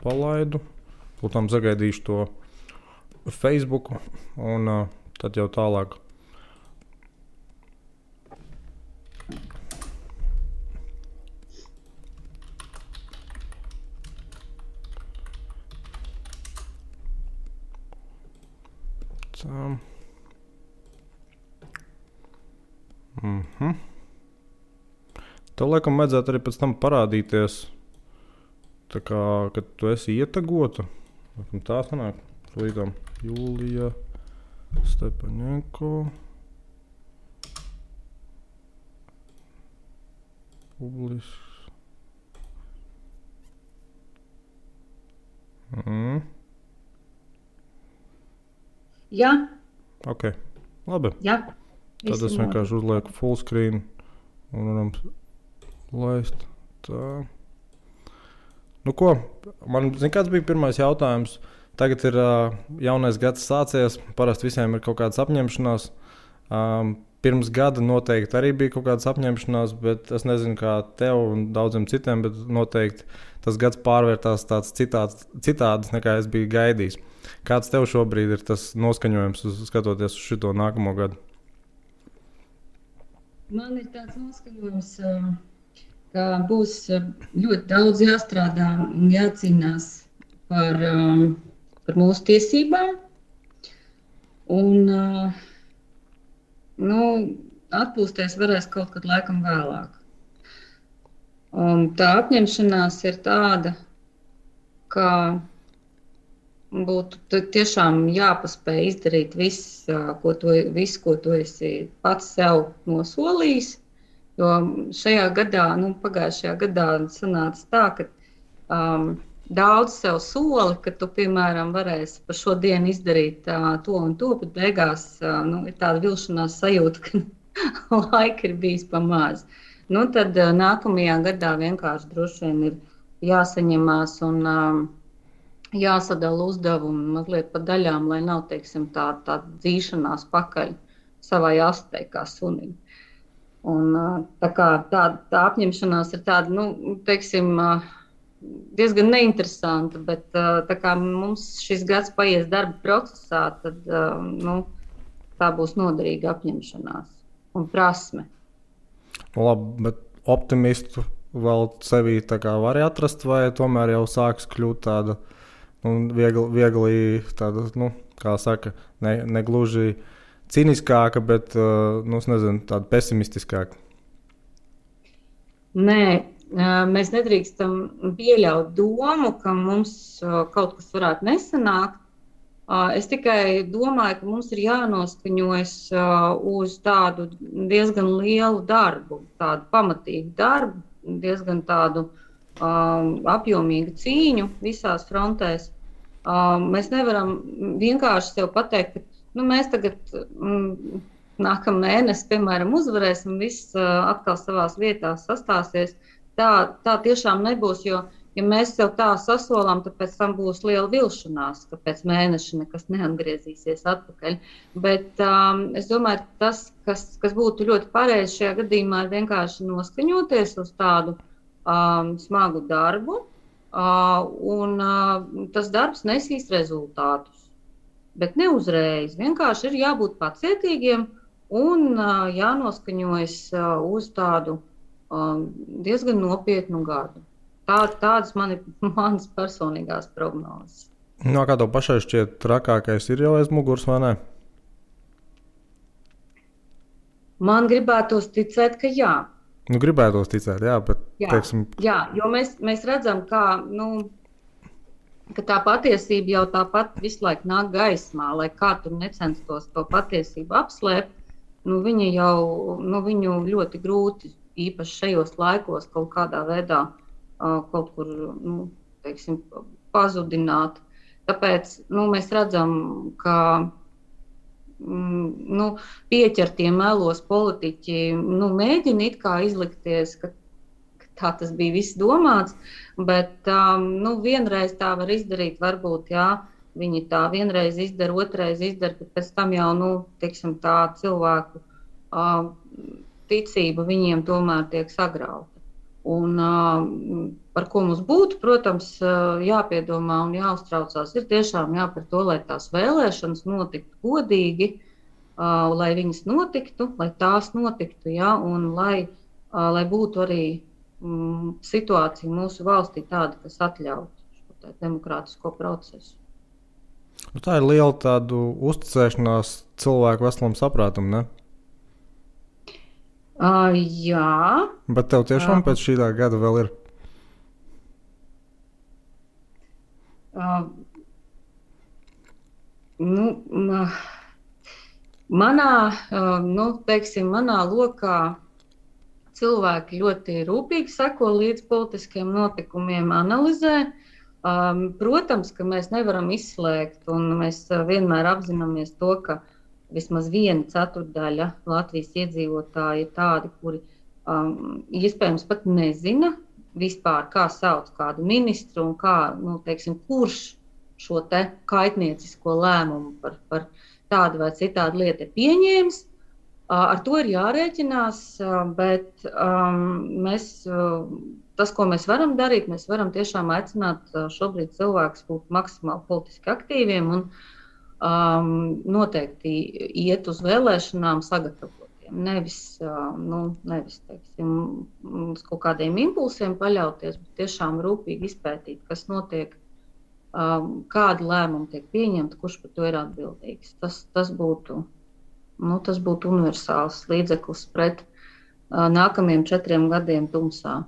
palaidu. Lūtām sagaidīšu to Facebook un tad jau tālāk. Tā. Tev laikam vajadzētu arī pēc tam parādīties, tā kā, kad tu esi ietagota. Tā sanāk, līdām Jūlija Stepaņenko. Publisks. Jā. Ok, labi. Jā. Tad es vienkārši uzlieku full screen un varam laist tā. Nu ko, man, zin, kāds bija pirmais jautājums? Tagad ir jaunais gads sācies, parasti visiem ir kaut kādas apņemšanās. Pirms gada noteikti arī bija kaut kādas apņemšanās, bet es nezinu, kā tev un daudziem citiem, bet noteikti tas gads pārvērtās tāds citāds, nekā es biju gaidījis. Kāds tev šobrīd ir tas noskaņojums, skatoties uz šito nākamo gadu? Man ir tāds noskaņojums, ka būs ļoti daudz jāstrādā un jācīnās par mūsu tiesībām. Un atpūsties varēs kaut kad laikam vēlāk. Tā apņemšanās ir tāda, ka būtu tiešām jāpaspēj izdarīt visu, ko tu esi pats sev nosolījis. Jo šajā gadā, pagājušajā gadā sanāca tā, ka daudz sev soli, ka tu, piemēram, varēsi par šo dienu izdarīt to un to, bet beigās ir tāda vilšanās sajūta, ka laika ir bijis pa maz. Tad nākamajā gadā vienkārši droši vien ir jāsaņemās un jāsadala uzdevumi mazliet pa daļām, lai nav, teiksim, tā dzīšanās pakaļ savai astei kā sunim. Un tā apņemšanās ir tāda, teiksim, diezgan neinteresanta, bet tā kā mums šis gads paies darba procesā, tad tā būs noderīga apņemšanās un prasme. Labi, bet optimistu vēl sevī tā kā var atrast, vai tomēr jau sāks kļūt tāda viegli tāda, kā saka, ne gluži ciniskāka, bet, es nezinu, tāda pesimistiskāka? Nē, mēs nedrīkstam pieļaut domu, ka mums kaut kas varētu nesanākt. Es tikai domāju, ka mums ir jānoskaņojas uz tādu diezgan lielu darbu, tādu pamatīgu darbu, diezgan tādu apjomīgu cīņu visās frontēs. Mēs nevaram vienkārši sev pateikt, ka mēs tagad nākamā mēnesi, piemēram, uzvarēsim, viss atkal savās vietās sastāsies. Tā tiešām nebūs, jo, ja mēs sev tā sasolām, tad pēc tam būs liela vilšanās, ka pēc mēneša nekas neatgriezīsies atpakaļ. Bet es domāju, tas, kas būtu ļoti pareizi šajā gadījumā, ir vienkārši noskaņoties uz tādu smagu darbu, un tas darbs nesīs rezultātus. Bet ne uzreiz. Vienkārši ir jābūt pacietīgiem un jānoskaņojas uz tādu diezgan nopietnu gadu. Tādas manas personīgās prognozes. Kā tev pašai šķiet, trakākais ir jau aiz muguras, vai ne? Man gribētos ticēt, ka jā. Gribētos ticēt, jā, bet... Teiksim... Jā, jo mēs redzam, ka tā patiesība jau tāpat visu laiku nāk gaismā, lai kā tur necenstos to patiesību apslēpt, viņu ļoti grūti, īpaši šajos laikos, kaut kādā veidā kaut kur, teiksim, pazudināt. Tāpēc, mēs redzam, ka pieķertie melos politiķi mēģina it kā izlikties, ka tā tas bija viss domāts, bet vienreiz tā var izdarīt, varbūt, jā, viņi tā vienreiz izdara, otrais izdara, bet pēc tam jau, teiksim, tā cilvēku ticība viņiem tomēr tiek sagrauta. Un par ko mums būtu, protams, jāpiedomā un jāuztraucās, ir tiešām par to, lai tās vēlēšanas notiktu godīgi, lai viņas notiktu, lai tās notiktu, ja, un lai būtu arī situācija mūsu valstī tāda, kas atļautu šo demokrātisko procesu. Nu, tā ir liela tādu uzticēšanās cilvēku veselam saprātam, ne? Jā. Bet tev tiešām pēc šī gada vēl ir? Manā lokā cilvēki ļoti rūpīgi seko līdz politiskiem notikumiem, analizē. Protams, ka mēs nevaram izslēgt, un mēs vienmēr apzināmies to, ka vismaz 1/4 Latvijas iedzīvotāji ir tādi, kuri iespējams pat nezina vispār, kā sauc kādu ministru un kā, kurš šo te kaitniecisko lēmumu par tādu vai citādu lietu ir pieņēmis. Ar to ir jārēķinās, bet tas, ko mēs varam darīt, mēs varam tiešām aicināt šobrīd cilvēkus būt maksimāli politiski aktīviem un noteikti iet uz vēlēšanām sagatavotiem. Nevis teiksim, uz kaut kādiem impulsiem paļauties, bet tiešām rūpīgi izpētīt, kas notiek, kādi lēmumi tiek pieņemti, kurš par to ir atbildīgs. Tas būtu universāls līdzeklis pret nākamajiem 4 gadiem tumsā.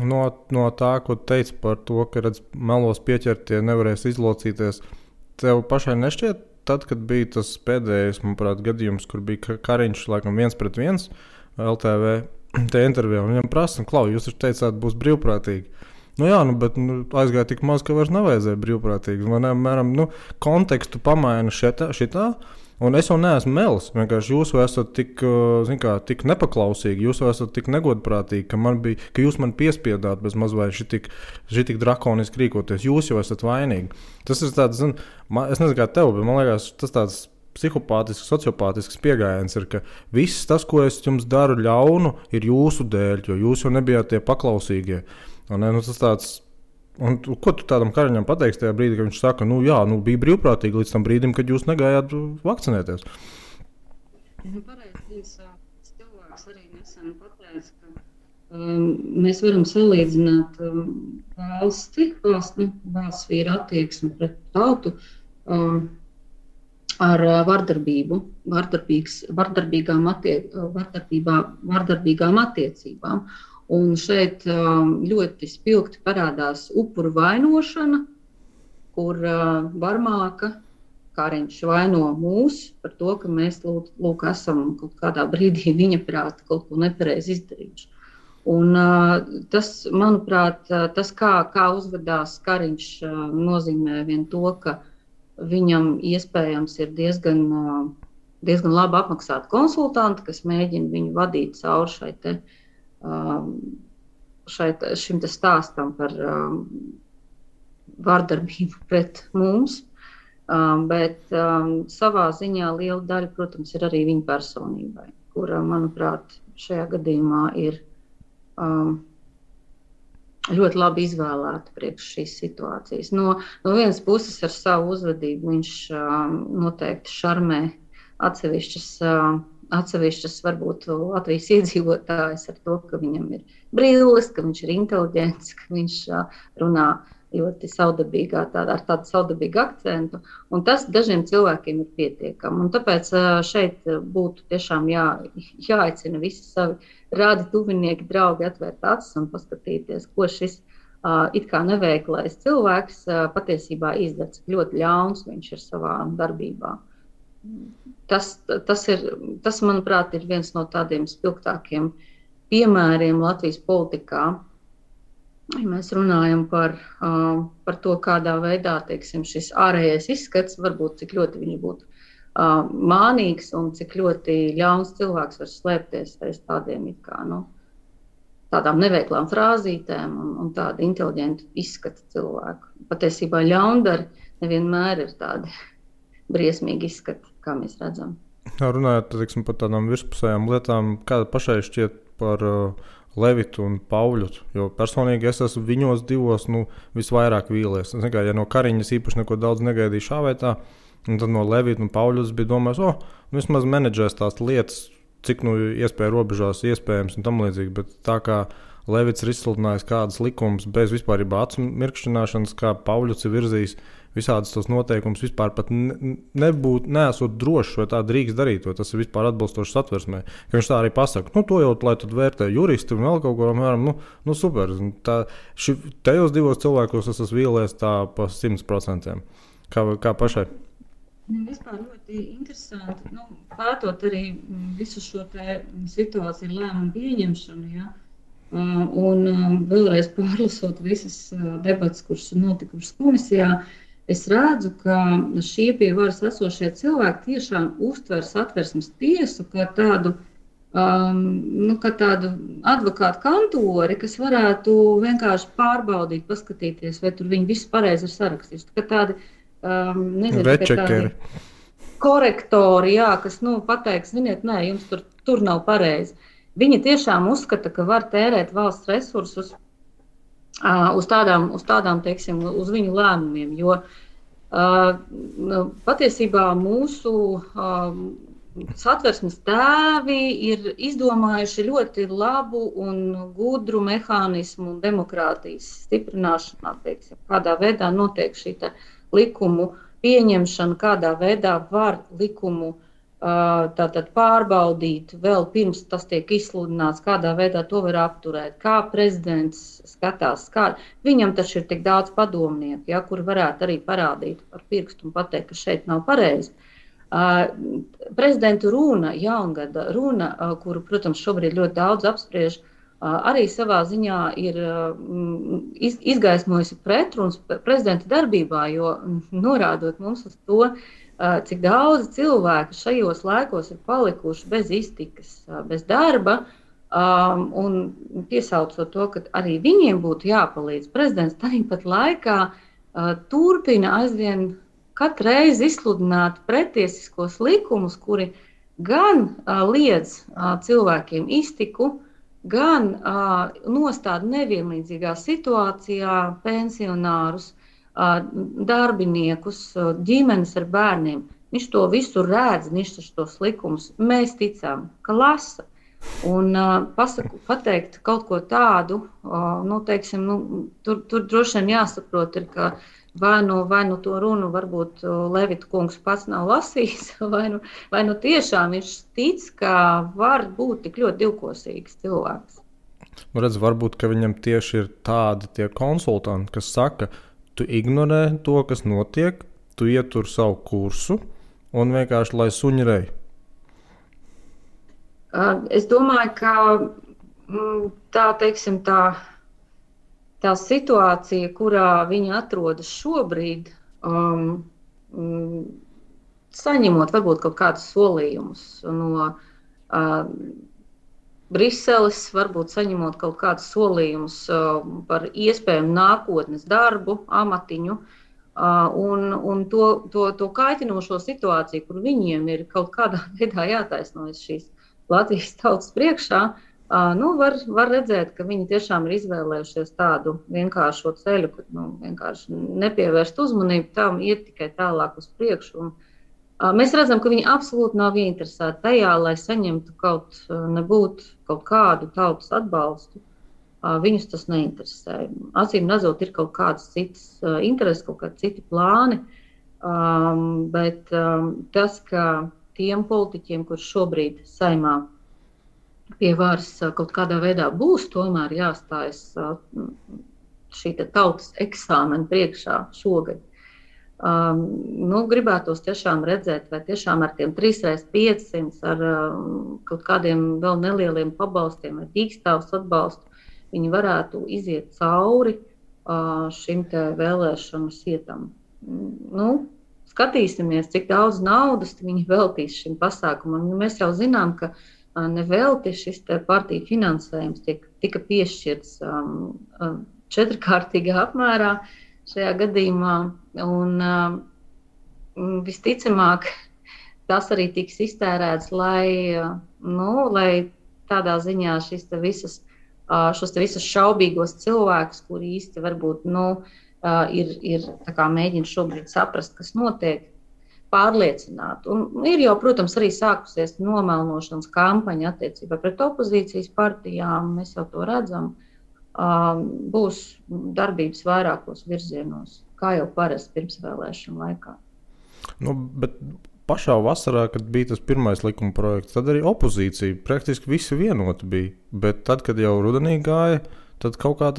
No tā, ko teici par to, ka melos pieķertie nevarēs izlocīties, tev pašai nešķiet, tad, kad bija tas pēdējais, manuprāt, gadījums, kur bija Kariņš, laikam 1-1 LTV te intervijā, un viņam prasa, Klau, jūs taču teicāt, būs brīvprātīgi. Bet aizgāja tik maz, ka vairs nevajadzēja brīvprātīgi. Mēram, kontekstu pamaina šitā. Un es jau neesmu melis. Vienkārši jūs esat tik nepaklausīgi, jūs esat tik negodprātīgi, ka jūs man piespiedāt bez mazliet šitik drakoniski rīkoties. Jūs jau esat vainīgi. Tas ir tāds, es nezinu, kā tev, bet man liekas, tas tāds psihopātisks, sociopātisks pieejams ir, ka viss tas, ko es jums daru ļaunu, ir jūsu dēļ, jo jūs jau nebijāt tie paklausīgie. Tas tāds. Un, ko tu tādam Kariņam pateiksi tajā brīdī, kad viņš saka, bija brīvprātīgi līdz tam brīdim, kad jūs negājāt vakcinēties? Pareizi, cilvēks arī nesen pateica, ka mēs varam salīdzināt valsts vīra attieksmi pret tautu ar vardarbību, vardarbīgām attiecībām. Un šeit ļoti spilgti parādās upuru vainošana, kur Varmāka Kariņš vaino mūs par to, ka mēs esam kaut kādā brīdī viņa prāta kaut ko nepareizi izdarījuši. Un tas, manuprāt, kā uzvedās Kariņš, nozīmē vien to, ka viņam iespējams ir diezgan labi apmaksāti konsultanti, kas mēģina viņu vadīt cauri šim stāstam par vardarbību pret mums, bet savā ziņā liela daļa, protams, ir arī viņa personībai, kura, manuprāt, šajā gadījumā ir ļoti labi izvēlēta priekš šīs situācijas. No vienas puses ar savu uzvedību viņš noteikti šarmē atsevišķas varbūt Latvijas iedzīvotājs ar to, ka viņam ir brilles, ka viņš ir inteliģents, ka viņš runā ļoti saudabīgā, ar tādu saudabīgu akcentu, un tas dažiem cilvēkiem ir pietiekami. Un tāpēc šeit būtu tiešām jāaicina visi savi rādi tuvinieki, draugi atvērt acis un paskatīties, ko šis it kā neveiklais cilvēks patiesībā izdara, cik ļoti ļauns viņš ir savā darbībā. Tas, manuprāt, ir viens no tādiem spilgtākiem piemēriem Latvijas politikā. Ja mēs runājam par to, kādā veidā, teiksim, šis ārējais izskats, varbūt cik ļoti viņš būtu mānīgs un cik ļoti ļauns cilvēks var slēpties aiz tādiem it kā, tādām neveiklām frāzītēm un tādu inteliģentu izskatu cilvēku. Patiesībā ļaundari nevienmēr ir tādi briesmīgi izskati, kā mēs redzam. Runājot, teiksim, par tādām virspusējām lietām, kāda pašai šķiet par Levitu un Pauļutu, jo personīgi es esmu viņos divos visvairāk vīlies. Ja no Kariņas īpaši neko daudz negaidīju šā vai tā, un tad no Levita un Pauļutas bija domājis, vismaz menedžēs tās lietas, cik iespēja robežās iespējams un tam līdzīgi, bet tā kā Levits ir izsludinājis kādas likumus bez vispārībā acu mirkšķināšanas, kā Pauļuts ir virzījis visādas tos noteikumus, vispār pat neesot drošs, vai tā drīkst darīt, vai tas ir vispār atbilstoši satversmē. Ka viņš tā arī pasaka, to jau, lai tad vērtē juristi un vēl kaut ko, apmēram, super. Tajos divos cilvēkos es esmu vīlies tā pa 100%. Kā pašai? Vispār ļoti interesanti, pētot arī visu šo situāciju lēmumu pieņemšanu, ja? Un vēlreiz pārlasot visas debatas, kuras ir notikušas komisijā, es redzu, ka šie pie varas esošie cilvēki tiešām uztver Satversmes tiesu kā tādu, kā tādu advokātu kantori, kas varētu vienkārši pārbaudīt, paskatīties, vai tur viņi viss pareizi ir sarakstījuši. Kā tādi, večekeri. Korektori, jā, kas pateiks, ziniet, nē, jums tur nav pareizi. Viņi tiešām uzskata, ka var tērēt valsts resursus uz tādām, teiksim, uz viņu lēmumiem, jo patiesībā mūsu Satversmes tēvi ir izdomājuši ļoti labu un gudru mehānismu demokrātijas stiprināšanā, teiksim, kādā veidā notiek šī likumu pieņemšana, kādā veidā var likumu tātad pārbaudīt vēl pirms tas tiek izsludināts, kādā veidā to var apturēt, kā prezidents skatās. Viņam taču ir tik daudz padomnieku, ja, kuri varētu arī parādīt ar pirkstu un pateikt, ka šeit nav pareizi. Prezidenta runa, jaungada runa, kuru, protams, šobrīd ļoti daudz apspriež, arī savā ziņā ir izgaismojusi pretrunas prezidenta darbībā, jo norādot mums uz to, cik daudz cilvēku šajos laikos ir palikuši bez iztikas, bez darba, un piesaucot to, ka arī viņiem būtu jāpalīdz. Prezidents tāpat laikā turpina aizvien katru reizi izsludināt pretiesiskos likumus, kuri gan liedz cilvēkiem iztiku, gan nostāda nevienlīdzīgā situācijā pensionārus, darbiniekus, ģimenes ar bērniem. Viņš to visu redz, viņš tos likumus. Mēs ticām, ka lasa. Un pateikt kaut ko tādu, teiksim, tur droši vien jāsaprot, ir, ka vai nu to runu varbūt Levita kungs pats nav lasījis, vai nu tiešām viņš tic, ka var būt tik ļoti divkosīgs cilvēks. Redz, varbūt, ka viņam tieši ir tādi tie konsultanti, kas saka, tu ignorē to, kas notiek, tu ietur savu kursu un vienkārši lai suņi rej. Es domāju, ka tā situācija, kurā viņi atrodas šobrīd, saņemot varbūt kaut kādus solījumus no Briseles, varbūt saņemot kaut kādus solījumus par iespējamu nākotnes darbu, amatiņu, un to kaitinošo situāciju, kur viņiem ir kaut kādā veidā jātaisnojas šīs Latvijas tautas priekšā, var redzēt, ka viņi tiešām ir izvēlējušies tādu vienkāršo ceļu, ka vienkārši nepievērst uzmanību tam, iet tikai tālāk uz priekšu. Mēs redzam, ka viņi absolūti nav ieinteresēti tajā, lai saņemtu kaut kādu tautas atbalstu. Viņus tas neinteresē. Acīm redzot, ir kaut kādas citas intereses, kaut kādi citi plāni, bet tas, ka tiem politiķiem, kurš šobrīd Saeimā pie varas kaut kādā veidā būs, tomēr jāstājas šī tautas eksāmena priekšā šogad. Gribētos tiešām redzēt, vai tiešām ar tiem 3x500, ar kaut kādiem vēl nelieliem pabalstiem vai dīkstāvs atbalstu, viņi varētu iziet cauri šim te vēlēšanu sietam. Skatīsimies, cik daudz naudas viņi veltīs šim pasākumam. Mēs jau zinām, ka nevelti šis te partiju finansējums tika piešķirts 4-kārtīgā apmērā šajā gadījumā, un visticamāk tas arī tiks iztērēts, lai tādā ziņā šīs visas šos te visus šaubīgos cilvēkus, kuri īsti varbūt ir tā kā mēģina šobrīd saprast, kas notiek, pārliecināt. Un ir jau, protams, arī sākusies nomelnošanas kampaņa attiecībā pret opozīcijas partijām, mēs jau to redzam. Būs darbības vairākos virzienos, kā jau parasti pirmsvēlēšanu laikā. Bet pašā vasarā, kad bija tas pirmais likuma projekts, tad arī opozīcija praktiski visi vienoti bija. Bet tad, kad jau rudenī gāja, tad kaut kā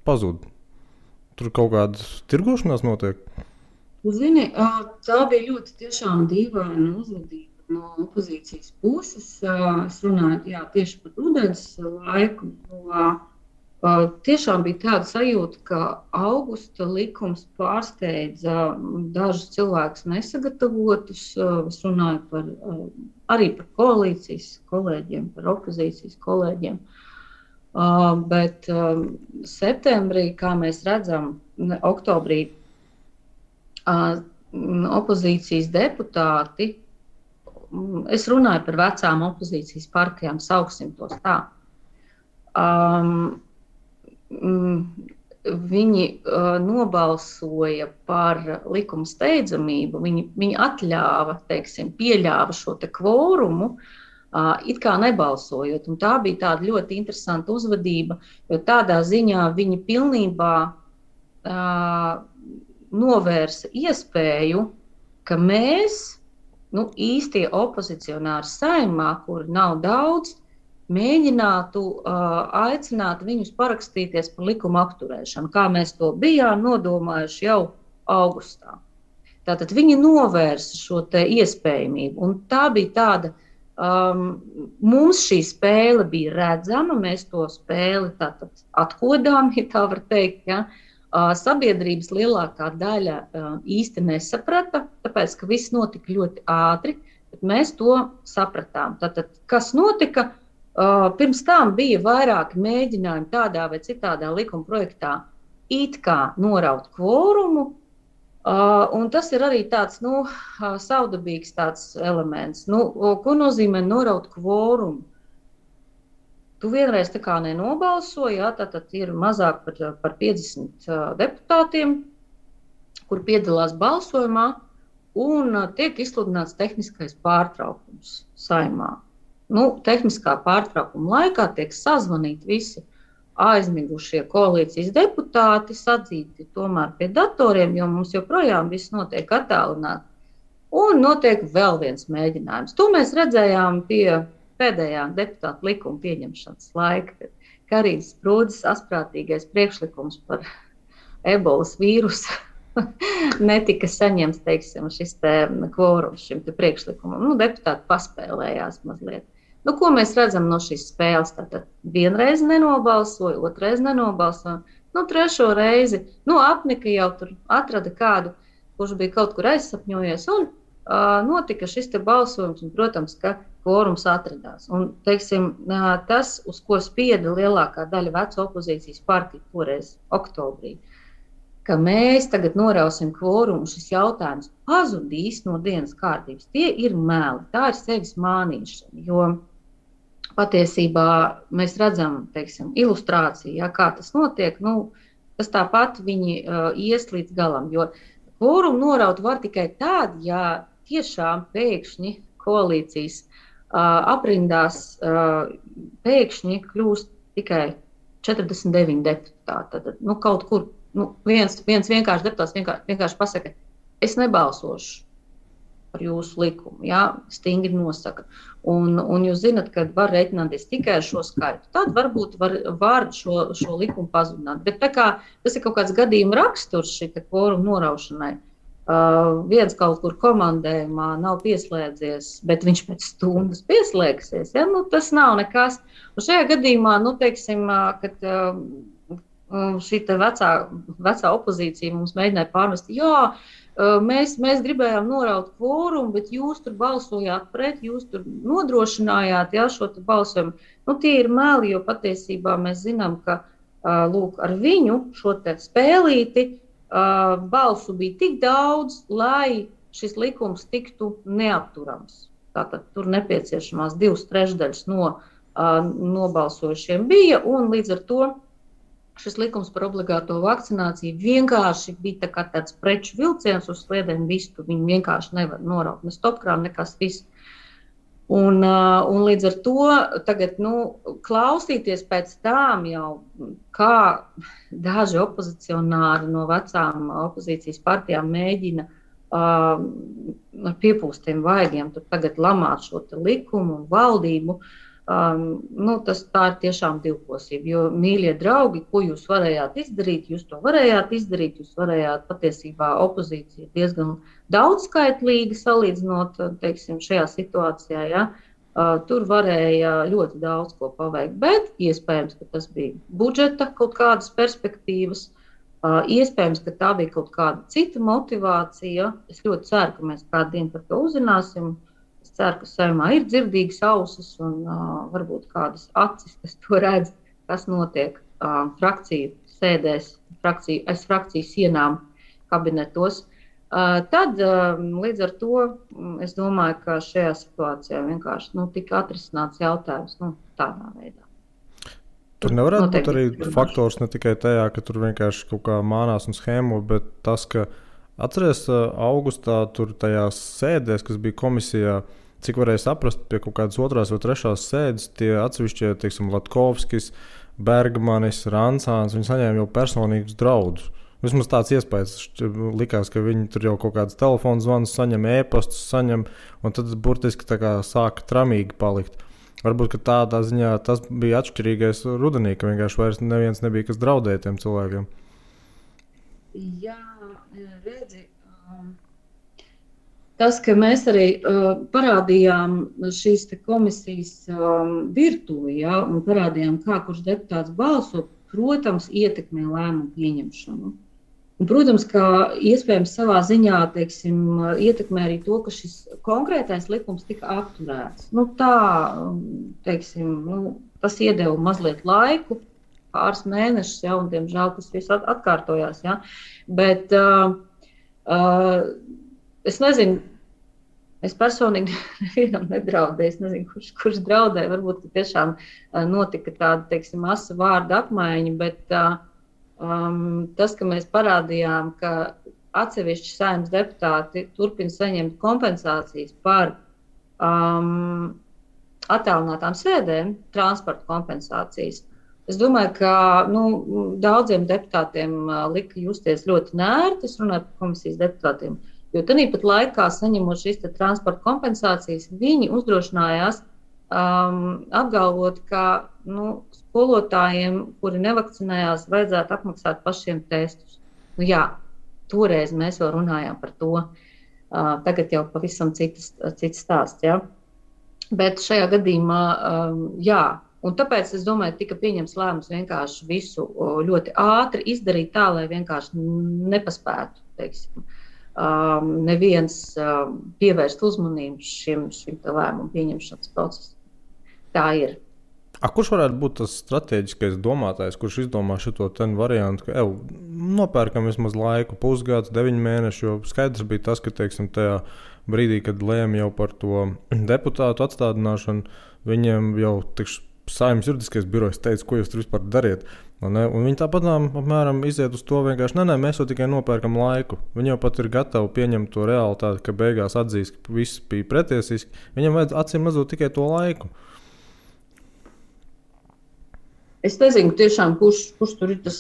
pazūd. Tur kaut kāda tirgošanās notiek. Zini, tā bija ļoti tiešām dīvaina uzvedība no opozīcijas puses. Es runāju tieši par rudens laiku. Tiešām bija tāda sajūta, ka augusta likums pārsteidza dažus cilvēkus nesagatavotus. Es runāju arī par koalīcijas kolēģiem, par opozīcijas kolēģiem. Bet septembrī, kā mēs redzam, oktobrī, opozīcijas deputāti, es runāju par vecām opozīcijas partijām, sauksim tos tā. Viņi nobalsoja par likuma steidzamību, viņi atļāva, pieļāva šo te kvorumu, it kā nebalsojot. Un tā bija tāda ļoti interesanta uzvedība, jo tādā ziņā viņi pilnībā novērsa iespēju, ka mēs, īstie opozicionāri Saeimā, kuri nav daudz, mēģinātu aicināt viņus parakstīties par likuma apturēšanu, kā mēs to bijām nodomājuši jau augustā. Tātad viņi novērsa šo te iespējamību, un tā bija tāda, mums šī spēle bija redzama, mēs to spēli tātad atkodām, ja tā var teikt, ja. Sabiedrības lielākā daļa īsti nesaprata, tāpēc, ka viss notika ļoti ātri, bet mēs to sapratām. Tātad, kas notika? Pirms tam bija vairāki mēģinājumi tādā vai citādā likuma projektā it kā noraut kvorumu, un tas ir arī tāds, savdabīgs tāds elements. Ko nozīmē noraut kvorumu? Tu vienreiz tā kā nenobalsoji, tātad ir mazāk par 50 deputātiem, kur piedalās balsojumā, un tiek izsludināts tehniskais pārtraukums Saeimā. Tehniskā pārtraukuma laikā tiek sazvanīti visi aizmigušie koalīcijas deputāti, sadzīti tomēr pie datoriem, jo mums joprojām viss notiek attālināti, un notiek vēl viens mēģinājums. To mēs redzējām pie pēdējā deputāta likuma pieņemšanas laika, kad Karīnas Sprūdes asprātīgais priekšlikums par ebolas vīrusu netika saņemts, šis te kvorums šim te priekšlikumam. Deputāti paspēlējās mazliet. Ko mēs redzam no šīs spēles? Tātad vienreiz nenobalsoja, otrais nenobalsoja, trešo reizi, apnika jau tur atrada kādu, kurš bija kaut kur aizsapņojies, un notika šis te balsojums, un, protams, ka kvorums atradās. Un, tas, uz ko spieda lielākā daļa veco opozīcijas partiju toreiz oktobrī, ka mēs tagad norausim kvorumu, šis jautājums pazudīs no dienas kārtības. Tie ir meli, tā ir sevis mānīšana, jo patiesībā mēs redzam, ilustrāciju, kā tas notiek, tas tāpat viņi ies līdz galam, jo kvorumu noraut var tikai tad, ja tiešām pēkšņi koalīcijas aprindās pēkšņi kļūst tikai 49 deputāti. Tad, kaut kur viens vienkārši deputāts vienkārši pasaka, es nebalsošu par jūsu likumu, stingri nosaka. Un jūs zinat, ka var reiķināties tikai ar šo skaitu. Tad varbūt var šo likumu pazudināt. Bet tā kā tas ir kaut kāds gadījuma raksturs šī kvoruma noraušanai, viens kaut kur komandējumā nav pieslēdzies, bet viņš pēc stundas pieslēgsies. Tas nav nekas. Un šajā gadījumā, kad šī vecā opozīcija mums mēģināja pārmest, mēs gribējām noraut kvorumu, bet jūs tur balsojāt pret, jūs tur nodrošinājāt šo balsojumu. Tie ir meli, jo patiesībā mēs zinām, ka ar viņu šo te spēlīti balsu bija tik daudz, lai šis likums tiktu neapturams. Tātad tur nepieciešamās 2/3 no nobalsojušiem bija, un līdz ar to šis likums par obligāto vakcināciju vienkārši bija tāds preču vilciens uz sliedēm vistu. Viņi vienkārši nevar noraut ne stopkrānu, nekas viss. Un līdz ar to tagad, klausīties pēc tām jau, kā daži opozicionāri no vecām opozīcijas partijām mēģina ar piepūstiem vaigiem tur tagad lamāt šo likumu un valdību, tā ir tiešām divkosība. Jo, mīļie draugi, ko jūs varējāt izdarīt, jūs to varējāt izdarīt, jūs varējāt patiesībā opozīcija diezgan daudzskaitlīga salīdzinot, teiksim, šajā situācijā, ja? Tur varēja ļoti daudz ko paveikt, bet iespējams, ka tas bija budžeta kaut kādas perspektīvas, iespējams, ka tā bija kaut kāda cita motivācija. Es ļoti ceru, ka mēs kādu dienu par to uzzināsim. Es ceru, ka Saeimā ir dzirdīgas ausis un varbūt kādas acis, kas to redz, kas notiek frakciju sēdēs, aiz frakciju sienām kabinetos. Tad līdz ar to es domāju, ka šajā situācijā vienkārši tika atrisināts jautājums tādā veidā. Tur nevarētu būt arī faktors ne tikai tajā, ka tur vienkārši kaut kā mānās un schēmo, bet tas, ka atceries augustā tur tajās sēdēs, kas bija komisijā, cik varēja saprast pie kaut kādas otrās vai trešās sēdes, tie atsevišķie, teiksim, Latkovskis, Bergmanis, Rancāns, viņi saņēma jau personīgus draudus. Vismaz tāds iespējas likās, ka viņi tur jau kaut kādas telefonu zvanus saņem, e-pastus saņem, un tad burtiski tā kā sāka tramīgi palikt. Varbūt, ka tādā ziņā tas bija atšķirīgais rudenī, ka vienkārši vairs neviens nebija, kas draudēja tiem cilvēkiem. Jā, redzi, tas, ka mēs arī parādījām šīs komisijas virtuvi, ja, un parādījām, kā kurš deputāts balso, protams, ietekmē lēmumu pieņemšanu. Un, protams, ka iespējams savā ziņā, teiksim, ietekmē arī to, ka šis konkrētais likums tika apturēts. Tas iedeva mazliet laiku, pāris mēnešus, ja, un, diemžēl, tas viss atkārtojās. Ja. Bet es nezinu, es personīgi nevienam nedraudēju, es nezinu, kurš draudēja. Varbūt, ka tiešām notika tāda, teiksim, asa vārda apmaiņa, bet tas, ka mēs parādījām, ka atsevišķi Saeimas deputāti turpina saņemt kompensācijas par attālinātām sēdēm, transporta kompensācijas. Es domāju, ka daudziem deputātiem lika justies ļoti nērti, es runāju par komisijas deputātiem, jo tāpat laikā, saņemot šīs transporta kompensācijas, viņi uzdrošinājās apgalvot, ka skolotājiem, kuri nevakcinējās, vajadzētu apmaksāt pašiem testus. Jā, toreiz mēs vēl runājām par to, tagad jau pavisam cits stāsts. Ja? Bet šajā gadījumā, jā. Un tāpēc, es domāju, tika pieņems lēmums vienkārši visu ļoti ātri izdarīt tā, lai vienkārši nepaspētu, teiksim, neviens pievērst uzmanību šim lēmumu pieņemšanas procesam. Tā ir. Kurš varētu būt tas strateģiskais domātājs, kurš izdomā šito variantu, ka nopērkam vismaz laiku, pusgads, 9 mēneši, jo skaidrs bija tas, ka, teiksim, tajā brīdī, kad lēma jau par to deputātu atstādināšanu, viņiem jau Saeimas juridiskais birojs teica, ko jūs tur vispār dariet. Un viņi tāpat apmēram iziet uz to vienkārši, mēs jau tikai nopērkam laiku. Viņi jau pat ir gatavi pieņemt to realitāti, ka beigās atzīs, ka viss bija pretiesiski. Viņam vajadz acīm redzot tikai to laiku. Es nezinu tiešām, kurš tur ir tas,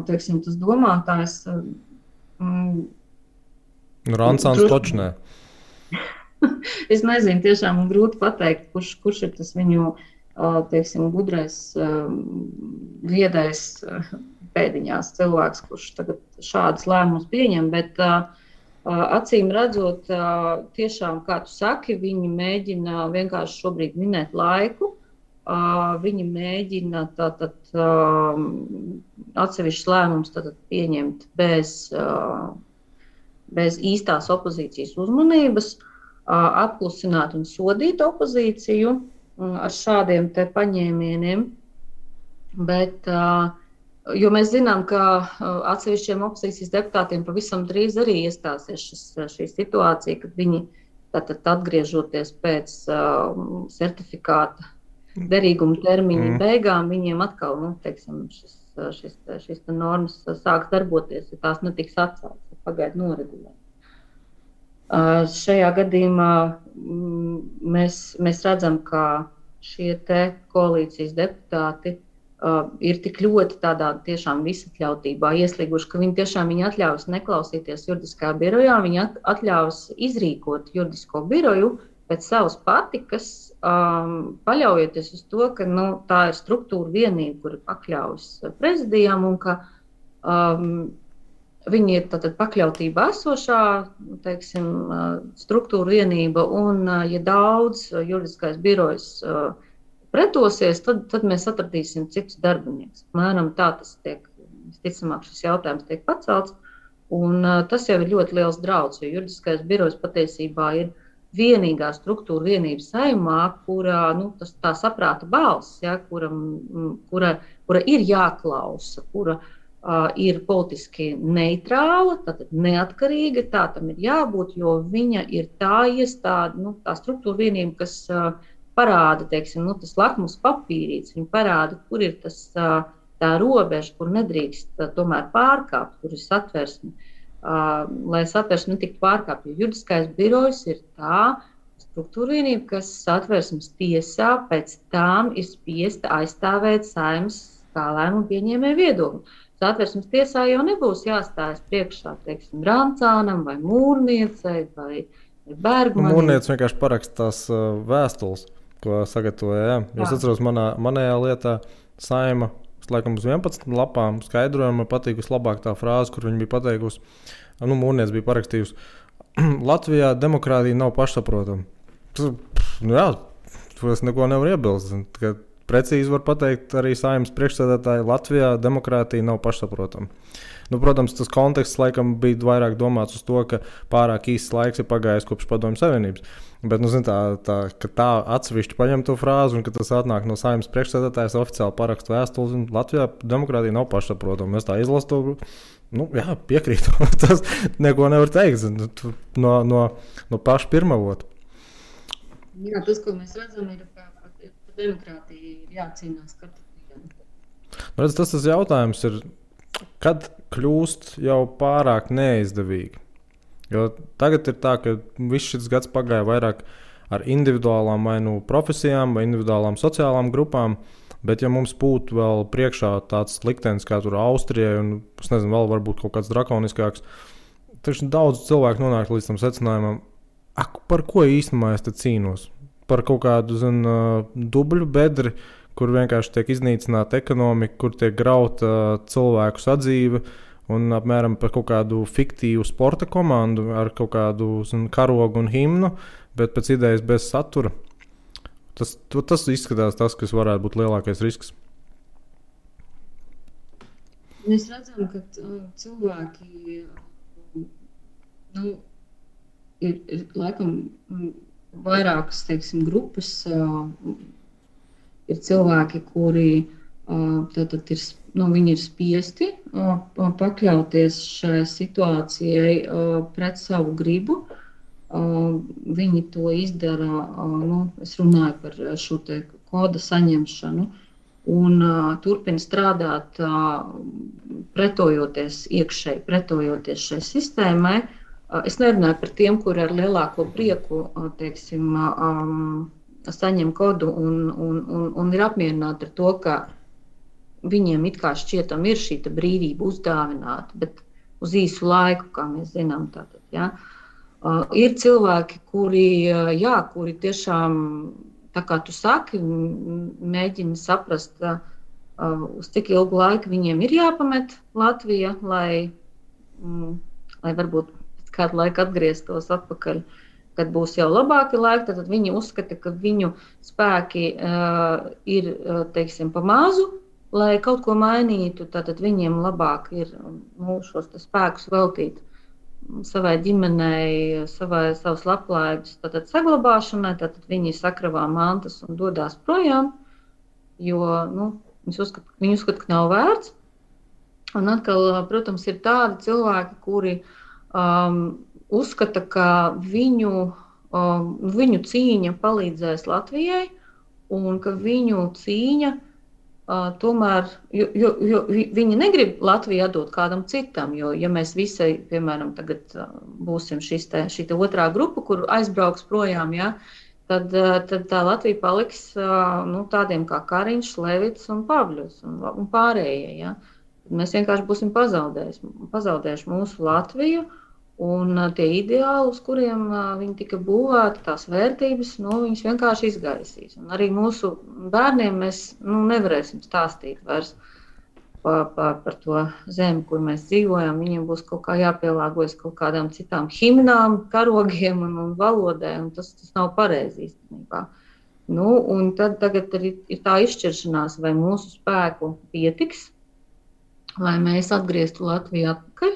teiksim, tas domātājs. Rancāns točnē. Es nezinu, tiešām grūti pateikt, kurš ir tas viņu, teiksim, gudrais, viedais pēdiņās cilvēks, kurš tagad šādas lēmumus pieņem, bet acīm redzot, tiešām, kā tu saki, viņi mēģina vienkārši šobrīd minēt laiku, viņi mēģina atsevišķus lēmumus pieņemt bez īstās opozīcijas uzmanības, apklusināt un sodīt opozīciju ar šādiem te paņēmieniem, bet, jo mēs zinām, ka atsevišķiem opozīcijas deputātiem pavisam drīz arī iestāsies šī situācija, kad viņi atgriežoties pēc certifikāta derīguma termiņa beigām viņiem atkal, nu, teiksim, šis normas sāks darboties, ja tās netiks atceltas, pagaidu noregulēt. Šajā gadījumā mēs redzam, ka šie te koalīcijas deputāti ir tik ļoti tādā tiešām visatļautībā ieslīguši, ka viņi atļaus neklausīties juridiskā birojā, viņi atļaus izrīkot juridisko biroju pēc savas patikas, paļaujoties uz to, ka tā ir struktūra vienība, kura pakļaujas prezidijām un ka viņi ir tātad pakļautībā esošā, teiksim, struktūra vienība un, ja daudz juridiskais birojs pretosies, tad mēs atradīsim citus darbinieks. Mēram tā tas tiek, visticamāk, šis jautājums tiek pacelts, un tas jau ir ļoti liels drauds, jo juridiskais birojs patiesībā ir vienīgā struktūra vienība Saeimā, kura, tā saprāta balss, ja, kura ir jāklausa, kura ir politiski neitrāla, tātad neatkarīga, tā tam ir jābūt, jo viņa ir tā iestāde, tā struktūra vienība, kas parāda, teiksim, tas lakmus papīrīts, viņa parāda, kur ir tā robeža, kur nedrīkst tomēr pārkāpt, kur ir satversme, lai satversme netiktu pārkāpt, jo juridiskais birojs ir tā struktūra vienība, kas satversmes tiesā pēc tam ir spiesta aizstāvēt Saeimas kā lēmumu pieņēmēju viedokli. Satversmes tiesā jau nebūs jāstājas priekšā, teiksim, Brancānam vai Mūrniecei vai Bergmanim. Mūrniece vienkārši paraksta tās vēstules, ko sagatavoja. Jā. Es atceros manējā lietā Saeima, laikam uz 11 lapām skaidrojumu, man patīk vislabāk tā frāze, kur viņa bija pateikusi, Mūrniece bija parakstījusi, Latvijā demokrātija nav pašsaprotama. Jā, to es neko nevaru iebilst. Precīzi var pateikt arī Saeimas priekšsēdētāji, Latvijā demokrātija nav pašsaprotama. Protams, tas konteksts laikam bija vairāk domāts uz to, ka pārāk īsts laiks ir pagājis kopš Padomju Savienības. Bet, ka tā atsevišķi paņem to frāzi un ka tas atnāk no Saeimas priekšsēdētājas oficiāli parakstu vēstules, un Latvijā demokrātija nav pašsaprotama. Es tā izlasu to, jā, piekrītu. Tas neko nevar teikt no paša pirmavota. Jā, tas, ko mēs redzam, ir, ka demokrātija ir jācīnās katru dienu. Redz, tas jautājums ir, kad kļūst jau pārāk neizdevīgi. Jo tagad ir tā, ka viss šis gads pagāja vairāk ar individuālām vai profesijām vai individuālām sociālām grupām, bet ja mums būtu vēl priekšā tāds liktenis kā tur Austrijai un, es nezinu, vēl varbūt kaut kāds drakoniskāks, tad daudz cilvēku nonāk līdz tam secinājumam, par ko īstenībā es te cīnos? Par kaut kādu, dubļu bedri, kur vienkārši tiek iznīcināta ekonomika, kur tiek grauta cilvēku sadzīve un apmēram par kaut kādu fiktīvu sporta komandu ar kaut kādu karogu un himnu, bet pēc idejas bez satura. Tas izskatās tas, kas varētu būt lielākais risks. Mēs redzam, ka cilvēki ir laikam vairākas, teiksim, grupas. Ir cilvēki, kuri viņi ir spiesti pakļauties šai situācijai pret savu gribu. Viņi to izdara, es runāju par šo te koda saņemšanu un turpina strādāt pretojoties iekšēji, pretojoties šai sistēmai. Es nerunāju par tiem, kuri ar lielāko prieku, teiksim, saņem kodu un ir apmierināti ar to, ka viņiem it kā šķietam ir šī brīvība uzdāvināta, bet uz īsu laiku, kā mēs zinām. Tātad, ja. Ir cilvēki, kuri tiešām, tā kā tu saki, mēģina saprast, uz cik ilgu laiku viņiem ir jāpamet Latvija, lai varbūt pēc kādu laiku atgrieztos atpakaļ, kad būs jau labāki laiki, tad viņi uzskata, ka viņu spēki ir, teiksim, pa mazu, lai kaut ko mainītu, tad viņiem labāk ir šos spēkus veltīt savai ģimenei, savas labklājības saglabāšanai, tad viņi sakravā mantas un dodās projām, jo viņi uzskata, ka nav vērts. Un atkal, protams, ir tādi cilvēki, kuri uzskata, ka viņu cīņa palīdzēs Latvijai un ka viņu cīņa tomēr, jo viņi negrib Latviju atdot kādam citam, jo, ja mēs visai, piemēram, tagad būsim šī otrā grupa, kur aizbrauks projām, ja, tad tā Latvija paliks tādiem kā Kariņš, Levits un Pavļus un pārējie. Ja. Mēs vienkārši būsim pazaudējuši mūsu Latviju, un tie ideāli, uz kuriem viņi tika būvēti, tās vērtības, viņas vienkārši izgaisīs. Un arī mūsu bērniem mēs nevarēsim stāstīt vairs par to zemi, kur mēs dzīvojam. Viņiem būs kaut kā jāpielāgojas kaut kādām citām himnām, karogiem un valodai, un tas nav pareizi īstenībā. Un tad tagad ir tā izšķiršanās, vai mūsu spēku pietiks, lai mēs atgrieztu Latviju atpakaļ,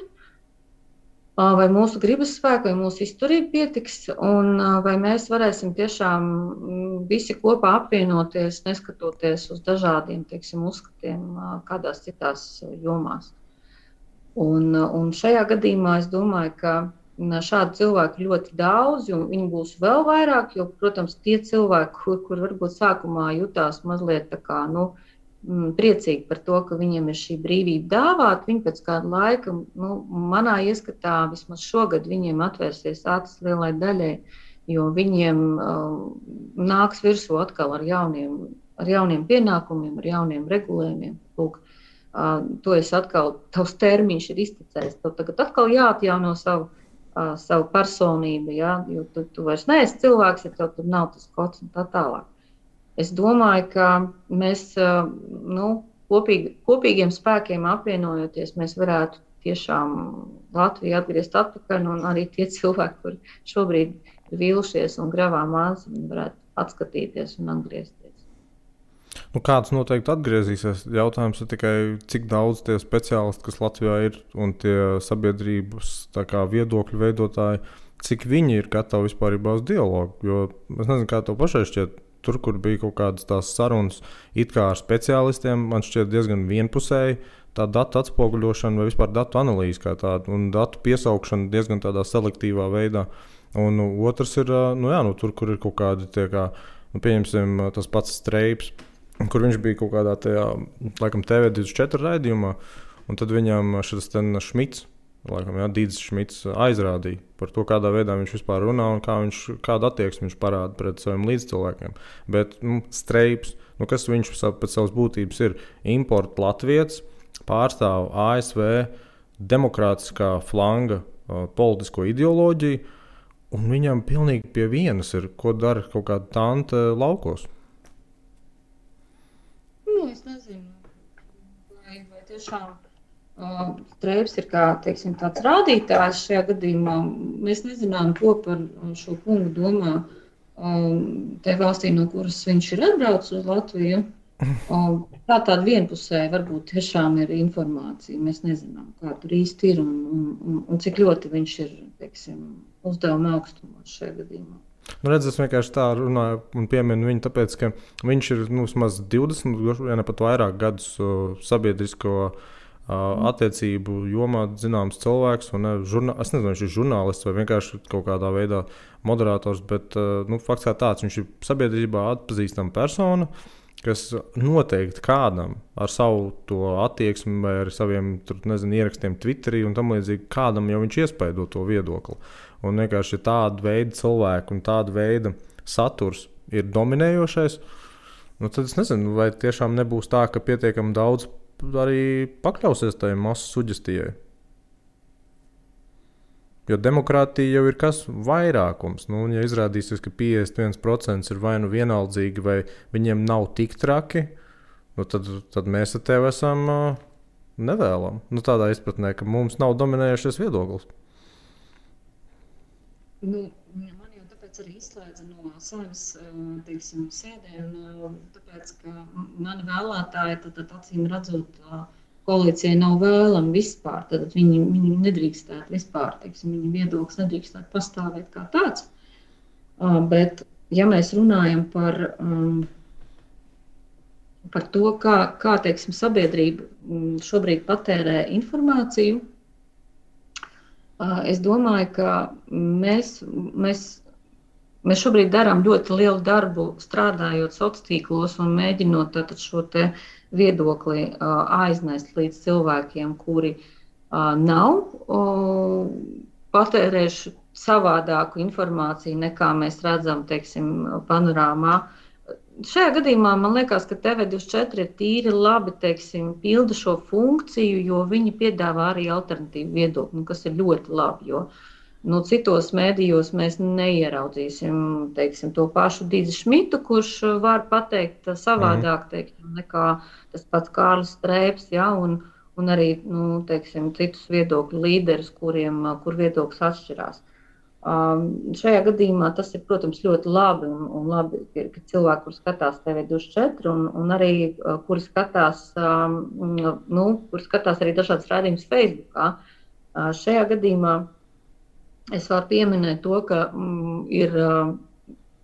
vai mūsu gribas spēku, vai mūsu izturība pietiks, un vai mēs varēsim tiešām visi kopā apvienoties, neskatoties uz dažādiem, uzskatiem kādās citās jomās. Un šajā gadījumā es domāju, ka šādu cilvēku ļoti daudz, un viņi būs vēl vairāk, jo, protams, tie cilvēki, kur varbūt sākumā jutās mazliet tā kā, priecīgi par to, ka viņiem ir šī brīvība dāvāta. Viņi pēc kāda laika, manā ieskatā, vismaz šogad viņiem atvērsies acis lielai daļai, jo viņiem nāks virsū atkal ar jauniem pienākumiem, ar jauniem regulējumiem. Lūk, to es atkal, tavs termiņš ir iztecējis. Tev tagad atkal jāatjauno savu personību, ja? Jo tu vairs neesi cilvēks, ja tev tur nav tas kods un tā tālāk. Es domāju, ka mēs kopīgiem spēkiem apvienojoties, mēs varētu tiešām Latviju atgriezt atpakaļ, un arī tie cilvēki, kuri šobrīd ir vīlušies un gravā mājas, viņi varētu atskatīties un atgriezties. Kāds noteikti atgriezīsies? Jautājums ir tikai, cik daudz tie speciālisti, kas Latvijā ir, un tie sabiedrības viedokļu veidotāji, cik viņi ir gatavi vispārībā uz dialogu. Jo es nezinu, kā tev pašai šķiet. Tur, kur bija kaut kādas tās sarunas it kā ar speciālistiem, man šķiet diezgan vienpusēji tā datu atspoguļošana vai vispār datu analīze kā tāda un datu piesaukšana diezgan tādā selektīvā veidā. Un otrs ir, tur, kur ir kaut kādi tie kā, pieņemsim, tas pats Streips, kur viņš bija kaut kādā tajā, laikam, TV24 raidījumā, un tad viņam šis Šmits, laikam, Dīdzis Šmits aizrādīja par to, kādā veidā viņš vispār runā un kādu attieksmi viņš parāda pret saviem līdzcilvēkiem. Bet Streips, kas viņš pēc savas būtības ir? Importa latvietis, pārstāv ASV demokrātiskā flanga politisko ideoloģiju, un viņam pilnīgi pie vienas ir, ko dara kaut kāda tante laukos. Es nezinu, vai tiešām Streips ir kā, tāds rādītājs šajā gadījumā. Mēs nezinām, ko par šo kungu domā te valstī, no kuras viņš ir atbraucis uz Latviju. Tāda vienpusēja varbūt tiešām ir informācija. Mēs nezinām, kā tur īsti ir un cik ļoti viņš ir, uzdevuma augstumos šajā gadījumā. Es vienkārši tā runāju un pieminu viņu, tāpēc, ka viņš ir vismaz 20, ja ne pat vairāk gadus sabiedrisko attiecību jomā zināms cilvēks. Es nezinu, viņš ir žurnālists vai vienkārši kaut kādā veidā moderators, bet fakts kā tāds, viņš ir sabiedrībā atpazīstama persona, kas noteikti kādam ar savu to attieksmi vai ar saviem ierakstiem Twitterī un tam līdzīgi, kādam jau viņš iespaido to viedokli. Un vienkārši tāda veida cilvēku un tāda veida saturs ir dominējošais, tad es nezinu, vai tiešām nebūs tā, ka pietiekami daudz arī pakļausies tajai masu suģestijai. Jo demokrātija jau ir kas vairākums. Ja izrādīsies, ka 51% ir vai nu vienaldzīgi, vai viņiem nav tik traki, tad mēs ar tevi esam nevēlam. Tādā izpratnē, ka mums nav dominējušies viedoklis. Man jau tāpēc arī izslēdza no savas sēdēm, tāpēc, ka mani vēlētāji tad acīm redzot koalīcijai nav vēlami vispār, tad viņi nedrīkstētu vispār, viņu viedoklis nedrīkstētu pastāvēt kā tāds. Bet, ja mēs runājam par to, kā sabiedrība šobrīd patērē informāciju, es domāju, ka mēs Mēs šobrīd darām ļoti lielu darbu, strādājot sociālos tīklos un mēģinot šo viedokli aiznest līdz cilvēkiem, kuri nav patērējuši savādāku informāciju, nekā mēs redzam, teiksim, panorāmā. Šajā gadījumā man liekas, ka TV24 ir tīri labi, teiksim, pilda šo funkciju, jo viņi piedāvā arī alternatīvu viedokli, kas ir ļoti labi. Jo citos mēdījos mēs neieraudzīsim, teiksim, to pašu Dīzi Šmitu, kurš var pateikt savādāk, teiksim, nekā tas pats Kārlis Streips, ja, un arī, teiksim, citus viedokļu līderus, kur viedoklis atšķirās. Šajā gadījumā tas ir, protams, ļoti labi, un labi, ka cilvēki, kur skatās TV24, un arī, kuri skatās arī dažādas raidījumus Facebookā. Šajā gadījumā es varu pieminēt to, ka ir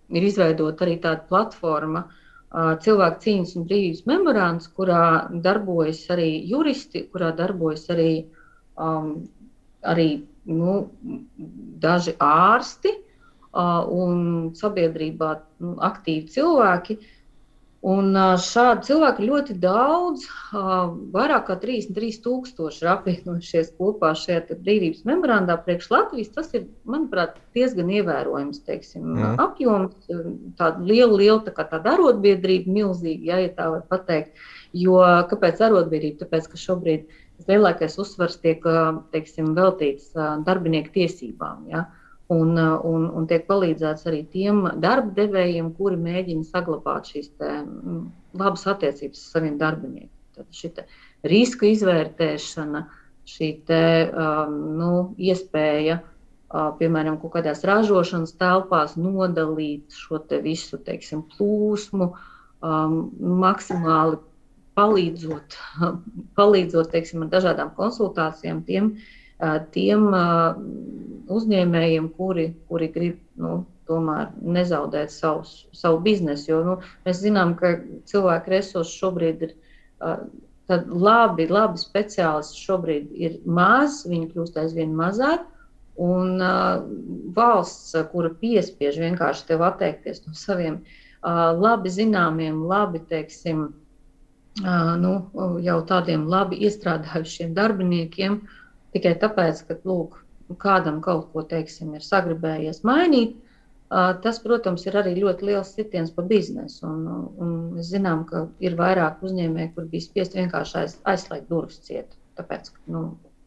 izveidota arī tāda platforma Cilvēku cīņas un brīvības memorands, kurā darbojas arī juristi, kurā darbojas arī daži ārsti un sabiedrībā aktīvi cilvēki. Un šādi cilvēki ļoti daudz, vairāk kā 33,000 ir apvienojušies kopā šajā brīvības memorandā priekš Latvijas. Tas ir, manuprāt, diezgan ievērojams, teiksim, apjoms, tāda liela tāda arotbiedrība, milzīga, ja tā var pateikt. Jo kāpēc arotbiedrība? Tāpēc, ka šobrīd lielākais uzsvars tiek, teiksim, veltīts darbinieku tiesībām, ja? Un tiek palīdzēts arī tiem darba devējiem, kuri mēģina saglabāt šīs labas attiecības ar saviem darbiniekiem. Tad šī riska izvērtēšana, šī iespēja, piemēram, kaut kādās ražošanas telpās nodalīt šo visu, teiksim, plūsmu, maksimāli palīdzot, teiksim, ar dažādām konsultācijām tiem uzņēmējiem, kuri grib tomēr nezaudēt savu biznesu. Jo mēs zinām, ka cilvēku resursi šobrīd ir labi speciālisti šobrīd ir maz, viņi kļūst aizvien mazāk, un valsts, kura piespiež vienkārši tev atteikties no saviem labi zināmiem, labi, teiksim, jau tādiem labi iestrādājušiem darbiniekiem, tikai tāpēc, ka, lūk, kādam kaut ko, teiksim, ir sagribējies mainīt, tas, protams, ir arī ļoti liels sitiens pa biznesu. Un mēs zinām, ka ir vairāk uzņēmēji, kur bija spiest vienkārši aizslēgt durvis ciet, tāpēc, ka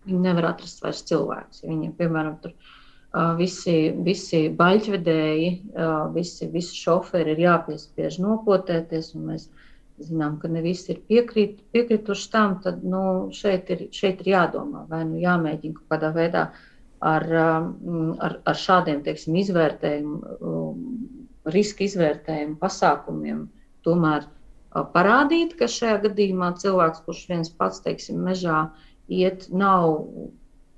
viņi nevar atrast vairs cilvēkus. Viņiem, piemēram, tur visi baļķvedēji, visi šoferi ir jāpiespiež nopotēties, un mēs zinām, ka ne visi ir piekrituši tam, tad šeit ir jādomā, vai jāmēģina kaut kādā veidā ar šādiem, teiksim, riska izvērtējumu pasākumiem tomēr parādīt, ka šajā gadījumā cilvēks, kurš viens pats, teiksim, mežā iet, nav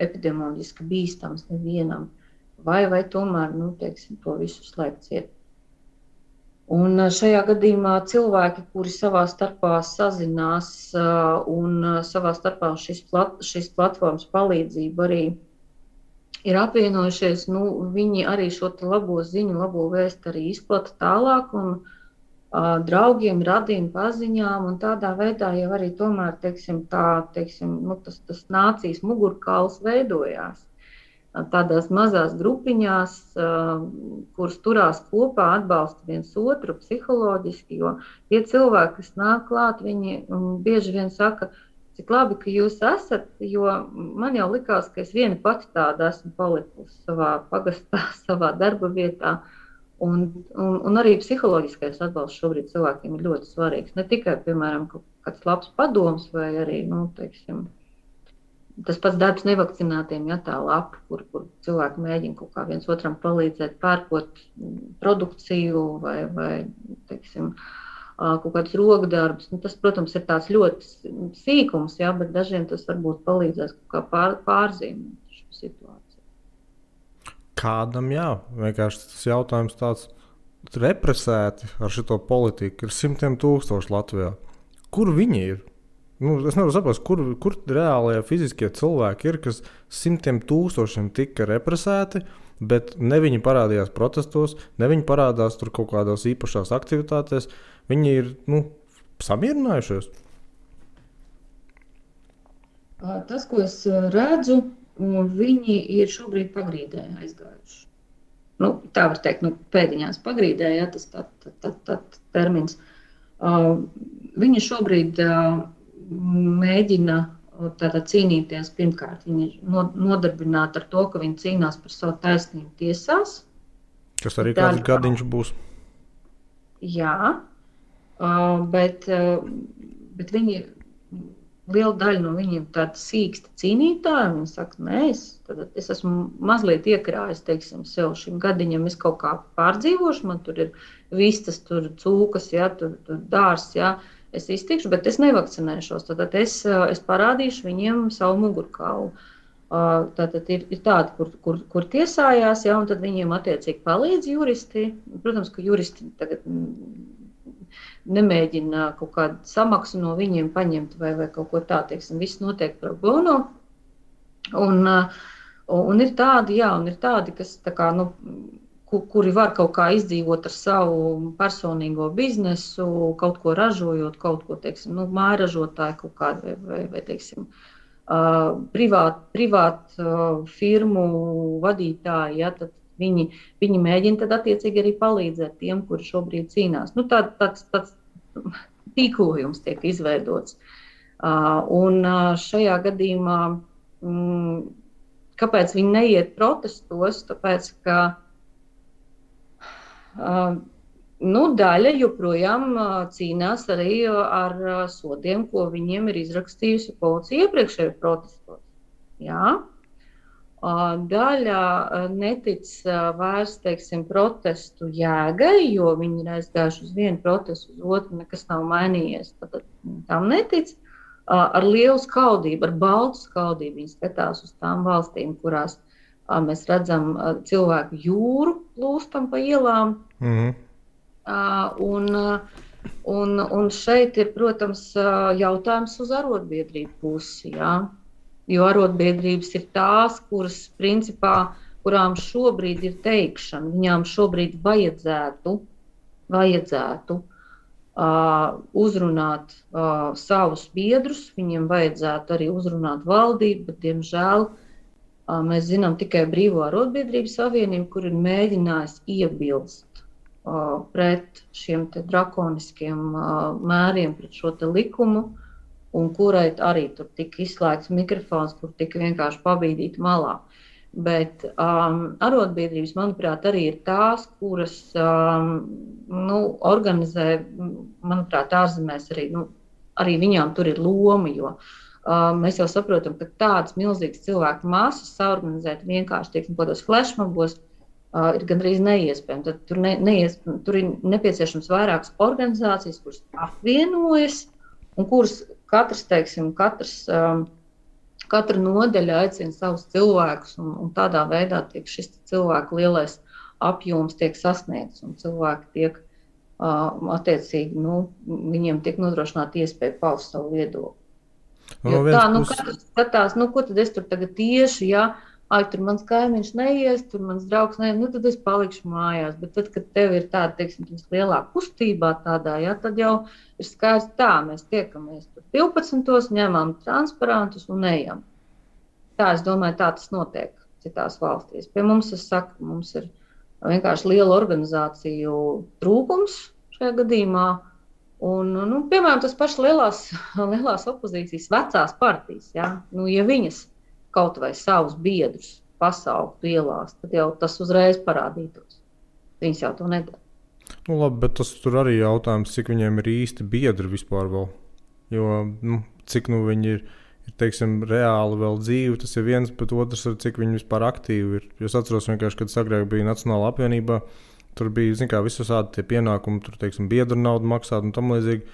epidemioloģiski bīstams nevienam, vai tomēr, teiksim, to visu slēgt ciet. Un šajā gadījumā cilvēki, kuri savā starpā sazinās un savā starpā šīs platformas palīdzību arī ir apvienojušies, viņi arī šo labo ziņu, labo vēstu arī izplata tālāk un draugiem, radiem, paziņām, un tādā veidā jau arī tomēr, teiksim, tas nācijas mugurkauls veidojās. Tādās mazās grupiņās, kuras turās kopā, atbalsta viens otru psiholoģiski, jo tie cilvēki, kas nāk klāt, viņi bieži vien saka, cik labi, ka jūs esat, jo man jau likās, ka es viena pati tāda esmu palikusi savā pagastā, savā darba vietā, un arī psiholoģiskais atbalsts šobrīd cilvēkiem ir ļoti svarīgs. Ne tikai, piemēram, kāds labs padoms vai arī, teiksim, tas pats darbs nevakcinātiem, ja tā lapa, kur cilvēki mēģina kaut kā viens otram palīdzēt, pērkot produkciju vai teiksim, kaut kādus rokdarbus. Tas, protams, ir tāds ļoti sīkums, ja, bet dažiem tas varbūt palīdzēs kaut kā pārzīmēt šo situāciju. Kādam, jā, vienkārši tas jautājums tāds represēti ar šito politiku ir 100,000 Latvijā. Kur viņi ir? es nevaru saprast, kur reālajie fiziskie cilvēki ir, kas simtiem tūkstošiem tika represēti, bet ne viņi parādījās protestos, ne viņi parādās tur kaut kādās īpašās aktivitātēs. Viņi ir samierinājušies. Tas, ko es redzu, viņi ir šobrīd pagrīdē aizgājuši. Tā var teikt, pēdiņās pagrīdē, ja tas tā termins. Viņi šobrīd mēģina tātad cīnīties. Pirmkārt, viņi ir nodarbināti ar to, ka viņi cīnās par savu taisnību tiesās. Kas arī kāds gadiņš būs. Jā, bet viņi, liela daļa no viņiem tāda sīksta cīnītāja. Viņi saka, nē, es esmu mazliet iekrājis, teiksim, sev šim gadiņam, es kaut kā pārdzīvošu, man tur ir vistas, tur cūkas, ja, tur dārs, ja, es iztikšu, bet es nevakcinēšos. Tad es parādīšu viņiem savu mugurkaulu. Tātad ir tādi, kur tiesājās, ja, un tad viņiem attiecīgi palīdz juristi. Protams, ka juristi tagad nemēģina kaut kādu samaksu no viņiem paņemt vai kaut ko tā, teiksim, viss notiek pro bono. Un ir tādi, kas tā kā, kuri var kaut kā izdzīvot ar savu personīgo biznesu, kaut ko ražojot, kaut ko, teiksim, mājražotāji kaut kādu vai teiksim, privāt firmu vadītāji, ja, tad viņi mēģina tad attiecīgi arī palīdzēt tiem, kuri šobrīd cīnās. Tāds tīklojums tiek izveidots. Un šajā gadījumā, kāpēc viņi neiet protestos? Tāpēc, ka daļa joprojām cīnās arī ar sodiem, ko viņiem ir izrakstījusi policija iepriekšējo protestos. Jā. Daļa netic vairs, teiksim, protestu jēgai, jo viņi ir aizgājuši uz vienu protestu, uz otru, nekas nav mainījies. Tad tam netic. Ar lielu skaudību, ar baltu skaudību viņi skatās uz tām valstīm, kurās mēs redzam cilvēku jūru plūstam pa ielām. Un šeit ir, protams, jautājums uz arotbiedrību pusi, jā. Jo arotbiedrības ir tās, kuras, principā, kurām šobrīd ir teikšana, viņām šobrīd vajadzētu uzrunāt savus biedrus, viņiem vajadzētu arī uzrunāt valdību, bet, diemžēl, mēs zinām tikai Brīvo arotbiedrību savienību, kur ir mēģinājis iebilst pret šiem te drakoniskiem mēriem, pret šo te likumu, un kurai arī tur tika izslēgts mikrofons, kur tika vienkārši pabīdīti malā. Bet arotbiedrības, manuprāt, arī ir tās, kuras organizē, manuprāt, ārzemēs arī viņām tur ir loma, jo mēs jau saprotam, ka tādas milzīgas cilvēku masas saorganizēt vienkārši, teiksim, kādos flashmobos ir gandrīz neiespējami. Tad tur ir nepieciešams vairākas organizācijas, kuras apvienojas un kuras katra nodeļa aicina savus cilvēkus, un tādā veidā tiek šis cilvēku lielais apjoms tiek sasniegts, un cilvēki tiek attiecīgi, viņiem tiek nodrošināta iespēja paust savu viedokli. Katrs skatās, ko tad es tur tagad tieši, ja, tur mans kaimiņš neies, tur mans draugs neies, tad es palikšu mājās. Bet tad, kad tev ir tāda, teiksim, lielā kustībā tādā, ja, tad jau ir skaidrs tā, mēs tiekamies tur 12, ņemam transparantus un ejam. Tā, es domāju, tā tas notiek citās valstīs. Pie mums, es saku, mums ir vienkārši liela organizāciju trūkums šajā gadījumā. Un, piemēram, tas pašs lielās opozīcijas vecās partijas, ja, ja viņas kaut vai savus biedrus pasauktu ielās, tad jau tas uzreiz parādītos. Viņas jau to nedara. Labi, bet tas tur arī jautājums, cik viņiem ir īsti biedri vispār vēl. Jo, cik viņi ir, teiksim, reāli vēl dzīvi, tas ir viens, bet otrs ir, cik viņi vispār aktīvi ir. Es atceros vienkārši, kad agrāk bija Nacionāla apvienībā, tur bija, visādi tie pienākumi, tur, teiksim, biedru naudu maksāt un tam līdzīgi.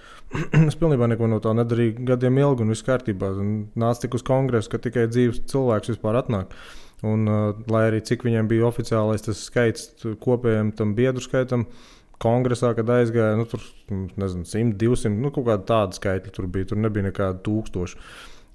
Es pilnībā neko no tā nedarīju gadiem ilgi un viss kārtībā. Nāca tik uz kongresu, ka tikai dzīves cilvēks vispār atnāk. Un, lai arī cik viņiem bija oficiālais tas skaits kopējiem tam biedru skaitam, kongresā, kad aizgāja, nu, tur, nezinu, 100, 200, nu, kaut kāda tāda skaitļa tur bija, tur nebija nekāda 1000.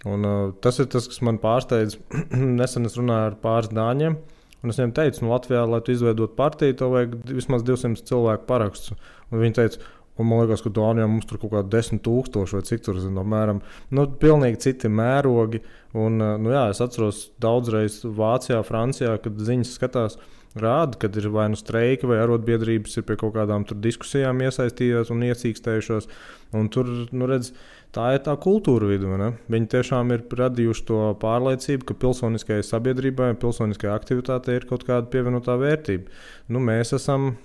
Un tas ir tas, kas man pārsteidz. Nesen es runāju ar pāris dāņiem, un es viņiem teicu, nu, Latvijā, lai tu izveidot partiju, tev vajag vismaz 200 cilvēku parakstus. Un viņi teica, un man liekas, ka Dānijā mums tur kaut kā 10,000 vai cik tur, apmēram, nu, pilnīgi citi mērogi. Un, nu, jā, es atceros daudzreiz Vācijā, Francijā, kad ziņas skatās, rāda, kad ir vai nu streiki vai arotbiedrības ir pie kaut kādām tur diskusijām iesaistījušās un iecīkstējušās. Un tur, nu, redz, tā ir tā kultūra vidu. Ne? Viņi tiešām ir radījuši to pārliecību, ka pilsoniskajai sabiedrībai, pilsoniskajai aktivitātei ir kaut kāda pievienotā vērtība. Nu, mēs esam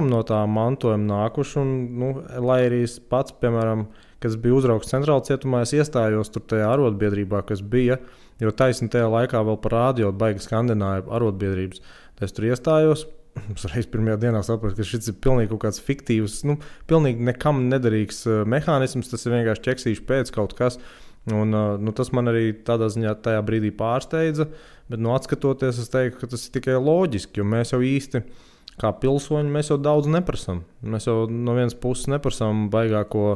no tā mantojuma nākuši, un, nu, lai arī es pats, piemēram, kad biju uzraugs centrāla cietumā, es iestājos tur tajā arotbiedrībā, kas bija, jo taisni tajā laikā vēl par rādio baigi skandināja arotbiedrības. Tad es tur iestājos, es reiz pirmajā dienā sapratu, ka šis ir pilnīgi kaut kāds fiktīvs, nu, pilnīgi nekam nederīgs mehānisms, tas ir vienkārši ķeksīši pēc kaut kas. Un, nu, tas man arī tādā ziņā tajā brīdī pārsteidza, bet nu, atskatoties, es teiktu, ka tas ir tikai loģiski, jo mēs jau īsti kā pilsoņi, mēs jau daudz neprasam. Mēs jau no vienas puses neprasam baigāko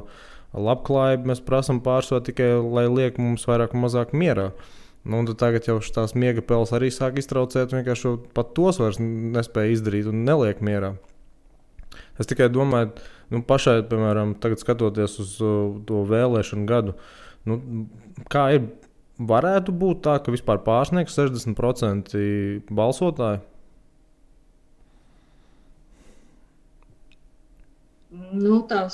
labklājību, mēs prasam pārsvarā tikai, lai liek mums vairāk un mazāk mierā. Nu, un tagad jau tās miega peles arī sāk iztraucēt, vienkārši pat tos vairs nespēja izdarīt un neliek mierā. Es tikai domāju, nu, pašai, piemēram, tagad skatoties uz to vēlēšanu gadu, nu, kā ir, varētu būt tā, ka vispār pārsniegs 60% balsotāji? Nu, tā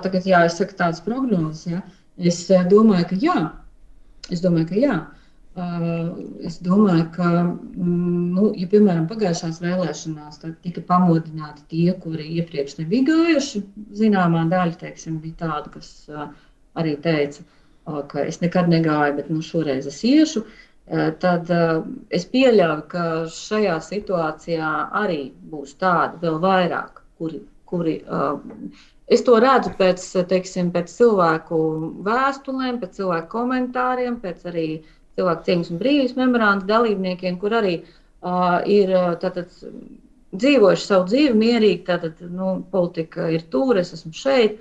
tagad jāizsaka tādas prognozes. Ja? Es domāju, ka jā. Es domāju, ka, nu, ja, piemēram, pagājušās vēlēšanās tika pamodināti tie, kuri iepriekš nebija gājuši, zināmā daļa, teiksim, bija tāda, kas arī teica, ka es nekad negāju, bet nu, šoreiz es iešu, tad es pieļauju, ka šajā situācijā arī būs tādi vēl vairāk, kuri es to redzu pēc, teiksim, pēc cilvēku vēstulēm, pēc cilvēku komentāriem, pēc arī cilvēku cieņas un brīvības memoranda dalībniekiem, kur arī ir tātad, dzīvojuši savu dzīvi mierīgi, tātad, nu, politika ir tur, es esmu šeit,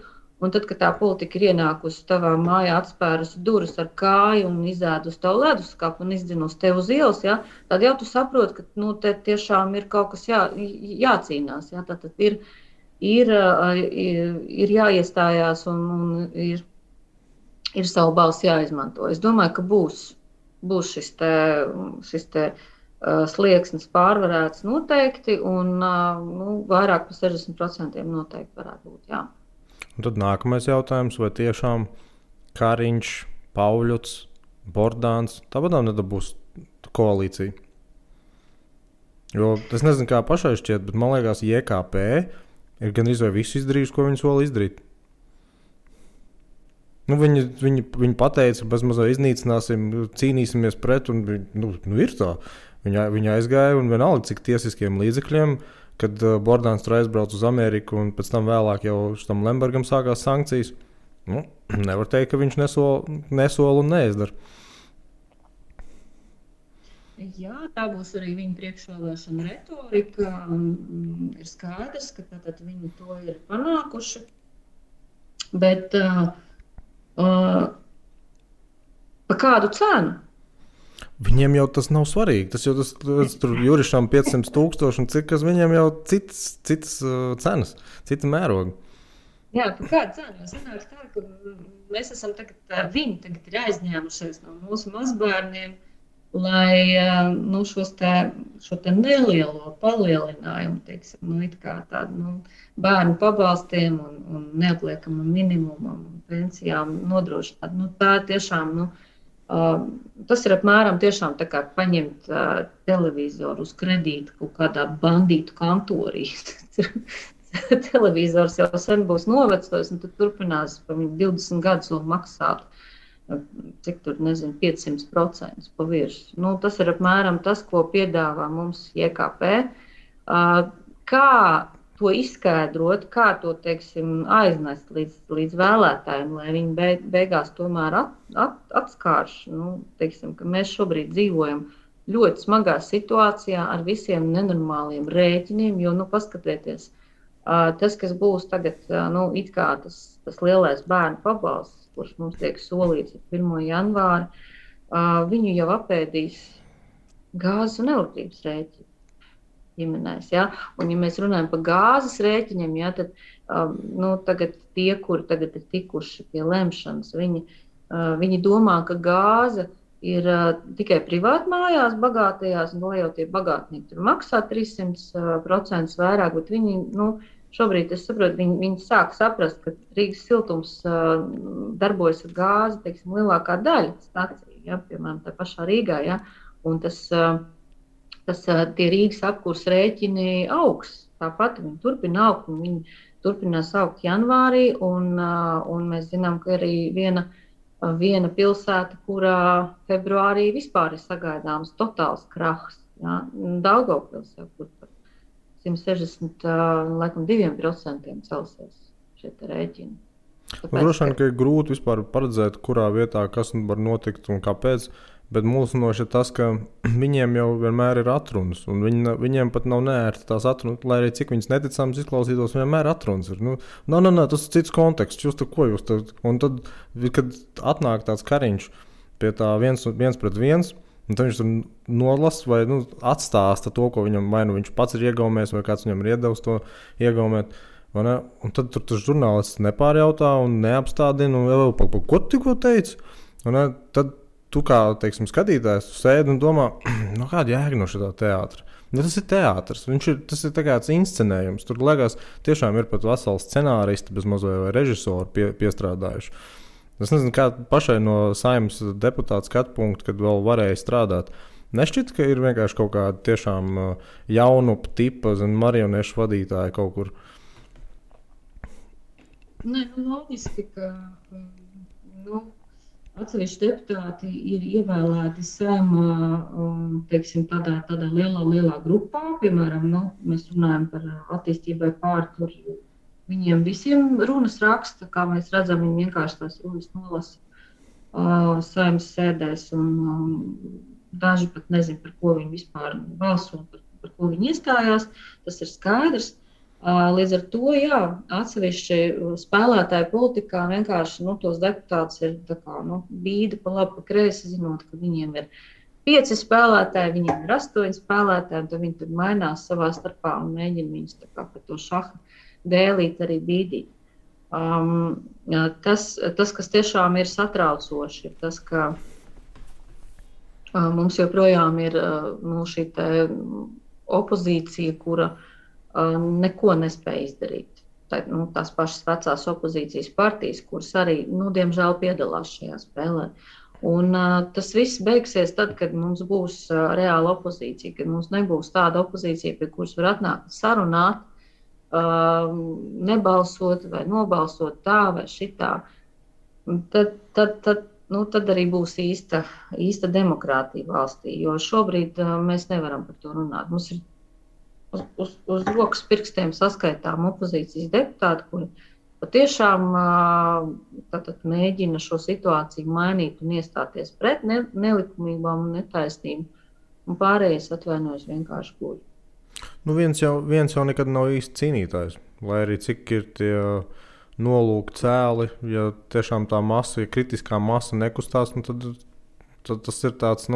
un tad, kad tā politika ir ienākusi tavā mājā, atspērusi durvis ar kāju un izēdusi tavu leduskapu un izdzinusi tev uz ielas, ja, tad jau tu saproti, ka nu, te tiešām ir kaut kas jācīnās. Ja, tātad ir jāiestājās un ir savu balsi jāizmanto. Es domāju, ka būs šis te slieksnis pārvarēts noteikti, un nu, vairāk par 60% noteikti varētu būt, jā. Un tad nākamais jautājums, vai tiešām Kariņš, Pauļuts, Bordāns, tāpat nedabūs koalīciju? Jo es nezinu, kā pašai šķiet, bet man liekas, JKP ir gan vai visu izdarījuši, ko viņi sola izdarīt. Nu, viņi pateica, ka bezmazā iznīcināsim, cīnīsimies pret, un nu, ir tā. Viņi aizgāja un vienalga, cik tiesiskiem līdzekļiem, kad Bordāns tur aizbrauc uz Ameriku un pēc tam vēlāk jau tam Lembergam sākās sankcijas. Nu, nevar teikt, ka viņš nesola un neizdara. Jā, tā būs arī viņa priekšvēlēšana retorika. Ir skaidrs, ka tātad viņi to ir panākuši. Bet pa kādu cenu? Viņiem jau tas nav svarīgi. Tas jau tur Jurišam 500,000 un cik, kas viņiem jau citas cenas, cita mēroga. Jā, pa kādu cenu? Sanāks tā, ka mēs esam viņi tagad ir aizņēmušies no mūsu mazbērniem, lai nu, šo te nelielo palielinājumu, teiksim, nu, it kā tādu bērnu pabalstiem un neapliekamam minimumam un pensijām nodrošināt. Nu, tā tiešām, tas ir apmēram tiešām tā kā paņemt televizoru uz kredītu kaut kādā bandītu kantorī. Televizors jau sen būs novecojis un tad turpinās pa 20 gadus vēl maksāt. Cik tur, nezinu, 500% pa virsmu. Nu, tas ir apmēram tas, ko piedāvā mums JKP. Kā to izskaidrot, kā to, teiksim, aiznest līdz vēlētājiem, lai viņi beigās tomēr atskārš, nu, teiksim, ka mēs šobrīd dzīvojam ļoti smagā situācijā ar visiem nenormāliem rēķiniem, jo, nu, paskatieties, Tas, kas būs tagad, it kā tas lielais bērnu pabalsts, kurš mums tiek solīts ar 1. janvāri, viņu jau apēdīs gāzes un elektrības rēķini ģimenēs. Ja? Un, ja mēs runājam par gāzes rēķiniem, ja, tad tagad tie, kuri tagad ir tikuši pie lemšanas, viņi domā, ka gāze ir tikai privātmājās, bagātajās, un lai jau tie bagātnieki tur maksā 300% vairāk, bet viņi, šobrīd, es saprotu, viņi sāk saprast, ka Rīgas siltums darbojas ar gāzi, teiksim, lielākā daļa staciju, ja, piemēram, tā pašā Rīgā, ja, un tie Rīgas apkurs rēķini augs, tāpat viņi turpina augt, un viņi turpinās augt janvārī, un mēs zinām, ka arī viena pilsēta, kurā februārī vispār ir sagaidāms totāls krahs. Ja? Daugavpils jau kur par 162% celsies šie rēķini. Droši vien, ka ir grūti vispār paredzēt, kurā vietā kas var notikt un kāpēc, bet mulsinoši ir tas, ka viņiem jau vienmēr ir atrunas, un viņiem pat nav neērti tās atrunas, lai arī cik viņas neticams izklausītos, vienmēr atrunas ir. Tas ir cits konteksts, un tad, kad atnāk tāds kariņš pie tā viens pret viens, un tad viņš tur nolasa vai atstāsta to, ko viņam vai viņš pats ir iegaumējis, vai kāds viņam ir iedevis to iegaumēt, un tad tur tas žurnālists nepārjautā un neapstādina, un ko tu tikko teici? Tad tu kā, teiksim, skatītājs, tu sēdi un domā, kāda jēga no šitā teātra? Tas ir teātrs, tas ir tāds inscenējums. Tur liekas, tiešām ir pat veseli scenāristi bez mazliet vai režisori piestrādājuši. Es nezinu, kā pašai no Saeimas deputāta skatu punkta, kad vēl varēja strādāt. Nešķiet, ka ir vienkārši kaut kāda tiešām jaunu tipa marionešu vadītāja kaut kur. Nē, loģiski, ka atsevišķi deputāti ir ievēlēti Saeimā, teiksim, tādā lielā grupā. Piemēram, mēs runājam par attīstībai pār, viņiem visiem runas raksta, kā mēs redzam, viņi vienkārši tās runas nolasa Saeimas sēdēs, un daži pat nezin, par ko viņi vispār balso, par ko viņi iestājās. Tas ir skaidrs. Līdz ar to, jā, atsevišķi spēlētāji politikā vienkārši tos deputātus ir bīda pa labi, pa kreisi, zinot, ka viņiem ir 5 spēlētāji, viņiem ir 8 spēlētāji, un tad viņi tur mainās savā starpā un mēģina viņus pa to šaha dēlīt arī bīdīt. Tas, kas tiešām ir satraucoši, ir tas, ka mums joprojām ir šī opozīcija, kura neko nespēja izdarīt. Tās pašas vecās opozīcijas partijas, kuras arī, diemžēl, piedalās šajā spēlē. Un tas viss beigsies tad, kad mums būs reāla opozīcija, kad mums nebūs tāda opozīcija, pie kuras var atnākt sarunāt, nebalsot vai nobalsot tā vai šitā. Tad arī būs īsta demokrātija valstī, jo šobrīd mēs nevaram par to runāt. Mums ir uz rokas pirkstiem saskaitām opozīcijas deputāti, kuri patiešām mēģina šo situāciju mainīt un iestāties pret nelikumībām un netaisnību, un pārējais atvainojas vienkārši guļ. Viens jau nekad nav īsti cīnītājs, lai arī cik ir tie nolūki cēli, ja tiešām tā masa, ja kritiskā masa nekustās, tad tas ir tāds,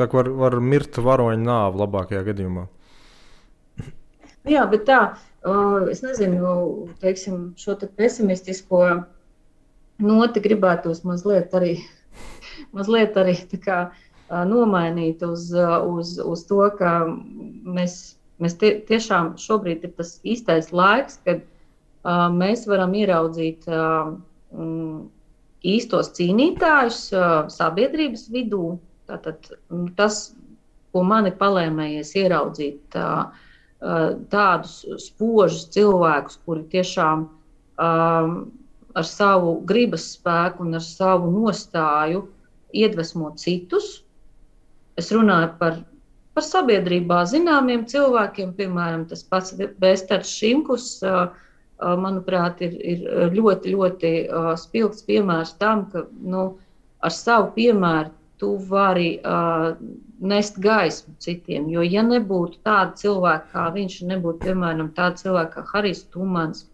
var mirt varoņa nāve labākajā gadījumā. Jā, bet es nezinu, teiksim, šo te pesimistisko noti gribētos mazliet arī tā kā nomainīt uz to, ka mēs tiešām šobrīd ir tas īstais laiks, kad mēs varam ieraudzīt īstos cīnītājus sabiedrības vidū. Tātad tas, ko mani palēmējies ieraudzīt, tādus spožus cilvēkus, kuri tiešām ar savu gribas spēku un ar savu nostāju iedvesmo citus. Es runāju par sabiedrībā zināmiem cilvēkiem, piemēram, tas pats Vēsters Šimkus, manuprāt, ir ļoti, ļoti spilgts piemērs tam, ka ar savu piemēru tu vari nest gaismu citiem. Jo, ja nebūtu tāda cilvēka kā viņš, nebūtu, piemēram, tāda cilvēka kā Harijs Tumans,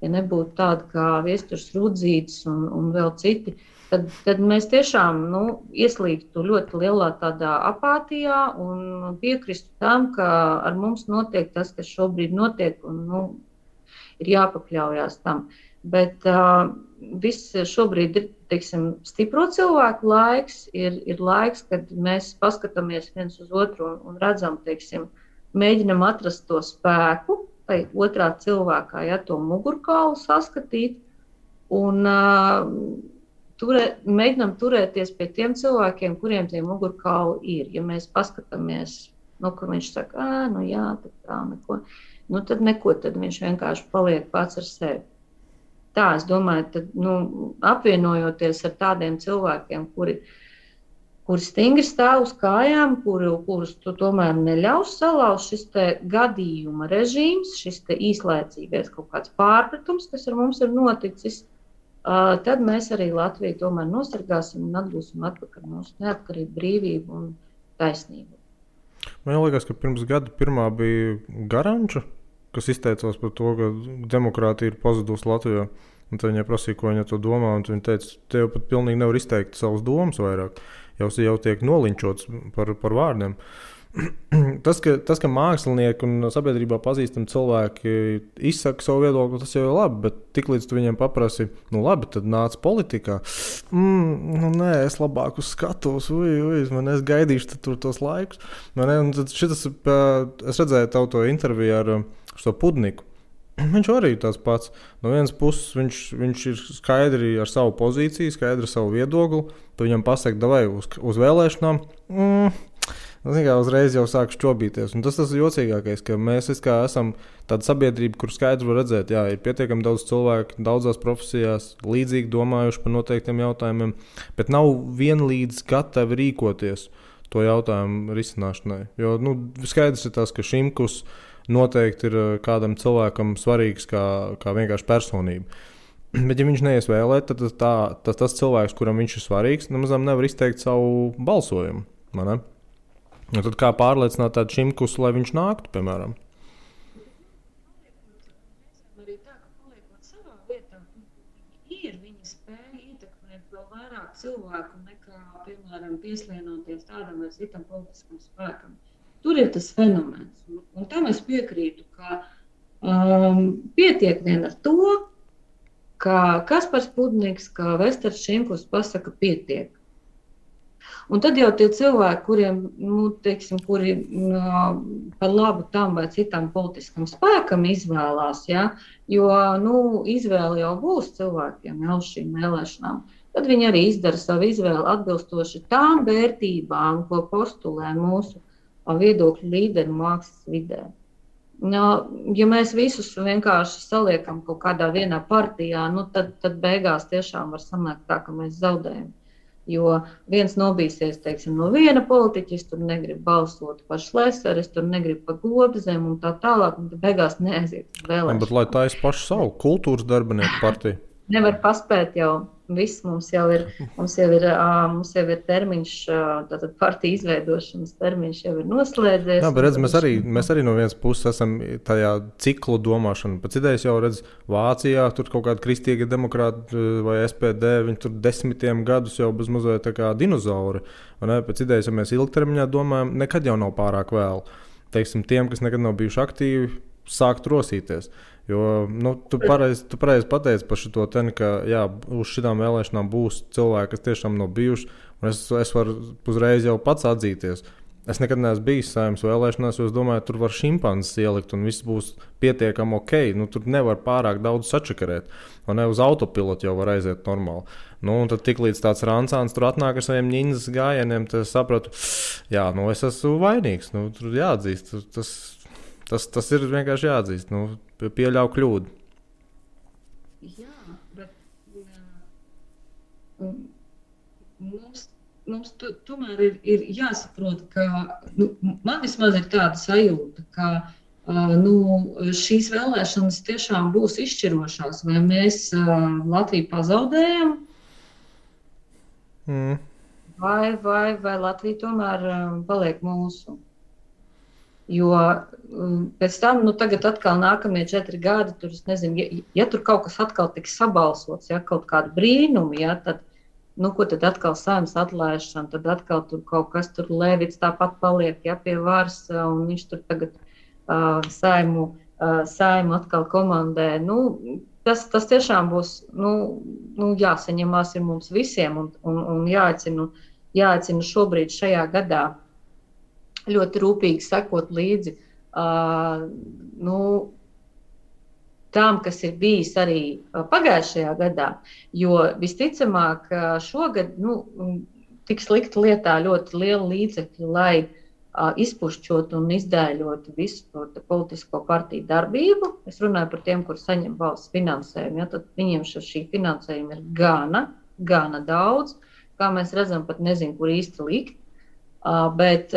ja nebūtu tāda kā Viesturs Rudzītis un vēl citi, tad mēs tiešām ieslīgtu ļoti lielā tādā apātijā un piekristu tam, ka ar mums notiek tas, kas šobrīd notiek, un ir jāpakļaujās tam. Bet viss šobrīd ir, teiksim, stipro cilvēku laiks, ir laiks, kad mēs paskatāmies viens uz otru un redzam, teiksim, mēģinam atrast to spēku, vai otrā cilvēkā, ja to mugurkaulu saskatīt, un mēģinam turēties pie tiem cilvēkiem, kuriem tie mugurkauli ir. Ja mēs paskatāmies, ka viņš saka, jā, tā neko, tad neko, tad viņš vienkārši paliek pats ar sevi. Tā, es domāju, tad, apvienojoties ar tādiem cilvēkiem, kuri stingri stāv uz kājām, kurus tu tomēr neļaus salauzt šis te gadījuma režīms, šis te īslaicīgais kaut kāds pārpratums, kas ar mums ir noticis, tad mēs arī Latviju tomēr nosargāsim un atgūsim atpakaļ mūsu neatkarību, brīvību un taisnību. Man liekas, ka pirms gada pirmā bija Garanča, kas izteicās par to, ka demokrātija ir pazudusi Latvijā. Un tad viņai prasīja, ko viņa to domā, un viņa teica, te jau pat pilnīgi nevar izteikt savas domas vairāk. Jau tiek nolinčots par vārdiem. Tas, ka mākslinieki un sabiedrībā pazīstami cilvēki izsaka savu viedokli, tas jau ir labi, bet tiklīdz tu viņiem paprasi, labi, tad nāc politikā. Nē, es labāk uz skatos, es gaidīšu tur tos laikus. Es redzēju tavu to interviju ar šo Pudniku. Viņš arī tas pats. No vienas puses viņš ir skaidri ar savu pozīciju, skaidri ar savu viedokli. Tu viņam pasaki, davai uz vēlēšanām. Uzreiz jau sāk šķobīties. Un tas ir jocīgākais, ka mēs esam tāda sabiedrība, kur skaidri var redzēt, ir pietiekami daudz cilvēku, daudzās profesijās, līdzīgi domājuši par noteiktiem jautājumiem, bet nav vienlīdz gatavi rīkoties to jautājumu risināšanai. Jo skaidrs ir tas, ka Šimkus noteikti ir kādam cilvēkam svarīgs kā vienkārši personība. Bet, ja viņš neies vēlēt, tad tas cilvēks, kuram viņš ir svarīgs, nemazām nevar izteikt savu balsojumu. Un tad kā pārliecināt tādu Šimkus, lai viņš nāktu, piemēram? Arī tā, ka paliekot savā vietā, viņa spēja ietekmēt vēl vairāk cilvēku nekā, piemēram, pieslienoties tādam vai citam politiskam spēkam. Tur ir tas fenomens. Un tam es piekrītu, ka pietiek vien ar to, ka Kaspars Pudniks, ka Vesters Šimkus pasaka pietiek. Un tad jau tie cilvēki, kuriem, kuri par labu tam vai citam politiskam spēkam izvēlās, jo izvēle jau būs cilvēkiem uz šīm vēlēšanām, tad viņi arī izdara savu izvēli atbilstoši tām vērtībām, ko postulē mūsu viedokļu līderi mākslas vidē. Ja mēs visus vienkārši saliekam kaut kādā vienā partijā, tad beigās tiešām var sanākt tā, ka mēs zaudējam. Jo viens nobīsies, teiksim, no viena politiķa, es tur negribu balsot par Šleseru, es tur negribu par Globzem un tā tālāk, un tad beigās neaiziet uz vēlēšanām. Bet lai taisa pašu savu kultūras darbinieku partiju? Nevar paspēt jau. Viss mums jau ir termiņš, tātad partija izveidošanas termiņš jau ir noslēdzies. Jā, bet redz, mēs arī no vienas puses esam tajā ciklu domāšana. Pēc idejas jau redz Vācijā, tur kaut kādi kristīgie demokrāti vai SPD, viņi tur 10 gadus jau bez mazliet tā kā dinozauri. Pēc idejas, ja mēs ilgtermiņā domājam, nekad jau nav pārāk vēl. Teiksim, tiem, kas nekad nav bijuši aktīvi, sākt rosīties. Jo tu pareizi pateici par šito ten, ka uz šitām vēlēšanām būs cilvēki, kas tiešām nav bijuši, un es varu uzreiz jau pats atzīties. Es nekad neesmu bijis Saeimas vēlēšanās, jo es domāju, tur var šimpanzes ielikt un viss būs pietiekami ok. Tur nevar pārāk daudz sačakarēt, un ne uz autopilotu jau var aiziet normāli. Un tad tiklīdz tāds rancāns tur atnāk ar saviem ņindzes gājieniem, tad es sapratu, es esmu vainīgs, tur jāatzīst, tas ir vienkārši jāatzīst, pieļauj kļūdu. Jā, bet mums tomēr ir jāsaprot, ka man vismaz ir tāda sajūta, ka šīs vēlēšanas tiešām būs izšķirošās, vai mēs Latviju pazaudējam, vai Latvija tomēr paliek mūsu. Jo pēc tam, tagad atkal nākamie 4 gadi, tur, es nezinu, ja tur kaut kas atkal tiks sabalsots, ja kaut kāda brīnuma, ja, tad, ko tad atkal Saeimas atlaišana, tad atkal tur kaut kas tur Levits tāpat paliek, ja, pie varas, un viņš tur tagad Saimu atkal komandē. Tas tiešām būs, jāsaņemās ir mums visiem un jāaicina šobrīd šajā gadā ļoti rūpīgi sekot līdzi tām, kas ir bijis arī pagājušajā gadā, jo visticamāk šogad tiks likt lietā ļoti liela līdzekļa, lai izpušķot un izdēļot visu to politisko partiju darbību. Es runāju par tiem, kur saņem valsts finansējumu, ja, tad viņiem šī finansējuma ir gana daudz, kā mēs redzam, pat nezinu, kur īsti likt. Bet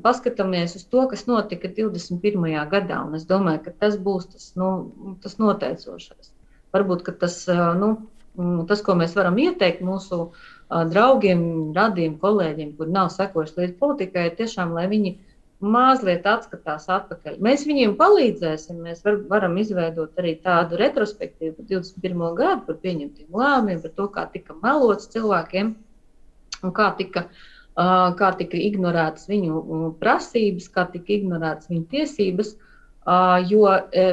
paskatāmies uz to, kas notika 21. gadā, un es domāju, ka tas būs tas noteicošais. Varbūt, ka tas, ko mēs varam ieteikt mūsu draugiem, radiem, kolēģiem, kuri nav sekojuši līdz politikai, ir tiešām, lai viņi mazliet atskatās atpakaļ. Mēs viņiem palīdzēsim, mēs varam izveidot arī tādu retrospektīvu par 21. gadu, par pieņemtiem lēmumiem, par to, kā tika melots cilvēkiem un kā tika ignorētas viņu prasības, kā tika ignorētas viņu tiesības, jo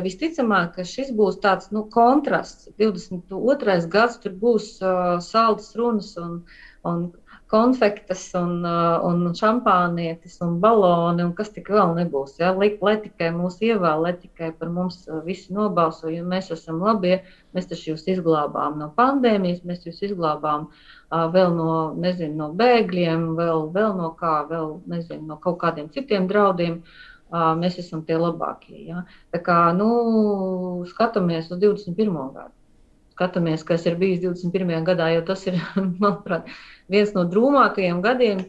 visticamāk, ka šis būs tāds kontrasts. 22. gads tur būs saldas runas un konfektes un šampānietis un baloni un kas tik vēl nebūs. Ja? Lai tikai mūs ievēl, lai tikai par mums visi nobalso, jo mēs esam labie, mēs taču jūs izglābām no pandēmijas, mēs jūs izglābām vēl no bēgļiem, vēl no kā, no kaut kādiem citiem draudiem. Mēs esam tie labākie. Ja? Tā kā, skatāmies uz 21. gadu. Skatāmies, kas ir bijis 21. gadā, jo tas ir, manuprāt, viens no drūmākajiem gadiem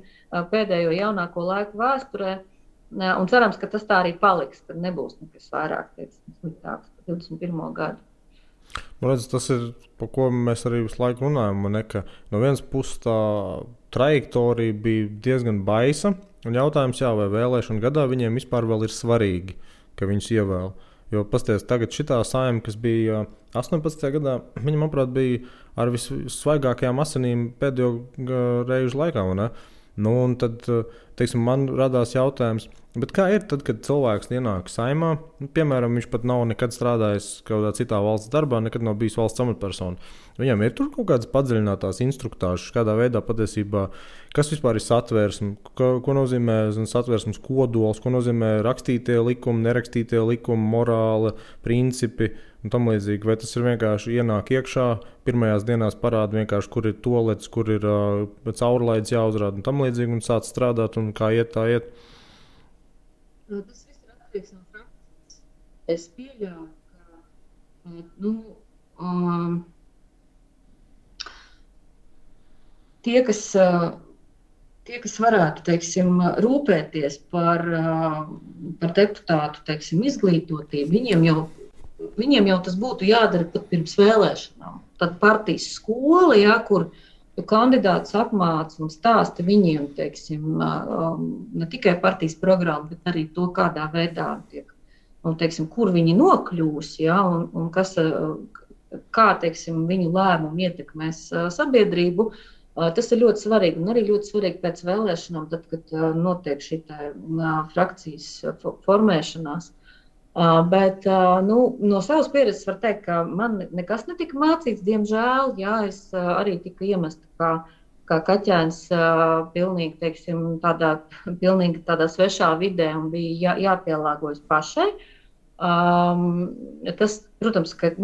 pēdējo jaunāko laiku vēsturē. Un cerams, ka tas tā arī paliks, ka nebūs nekas vairāk sliktāks par 21. gadu. Tas ir, par ko mēs arī visu laiku runājam. Ka no vienas puses tā trajektorija bija diezgan baisa. Un jautājums, vai vēlēšanu gadā viņiem vispār vēl ir svarīgi, ka viņus ievēl. Jo pasties, tagad šitā Saeima, kas bija 18. gadā, viņa, manuprāt, bija ar vissvaigākajām asinīm pēdējo reižu laikā. Un tad, man radās jautājums, bet kā ir tad, kad cilvēks ienāk Saeimā, piemēram, viņš pat nav nekad strādājis kādā citā valsts darbā, nekad nav bijis valsts amatpersona. Viņam ir tur kaut kādas padziļinātās instruktāžas, kādā veidā patiesībā, kas vispār ir satversme, ko nozīmē satversmes kodols, ko nozīmē rakstītie likumi, nerakstītie likumi, morāli, principi un tam līdzīgi. Vai tas ir vienkārši ienāk iekšā, pirmajās dienās parāda vienkārši, kur ir toalets, kur ir caurlaids jāuzrāda un tam līdzīgi un sāc strādāt un kā iet, tā iet? Tas viss ir atkarīgs no prakses. Es pieļauju, ka tie, kas varētu, rūpēties par deputātu, izglītotību, viņiem jau tas būtu jādara pat pirms vēlēšanām. Tad partijas skola, kur kandidāts apmāca un stāsta viņiem, ne tikai partijas programmu, bet arī to, kādā veidā tiek, un, kur viņi nokļūs, un kā, viņu lēmumu ietekmēs sabiedrību. Tas ir ļoti svarīgi, un arī ļoti svarīgi pēc vēlēšanām, tad, kad notiek šī frakcijas formēšanās. Bet no savas pieredzes var teikt, ka man nekas netika mācīts, diemžēl. Es arī tiku iemesta kā kaķēns pilnīgi, pilnīgi tādā svešā vidē un bija jāpielāgojas pašai. Tas, protams, ka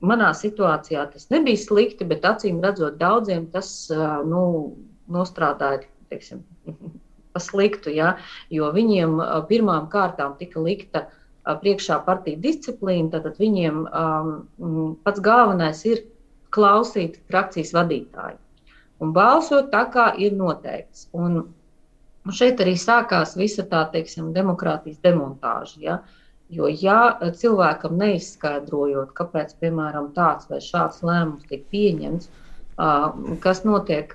manā situācijā tas nebija slikti, bet acīm redzot daudziem tas nostrādāja pa sliktu, jo viņiem pirmām kārtām tika likta priekšā partija disciplīna, tad viņiem pats galvenais ir klausīt frakcijas vadītāju un balsot tā, kā ir noteikts. Un šeit arī sākās visa tā, demokrātijas demontāža, Jo, cilvēkam neizskaidrojot, kāpēc, piemēram, tāds vai šāds lēmums tiek pieņemts, kas notiek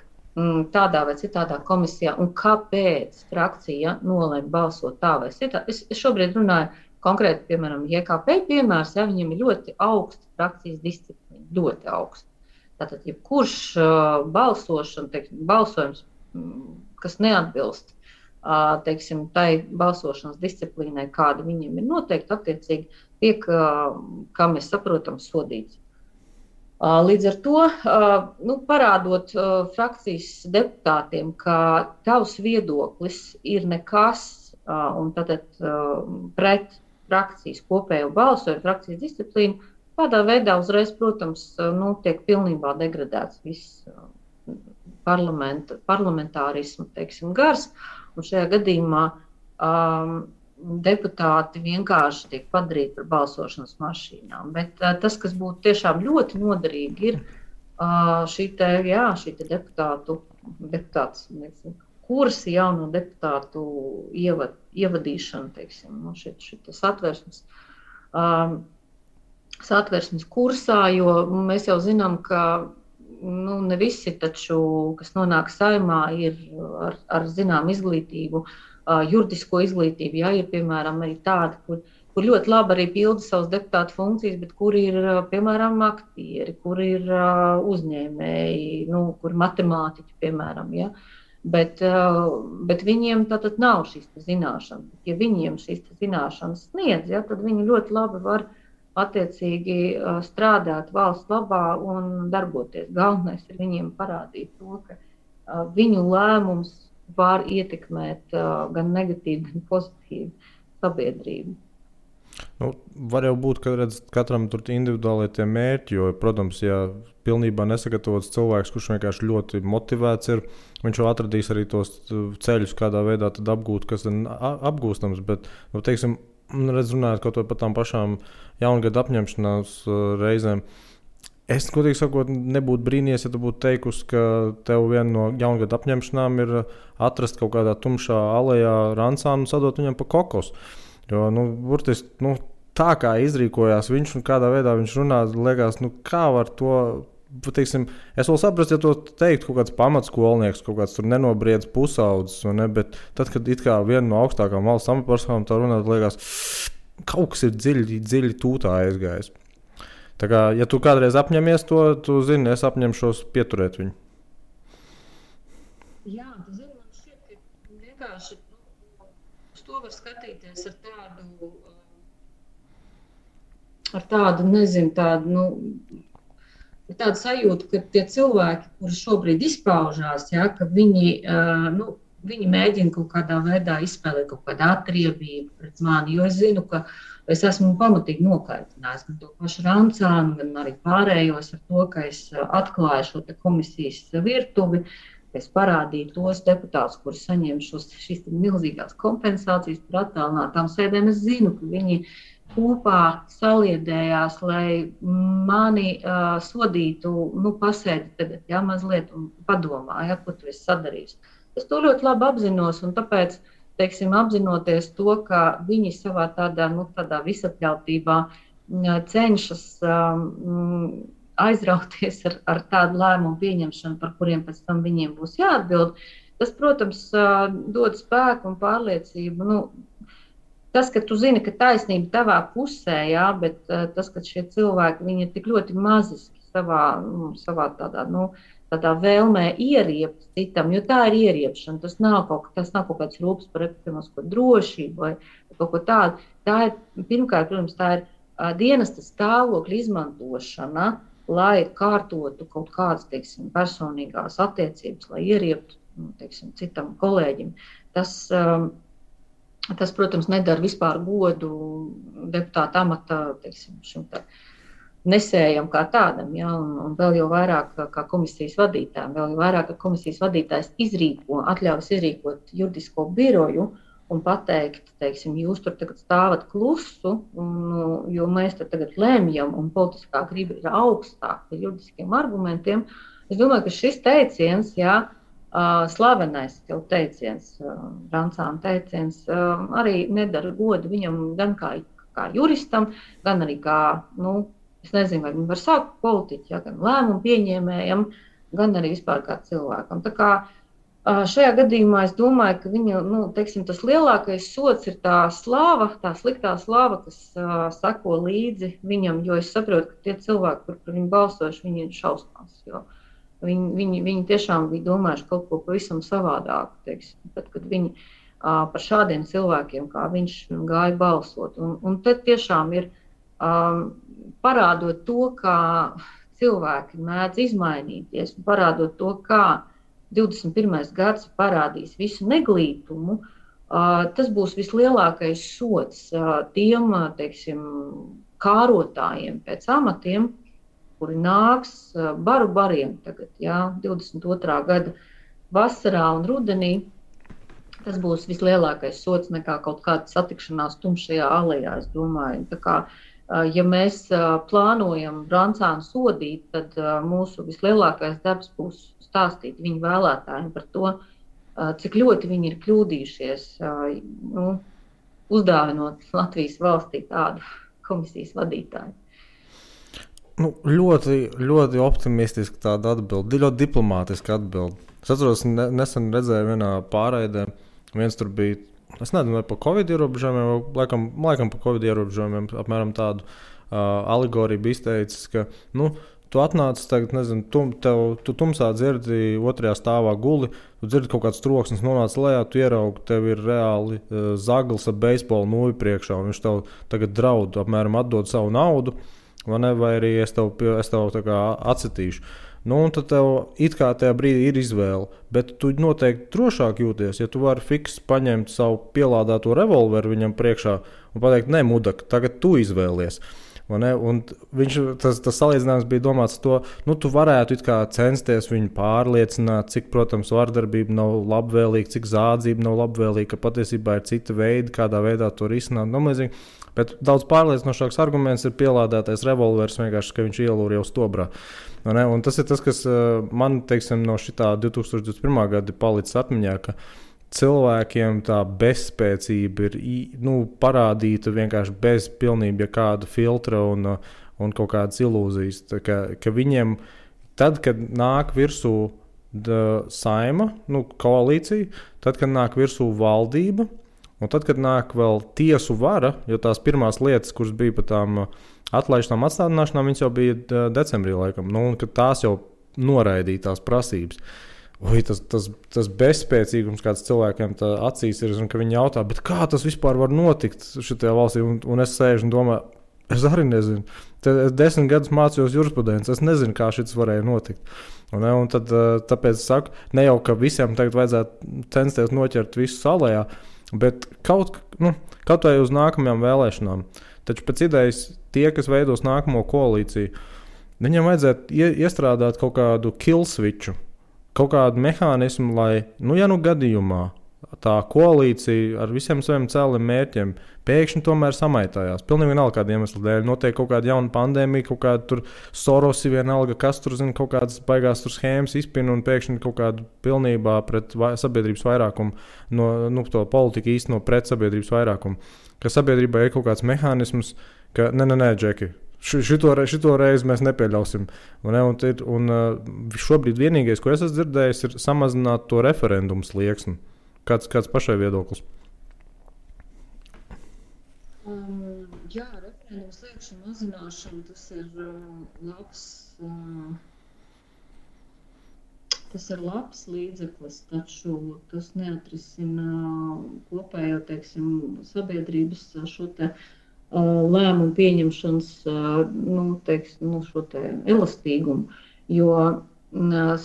tādā vai citādā komisijā un kāpēc frakcija nolēma balsot tā vai citā. Es šobrīd runāju konkrēti, piemēram, JKP piemērs, ja viņiem ir ļoti augsta frakcijas disciplīna, ļoti augsta. Tātad, jebkurš balsojums, kas neatbilst, teiksim, tai balsošanas disciplīnai, kāda viņiem ir noteikti, attiecīgi tiek, kā mēs saprotam, sodīts. Līdz ar to parādot frakcijas deputātiem, ka tavs viedoklis ir nekas un tātad pret frakcijas kopējo balsojumu, frakcijas disciplīnu, tādā veidā uzreiz, protams, tiek pilnībā degradēts viss parlamentārismu, teiksim, gars, un šajā gadījumā deputāti vienkārši tiek padarīti par balsošanas mašīnām. Bet tas, kas būtu tiešām ļoti noderīgi, ir šī deputātu kursi, jauno deputātu ievadīšana, teiksim, šitas satversmes kursā, jo mēs jau zinām, ka ne visi taču, kas nonāk Saeimā, ir ar zinām izglītību, juridisko izglītību, ja ir, piemēram, arī tādi, kur ļoti labi arī pilda savas deputātu funkcijas, bet kur ir, piemēram, aktieri, kur ir uzņēmēji, kur matemātiķi, piemēram, ja. Bet viņiem tātad nav šīs zināšanas. Ja viņiem šīs zināšanas sniedz, ja, tad viņi ļoti labi var attiecīgi strādāt valsts labā un darboties. Galvenais ir viņiem parādīt to, ka viņu lēmums var ietekmēt gan negatīvi, gan pozitīvi sabiedrību. Var jau būt, ka katram tur individuāli tie mērķi, jo, protams, ja pilnībā nesagatavots cilvēks, kurš vienkārši ļoti motivēts ir, viņš jau atradīs arī tos ceļus, kādā veidā tad apgūt, kas ir apgūstams, bet, teiksim, runājot kaut vai par tām pašām jaungada apņemšanās reizēm, es, godīgi sakot, nebūtu brīnījies, ja tu būtu teikusi, ka tev viena no jaungada apņemšanām ir atrast kaut kādā tumšā alejā rancānu un sadot viņam pa kokosu. Jo, burtiski, tā kā izrīkojās viņš un kādā veidā viņš runā, liekas, kā var to, teiksim, es vēl saprastu, ja to teikt kaut kāds pamatskolnieks, kaut kāds tur nenobriedz pusaudzes, bet tad, kad it kā viena no augstākām valsts amatpersonām tā runā, liekas, kaut kas ir dziļi tūtā aizgājis. Tā kā, ja tu kādreiz apņemies to, tu zini, es apņemšos pieturēt viņu. Jā, tu zini, man šķiet, ka vienkārši uz to var skatīties ar tādu, nezinu, tādu sajūtu, ka tie cilvēki, kuri šobrīd izpaužās, ja, ka viņi mēģina kaut kādā veidā izspēlēt kaut kādu atriebību pret mani, jo es zinu, ka es esmu pamatīgi nokaitinājis gan to pašu Rancānu, gan arī pārējos ar to, ka es atklāju šo komisijas virtuvi, ka es parādīju tos deputātus, kuri saņem šīs milzīgās kompensācijas par attālinātām sēdēm. Es zinu, ka viņi kopā saliedējās, lai mani sodītu, pasēdi tagad, ja, mazliet un padomā, ja, ko tu esi sadarījis. Es to ļoti labi apzinos, un tāpēc, teiksim, apzinoties to, ka viņi savā tādā visapļautībā cenšas aizrauties ar tādu lēmumu pieņemšanu, par kuriem pēc tam viņiem būs jāatbild, tas, protams, dod spēku un pārliecību. Tas, ka tu zini, ka taisnība tavā pusē, jā, bet tas, ka šie cilvēki, viņi ir tik ļoti maziski savā tādā vēlmē ieriept citam, jo tā ir ieriepšana, tas nav kaut kāds rūpes par ekonomisko drošību vai kaut ko tādu. Tā ir, pirmkārt, protams, tā ir dienesta stāvokļa izmantošana, lai kārtotu kaut kādas, teiksim, personīgās attiecības, lai ierieptu, teiksim, citam kolēģim. Tas, protams, nedara vispār godu deputāta amata, teiksim, šim nesējam kā tādam, ja, un vēl jau vairāk kā komisijas vadītājiem, vēl jau vairāk, ka komisijas vadītājs atļaujas izrīkot juridisko biroju un pateikt, teiksim, jūs tur tagad stāvat klusu, jo mēs tur tagad lēmjam un politiskā griba ir augstāk par juridiskiem argumentiem. Es domāju, ka šis teiciens, jā, slavenais jau teiciens, Rancāna teiciens, arī nedara godu viņam gan kā juristam, gan arī kā, es nezinu, vai viņi var sākt politiķi, ja, gan lēmumu pieņēmējam, gan arī vispār kā cilvēkam. Tā kā šajā gadījumā es domāju, ka viņa, teiksim, tas lielākais sots ir tā slāva, tā sliktā slāva, kas sako līdzi viņam, jo es saprotu, ka tie cilvēki, kur par viņu balsojuši, viņi ir šausmās, jo viņi tiešām bija domājuši kaut ko pavisam savādāk, teiksim, tad, kad viņi par šādiem cilvēkiem, kā viņš gāja balsot. Un tad tiešām ir parādot to, kā cilvēki mēdz izmainīties, un parādot to, kā 21. gads parādīs visu neglītumu, tas būs vislielākais sots tiem, teiksim, kārotājiem pēc amatiem, kuri nāks bariem tagad, 22. gada vasarā un rudenī. Tas būs vislielākais sots nekā kaut kāda satikšanās tumšajā alejā, es domāju. Tā kā, ja mēs plānojam Brancānu sodīt, tad mūsu vislielākais darbs būs stāstīt viņu vēlētājiem par to, cik ļoti viņi ir kļūdījušies, uzdāvinot Latvijas valstī tādu komisijas vadītāju. Ļoti, ļoti optimistiski tāda atbilde, ļoti diplomātiska atbilde. Es atceros, nesen redzēju vienā pārraidē, viens tur bija, es nezinu, vai par Covid ierobežojumiem, laikam par Covid ierobežojumiem, apmēram tādu alegoriju bija izteicis, ka, tu atnāc tagad, nezinu, tu tumsā dzirdi otrajā stāvā guli, tu dzirdi kaut kāds troksnis, nonāc lejā, tu ieraugi, tev ir reāli zaglis ar beisbolu nūju priekšā, un viņš tev tagad draud, apmēram atdod savu naudu, vai arī es tev tā kā atsitīšu. Un tad tev it kā tajā brīdī ir izvēle, bet tu noteikti drošāk jūties, ja tu vari fiks paņemt savu pielādēto revolveru viņam priekšā un pateikt, ne, mudak, tagad tu izvēlies. Un tas salīdzinājums bija domāts to, tu varētu it kā censties viņu pārliecināt, cik, protams, vardarbība nav labvēlīga, cik zādzība nav labvēlīga, ka patiesībā ir cita veida, kādā veidā to risināt. Bet daudz pārliecinošāks arguments ir pielādētais revolvers, vienkārši, ka viņš ielūr jau stobrā. Un tas ir tas, kas man, teiksim, no šitā 2021. gada palicis atmiņā, ka cilvēkiem tā bezspēcība ir parādīta vienkārši bez pilnībā kāda filtra un kaut kādas ilūzijas. Ka viņiem, tad, kad nāk virsū saima, koalīcija, tad, kad nāk virsū valdība, un tad, kad nāk vēl tiesu vara, jo tās pirmās lietas, kuras bija par tām atlaišanām, atstādināšanām, viņas jau bija decembrī laikam, un kad tās jau noraidīja tās prasības. Tas bezspēcīgums, kāds cilvēkiem acīs ir, un ka viņi jautā, bet kā tas vispār var notikt šitajā valstī, un es sēžu un domāju, es arī nezinu. Es 10 gadus mācījos jurisprudenci, es nezinu, kā šis varēja notikt. Un tad, tāpēc es saku, ne jau, ka visiem tagad vajadzētu censties noķert visu salējā, bet kaut vai uz nākamajām vēlēšanām. Taču pēc idejas tie, kas veidos nākamo koalīciju, viņiem vajadzētu iestrādāt kaut kādu kill switchu, kaut kādu mehānismu, lai, gadījumā tā koalīcija ar visiem saviem cēliem mērķiem pēkšņi tomēr samaitājās. Pilnīgi vienalga kāda iemesla dēļ. Notiek kaut kāda jauna pandēmija, kaut kāda tur Sorosi vienalga, kas tur zina, kaut kādas baigās tur schēmas izpina un pēkšņi kaut kādu pilnībā pret sabiedrības vairākumu, to politiku īsteno pret sabiedrības vairākumu. Ka sabiedrībā ir kaut kāds mehānisms, ka nē, Džeki, šito reizi mēs nepieļausim. Un šobrīd vienīgais, ko es esmu dzirdējis, ir samazināt to referendumu slieksni. Kāds pašai viedoklis? Referendumu sliekšņu mazināšana, tas ir labs līdzeklis, taču tas neatrisina kopējo, sabiedrības šo te lēmumu pieņemšanas šo te elastīgumu, jo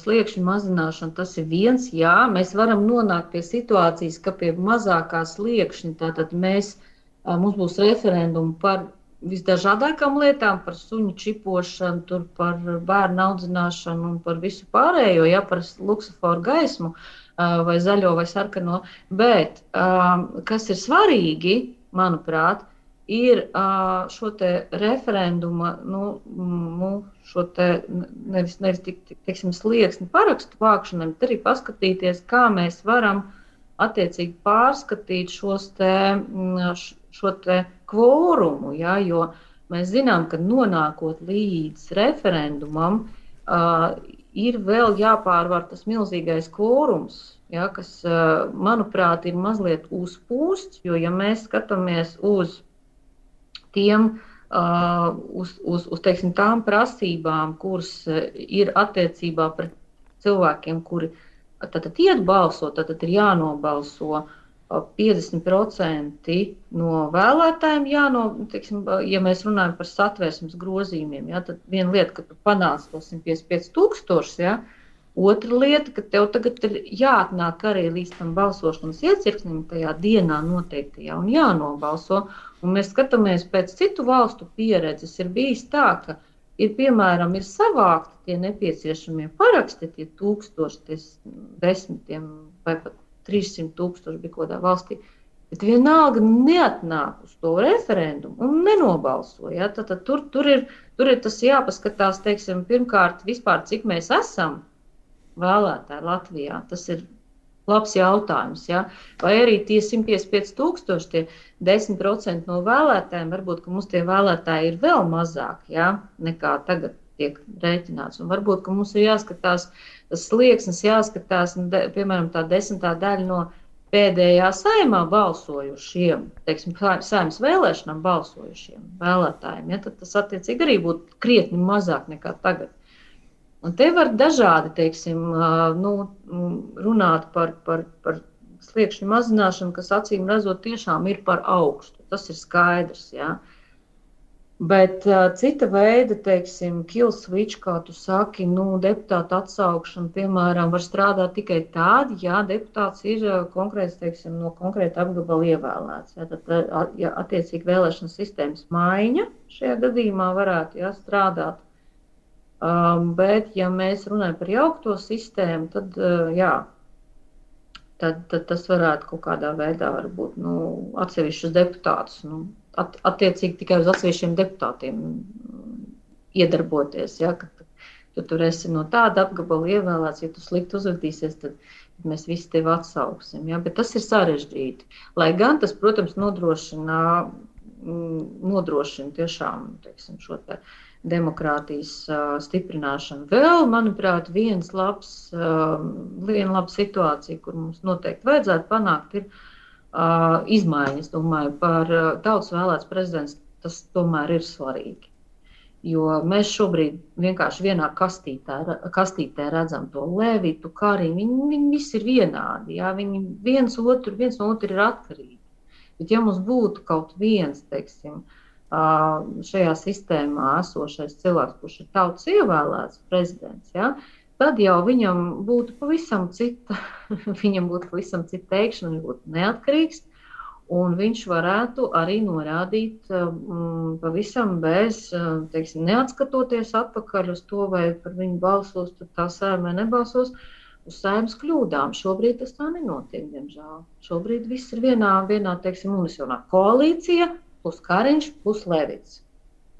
sliekšņu mazināšana tas ir viens, mēs varam nonākt pie situācijas, ka pie mazākā sliekšņa, tātad mums būs referendumi par visdažādākām lietām, par suņu čipošanu, par bērnu audzināšanu un par visu pārējo, par luksuforu gaismu vai zaļo vai sarkano, bet kas ir svarīgi, manuprāt, ir šo te referenduma, šo te nevis slieksni parakstu vākšanai, bet arī paskatīties, kā mēs varam attiecīgi pārskatīt šo te kvorumu, jo mēs zinām, ka nonākot līdz referendumam, ir vēl jāpārvar tas milzīgais kvorums, ja, kas, manuprāt, ir mazliet uzpūsts, jo, ja mēs skatāmies uz tiem, teiksim, tām prasībām, kuras ir attiecībā pret cilvēkiem, kuri tātad iet balsot, tad ir jānobalso 50% no vēlētājiem, teiksim, ja mēs runājam par satversmes grozījumiem, ja, tad viena lieta, ka tu panāc to 155,000, ja, otra lieta, ka tev tagad ir jāatnāk arī līdz tam balsošanas iecirknim tajā dienā noteiktajā un jānobalso. Un mēs skatāmies pēc citu valstu pieredzes, ir bijis tā, ka piemēram, ir savākti tie nepieciešamie paraksti, tie 1000, tie 10 vai pat 300,000 bija kodā valstī, bet vienalga neatnāk uz to referendumu un nenobalso. Ja? Tad tur ir tas jāpaskatās, teiksim, pirmkārt, vispār, cik mēs esam vēlētāji Latvijā. Tas ir labs jautājums. Ja? Vai arī tie 155,000, tie 10% no vēlētājiem, varbūt, ka mums tie vēlētāji ir vēl mazāk, ja? Nekā tagad tiek rēķināts. Un varbūt, ka mums ir jāskatās, tas slieksnis jāskatās, piemēram, tā 10. daļa no pēdējā saimā balsojušiem, teiksim, saimas vēlēšanām balsojušiem vēlētājiem. Ja? Tad tas attiecīgi arī būtu krietni mazāk nekā tagad. Un te var dažādi, teiksim, runāt par sliekšņu mazināšanu, kas acīm redzot tiešām ir par augstu. Tas ir skaidrs, jā. Bet cita veida, teiksim, kill switch, kā tu saki, deputāta atsaukšana, piemēram, var strādāt tikai tādi, ja deputāts ir konkrēts, teiksim, no konkrēta apgabala ievēlēts. Ja, tad, ja attiecīgi vēlēšanas sistēmas maiņa šajā gadījumā varētu strādāt. Bet, ja mēs runājam par jaukto sistēmu, tad, tad tas varētu kaut kādā veidā varbūt atsevišķus deputātus, attiecīgi tikai uz atsevišķiem deputātiem iedarboties. Ja, ka tu tur esi no tāda apgabala ievēlēts, ja tu slikti uzvedīsies, tad mēs visi tevi atsauksim. Ja, bet tas ir sarežģīti. Lai gan tas, protams, nodrošina tiešām, teiksim, šo te demokrātijas stiprināšanu. Vēl, manuprāt, viena laba situācija, kur mums noteikti vajadzētu panākt, ir izmaiņas. Domāju, par tautas vēlēts prezidents tas tomēr ir svarīgi. Jo mēs šobrīd vienkārši vienā kastītē redzam to Levitu, Kariņu. Viņi visi ir vienādi. Jā? Viņi viens no otru ir atkarīgi. Bet ja mums būtu kaut viens, teiksim, šajā sistēmā esošais cilvēks, kurš ir tautas ievēlēts prezidents, ja, tad jau viņam būtu pavisam cita teikšana, viņš būtu neatkarīgs, un viņš varētu arī norādīt pavisam bez, teiksim, neatskatoties atpakaļ uz to, vai par viņu balsos, tad tā saima nebalsos, uz saimas kļūdām. Šobrīd tas tā nenotiek, diemžēl. Šobrīd viss ir vienā teiksim, unisionā koalīcija, plus Kariņš, plus Levits.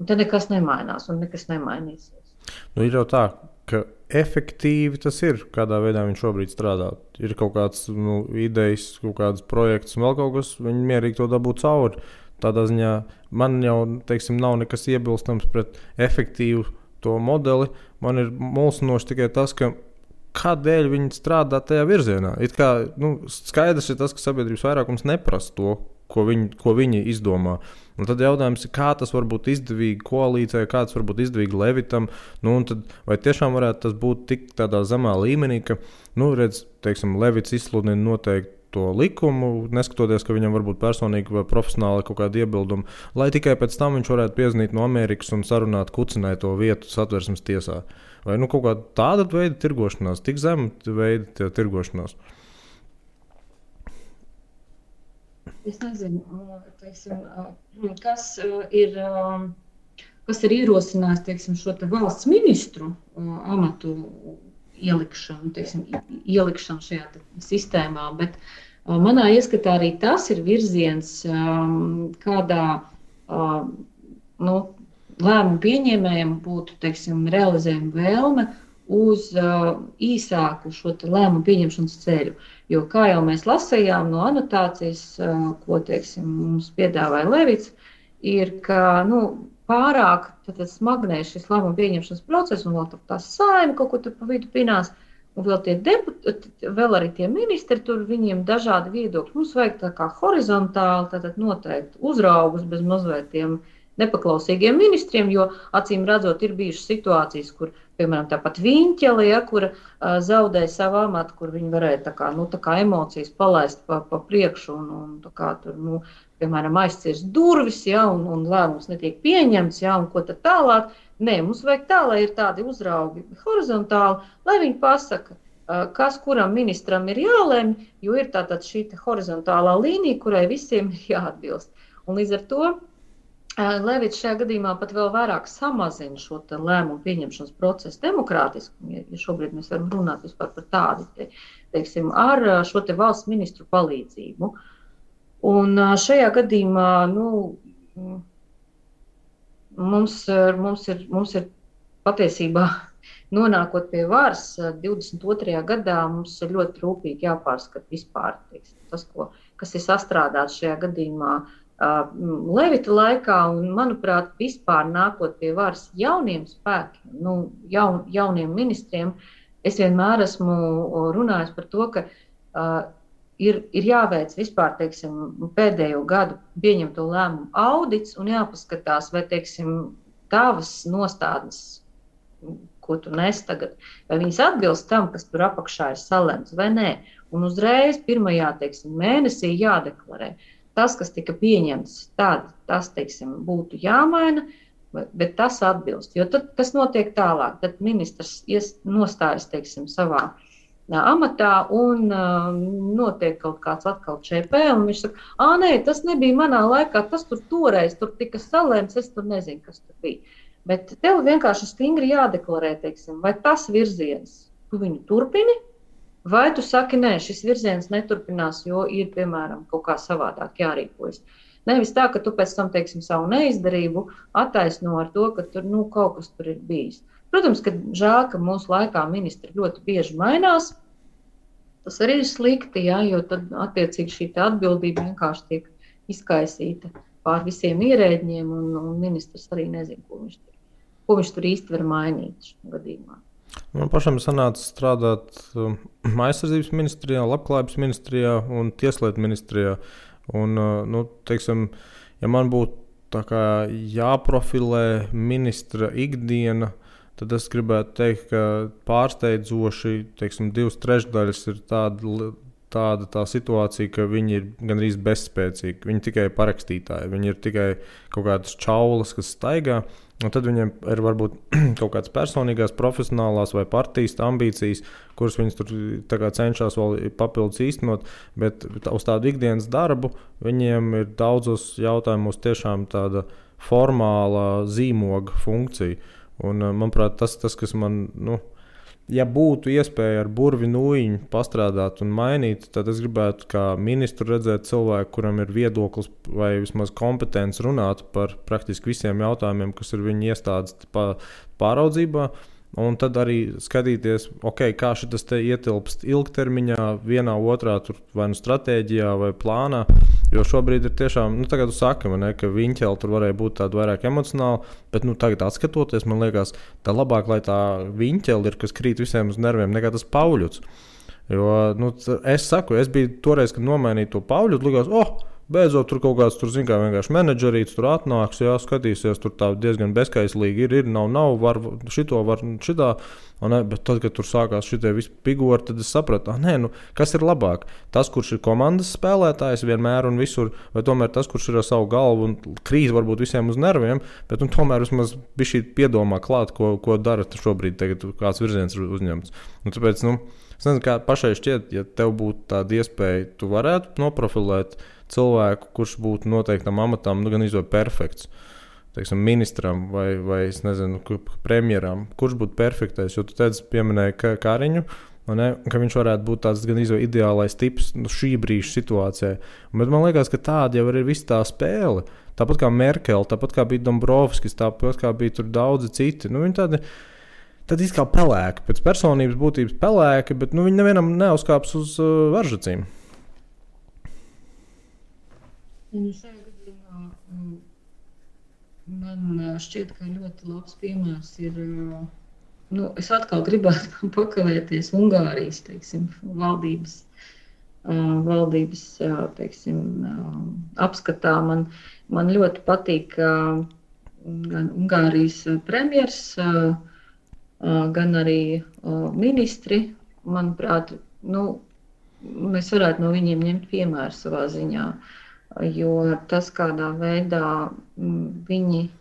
Un te nekas nemainās un nekas nemainīsies. Ir jau tā, ka efektīvi tas ir, kādā veidā viņš šobrīd strādā. Ir kaut kāds idejas, kaut kāds projekts un vēl kaut kas, viņi mierīgi to dabūt cauri. Tādā ziņā man jau, teiksim, nav nekas iebilstams pret efektīvu to modeli. Man ir mulsinoši tikai tas, ka kādēļ viņi strādā tajā virzienā. It kā, skaidrs ir tas, ka sabiedrības vairākums neprasa to, ko viņi izdomā. Un tad jautājums ir, kā tas var būt izdevīgi koalīcijai, kā tas var būt izdevīgi Levitam. Un tad, vai tiešām varētu tas būt tik tādā zemā līmenī, ka, teiksim, Levits izsludina noteikti to likumu, neskatoties, ka viņam varbūt personīgi vai profesionāli kaut kāda iebilduma, lai tikai pēc tam viņš varētu piezvanīt no Amerikas un sarunāt kucinai to vietu satversmes tiesā. Vai kaut kāda tāda veida tirgošanās, tik zema veida tirgošanās? Es nezinu, teiksim, kas ir ierosinājis, teiksim, šo te valsts ministru amatu ielikšanu šajā sistēmā, bet manā ieskatā arī tas ir virziens, kādā lēmumu pieņēmējiem būtu, teiksim, realizējuma vēlme uz īsāku šo lēmumu pieņemšanas ceļu. Jo, kā jau mēs lasījām no anotācijas, ko, teiksim, mums piedāvāja Levits, ir, ka pārāk smagnēs šis lēmumu pieņemšanas process, un vēl tā saima kaut ko tur pa vidu pinās, un vēl arī tie ministri, tur viņiem dažādi viedokļi. Mums vajag tā kā horizontāli, tātad noteikti uzraugus bez mazliet tiem nepaklausīgiem ministriem, jo acīm redzot ir bijušas situācijas, kur, piemēram, tāpat Viņķele, ja, kura zaudēja savu amatu, kur viņi varēja tā kā emocijas palaist pa priekšu un tā kā tur, piemēram, aizcirs durvis, ja, un lēmums netiek pieņemts, ja, un ko tad tālāk. Nē, mums vajag tā, lai ir tādi uzraugi horizontāli, lai viņi pasaka, kas kuram ministram ir jālemj, jo ir tātad šī horizontālā līnija, kurai visiem ir jāatbilst. Un līdz ar to Levits šajā gadījumā pat vēl vairāk samazina šo lēmumu pieņemšanas procesu demokrātisku, ja šobrīd mēs varam runāt vispār par tādu, teiksim, ar šo valsts ministru palīdzību. Un šajā gadījumā, mums ir patiesībā nonākot pie varas 22. gadā, mums ir ļoti rūpīgi jāpārskata vispār, teiksim, tas, kas ir sastrādāts šajā gadījumā Levita laikā, un, manuprāt, vispār nākot pie varas jauniem spēkiem, jauniem ministriem, es vienmēr esmu runājis par to, ka ir jāveic vispār, teiksim, pēdējo gadu pieņemto lēmumu audits un jāpaskatās, vai, teiksim, tavas nostādnes, ko tu nes tagad, vai viņas atbilst tam, kas tur apakšā ir salemts, vai nē. Un uzreiz pirmajā, teiksim, mēnesī jādeklarē. Tas, kas tika pieņemts, tas, teiksim, būtu jāmaina, bet tas atbilst. Jo tad, kas notiek tālāk, tad ministrs nostājas, teiksim, savā amatā un notiek kaut kāds atkal ČP, un viņš saka, nē, tas nebija manā laikā, tas toreiz tur tika salēmts, es tur nezinu, kas tur bija. Bet tev vienkārši stingri jādeklarē, teiksim, vai tas virziens, tu viņu turpini, vai tu saki, nē, šis virziens neturpinās, jo ir, piemēram, kaut kā savādāk jārīkojas. Nevis tā, ka tu pēc tam, teiksim, savu neizdarību attaisno ar to, ka tur, kaut kas tur ir bijis. Protams, ka žēl, ka mūsu laikā ministri ļoti bieži mainās. Tas arī ir slikti, ja, jo tad attiecīgi šī atbildība vienkārši tiek izkaisīta pār visiem ierēģiem, un ministrs arī nezina, ko viņš tur īsti var mainīt šajā gadījumā. Man pašam sanāca strādāt aizsardzības ministrijā, labklājības ministrijā un tieslietu ministrijā. Un, teiksim, ja man būtu tā kā jāprofilē ministra ikdiena, tad es gribētu teikt, ka pārsteidzoši, teiksim, 2/3 ir tāda tā situācija, ka viņi ir gandrīz bezspēcīgi. Viņi tikai parakstītāji, viņi ir tikai kaut kādas čaulas, kas staigā. Un tad viņiem ir varbūt kaut kādas personīgās, profesionālās vai partijas ambīcijas, kuras viņas tur cenšas vēl papildus īstenot, bet uz tādu ikdienas darbu viņiem ir daudzos jautājumos tiešām tāda formāla zīmoga funkcija. Un, manuprāt, tas, kas man, ja būtu iespēja ar burvi nūjiņu pastrādāt un mainīt, tad es gribētu kā ministru redzēt cilvēku, kuram ir viedoklis vai vismaz kompetence runāt par praktiski visiem jautājumiem, kas ir viņa iestādes pāraudzībā. Un tad arī skatīties, kā šitas te ietilpst ilgtermiņā, vienā otrā vai stratēģijā vai plānā. Jo šobrīd ir tiešām, tagad tu saki, ka Viņķele tur varēja būt tāda vairāk emocionāla, bet tagad atskatoties, man liekas, tā labāk, lai tā Viņķele ir, kas krīt visiem uz nerviem, nekā tas Pauļuts. Jo, es biju toreiz, kad nomainīju to Pauļutu, likās, beidzot tur kaut kāds, vienkārši menedžerīts tur atnāks, skatīsies, tur tā diezgan bezkaislīgi ir, nav, var šito, var šitā, bet tad, kad tur sākās šitie visi pigori, tad es sapratu, kas ir labāk? Tas, kurš ir komandas spēlētājs vienmēr un visur, vai tomēr tas, kurš ir ar savu galvu un krīt varbūt visiem uz nerviem, bet tomēr vismaz bišķi piedomā klāt, ko dara šobrīd, tagad kāds virziens ir uzņemts. Un tāpēc, es nezinu, kā pašai šķiet, ja tev būtu tāda iespēja, tu varētu noprofilēt cilvēku, kurš būtu noteiktam amatam, gan izvēl perfekts, teiksim, ministram vai es nezinu, premjeram, kurš būtu perfektais, jo tu teici, pieminēji Kariņu, ka viņš varētu būt tāds gan izvēl ideālais tips šī brīža situācijai. Bet man liekas, ka tāda jau ir visa tā spēle. Tāpat kā Merkele, tāpat kā bija Dombrovskis, tāpat kā bija tur daudzi citi. Viņi tad kā pelēki, pēc personības būtības pelēki, bet viņi nevienam neuzkāps uz varžacīm. Šajā gadījumā Man šķiet, ka ļoti labs piemērs ir. Es atkal gribētu pakavēties Ungārijas, teiksim, valdības teiksim, apskatā. Man ļoti patīk gan Ungārijas premjers, gan arī ministri. Manuprāt, mēs varētu no viņiem ņemt piemēru savā ziņā, jo tas, kādā veidā viņi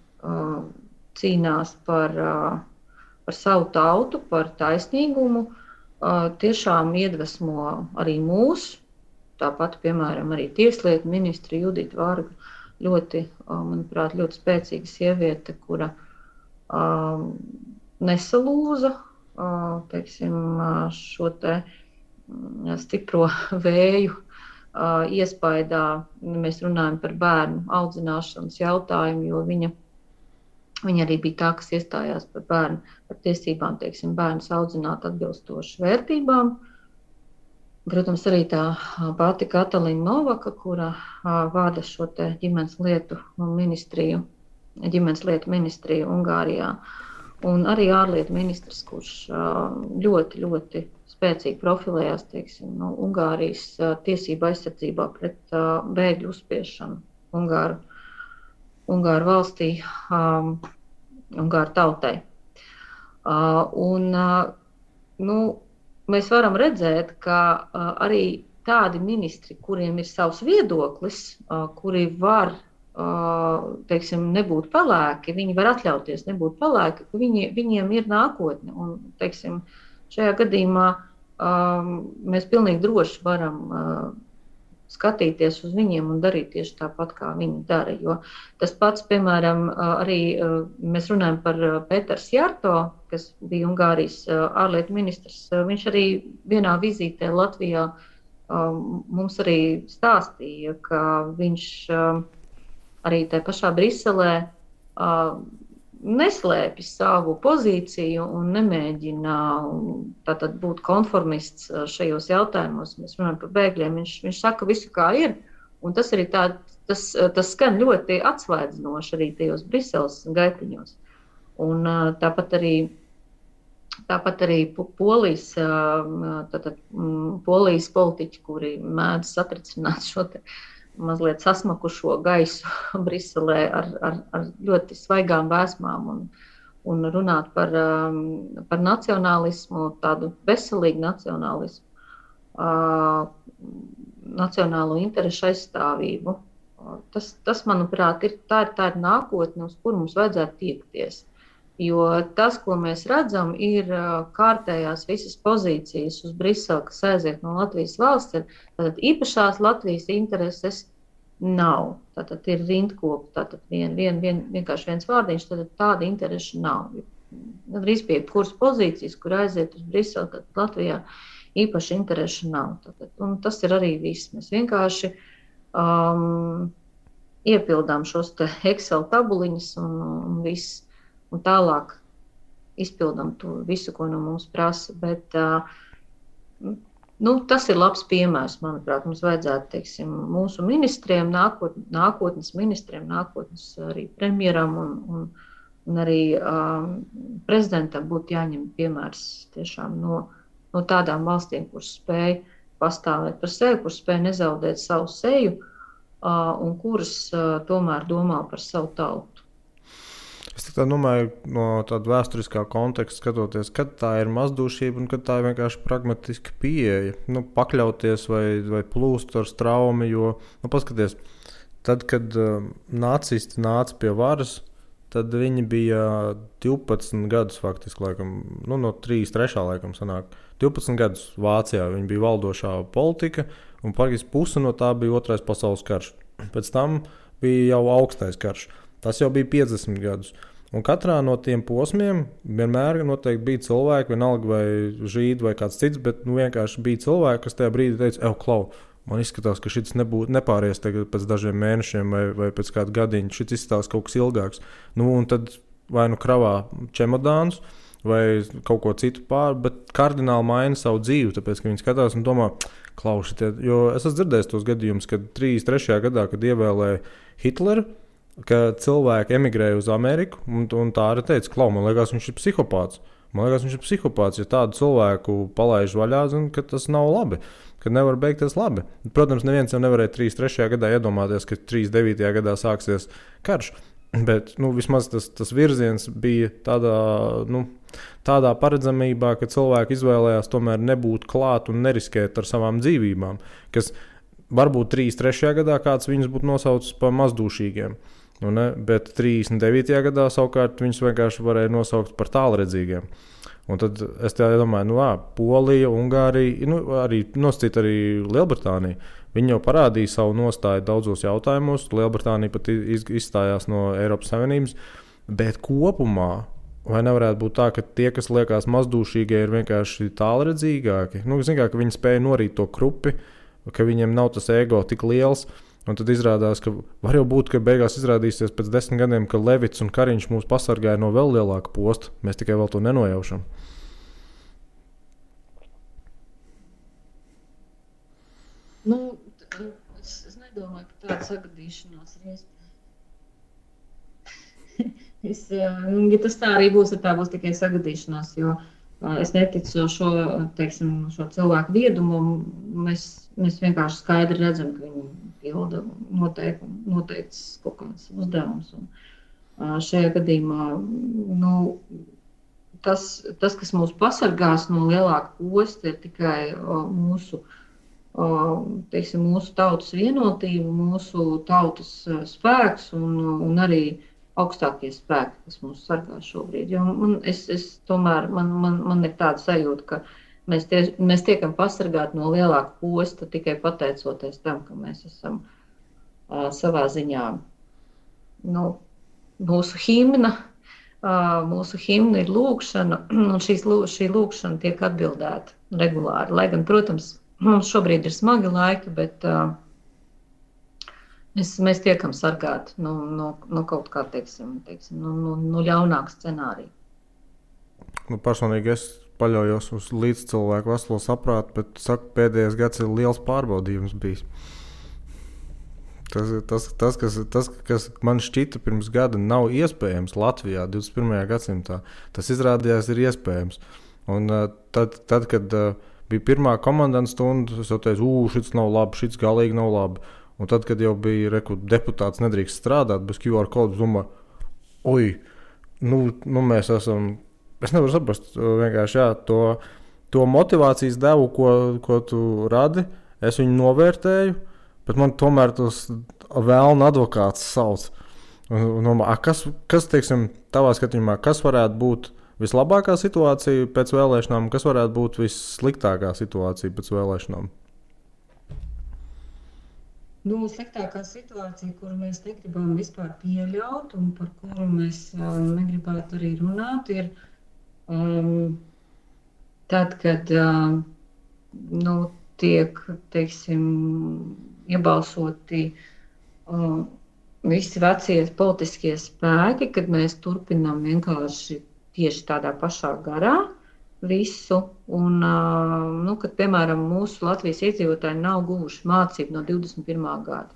cīnās par savu tautu, par taisnīgumu, tiešām iedvesmo arī mūs. Tāpat, piemēram, arī tieslietu ministri Judita Varga, manuprāt, ļoti spēcīga sieviete, kura nesalūza, teiksim, šo te stipro vēju iespaidā. Mēs runājam par bērnu audzināšanas jautājumu, jo viņa arī bija tā, kas iestājās par tiesībām, teiksim, bērnus audzināt atbilstoši vērtībām. Protams, arī tā pati Katalīna Novaka, kura vada šo te ģimenes lietu ministriju Ungārijā. Un arī ārlietu ministrs, kurš ļoti, ļoti spēcīgi profilējās, teiksim, Ungārijas tiesību aizsardzībā pret bēgļu uzspiešanu Ungāru valstī, Ungāru tautai. Mēs varam redzēt, ka arī tādi ministri, kuriem ir savs viedoklis, kuri var, teiksim, nebūt pelēki, viņi var atļauties nebūt pelēki, ka viņiem ir nākotne. Un, teiksim, šajā gadījumā mēs pilnīgi droši varam skatīties uz viņiem un darīt tieši tāpat, kā viņi dara. Jo tas pats, piemēram, arī mēs runājam par Peters Jarto, kas bija Ungārijas ārlietu ministrs. Viņš arī vienā vizītē Latvijā mums arī stāstīja, ka viņš arī tajā pašā Briselē neslēpj savu pozīciju un nemēģina tātad būt konformists šajos jautājumos. Mēs runājam par bēgļiem. Viņš saka visu, kā ir, un tas arī tas skan ļoti atsvaidzinoši arī tajos Briseles gaitiņos. Un tāpat arī Polijas politiķi, kuri mēdz satricināt šo te mazliet sasmakušo gaisu Briselē ar ļoti svaigām vēsmām un runāt par nacionālismu, tādu veselīgu nacionālismu, nacionālo interešu aizstāvību. Tas, manuprāt, tā ir nākotne, uz kuru mums vajadzētu tiekties. Jo tas, ko mēs redzam, ir kārtējās visas pozīcijas uz Briseli, kas aiziet no Latvijas valsts. Tātad īpašās Latvijas intereses nav. Tātad ir rindkopi, tātad vienkārši viens vārdiņš, tātad tāda intereša nav. Drīz pie kuras pozīcijas, kur aiziet uz Briseli, tad Latvijā īpaši intereša nav. Tātad, un tas ir arī viss. Mēs vienkārši iepildām šos te Excel tabuliņas un viss. Un tālāk izpildām to visu, ko no mums prasa. Bet tas ir labs piemērs, manuprāt. Mums vajadzētu, teiksim, mūsu ministriem, nākotnes ministriem, nākotnes arī premjeram un arī prezidentam būtu jāņem piemērs tiešām no tādām valstīm, kuras spēj pastāvēt par sevi, kuras spēj nezaudēt savu seju un kuras tomēr domā par savu tautu. Es tā domāju, no tāda vēsturiskā konteksta skatoties, kad tā ir mazdūšība un kad tā ir vienkārši pragmatiska pieeja. Pakļauties vai plūst ar straumi, jo, paskaties, tad, kad nacisti nāca pie varas, tad viņi bija 12 gadus faktiski, laikam, no 33. laikam sanāk. 12 gadus Vācijā viņi bija valdošā politika, un praktiski puse no tā bija Otrais pasaules karš. Pēc tam bija jau augstais karš. Tas jau bija 50 gadus. Un katrā no tiem posmiem vienmēr noteikti bija cilvēki, vienalga vai žīdi vai kāds cits, bet vienkārši bija cilvēki, kas tajā brīdī teica, klau, man izskatās, ka šis nepāries pēc dažiem mēnešiem vai pēc kāda gadiņa, šis izskatās kaut kas ilgāks. Un tad vai kravā čemodānus vai kaut ko citu bet kardināli maina savu dzīvi, tāpēc, ka viņi skatās un domā, klausiet, jo es esmu dzirdējis tos gadījumus, kad 33. gadā, kad ievēlēja Hitleru, ka cilvēki emigrēja uz Ameriku, un tā arī teica, klau, man liekas, viņš ir psihopāts. Ja tādu cilvēku palaiž vaļā, zin, ka tas nav labi, ka nevar beigties labi. Protams, neviens jau nevarēja 33. gadā iedomāties, ka 39. gadā sāksies karš, bet vismaz tas virziens bija tādā paredzamībā, ka cilvēki izvēlējās tomēr nebūt klāt un neriskēt ar savām dzīvībām, kas varbūt 33. gadā kāds viņus būtu nosaucis par mazdūšīgiem. Bet 39. gadā savukārt viņus vienkārši varēja nosaukt par tālredzīgiem. Un tad es domāju, Polija, Ungārija, arī nosacīt arī Lielbritānija. Viņi jau parādīja savu nostāju daudzos jautājumos. Lielbritānija pat izstājās no Eiropas Savienības. Bet kopumā vai nevarētu būt tā, ka tie, kas liekas mazdūšīgie, ir vienkārši tālredzīgāki? Zin kā, ka viņi spēja norīt to krupi, ka viņiem nav tas ego tik liels. Un tad izrādās, ka var jau būt, ka beigās izrādīsies pēc 10 gadiem, ka Levits un Kariņš mūs pasargāja no vēl lielāka posta. Mēs tikai vēl to nenojaušam. Es nedomāju, ka tāda sagadīšanās ir iespēja. Ja tas tā arī būs, tad tā būs tikai sagadīšanās, jo es neticu šo cilvēku viedumu. Mēs vienkārši skaidri redzam, ka viņi pilda noteikts kaut kāds uzdevums. Un šajā gadījumā tas, kas mūs pasargās no lielāka posta, ir tikai mūsu tautas vienotība, mūsu tautas spēks un arī augstākie spēki, kas mūs sargā šobrīd. Jo man ir tāda sajūta, ka mēs tiekam pasargāti no lielāka posta tikai pateicoties tam, ka mēs esam savā ziņā mūsu himna. Mūsu himna ir lūkšana, un šī lūkšana tiek atbildēta regulāri. Lai gan, protams, mums šobrīd ir smagi laiki, bet mēs tiekam sargāti no kaut kā, no ļaunāka scenārija. Personīgi es paļaujos uz līdzcilvēku veselo saprātu, bet saku, pēdējais gads ir liels pārbaudījums bijis. Tas, kas man šķita pirms gada nav iespējams Latvijā 21. gadsimtā, tas izrādījās ir iespējams. Un tad kad bija pirmā komandanta stunda, es jau teicu, šis nav labi, šis galīgi nav labi. Un tad, kad jau bija deputāts nedrīkst strādāt bez QR kodu, domāju, mēs esam, es nevaru saprast, vienkārši to motivācijas devu, ko tu radi, es viņu novērtēju, bet man tomēr tas vēlna advokāts sauc. Kas teiksim, tavā skatījumā, kas varētu būt vislabākā situācija pēc vēlēšanām, kas varētu būt vissliktākā situācija pēc vēlēšanām? Sliktākā situācija, kuru mēs negribam vispār pieļaut un par kuru mēs negribētu arī runāt, ir tad, kad tiek, iebalsoti visi vecie politiskie spēki, kad mēs turpinām vienkārši tieši tādā pašā garā visu, un kad, piemēram, mūsu Latvijas iedzīvotāji nav guvuši mācību no 21. gada.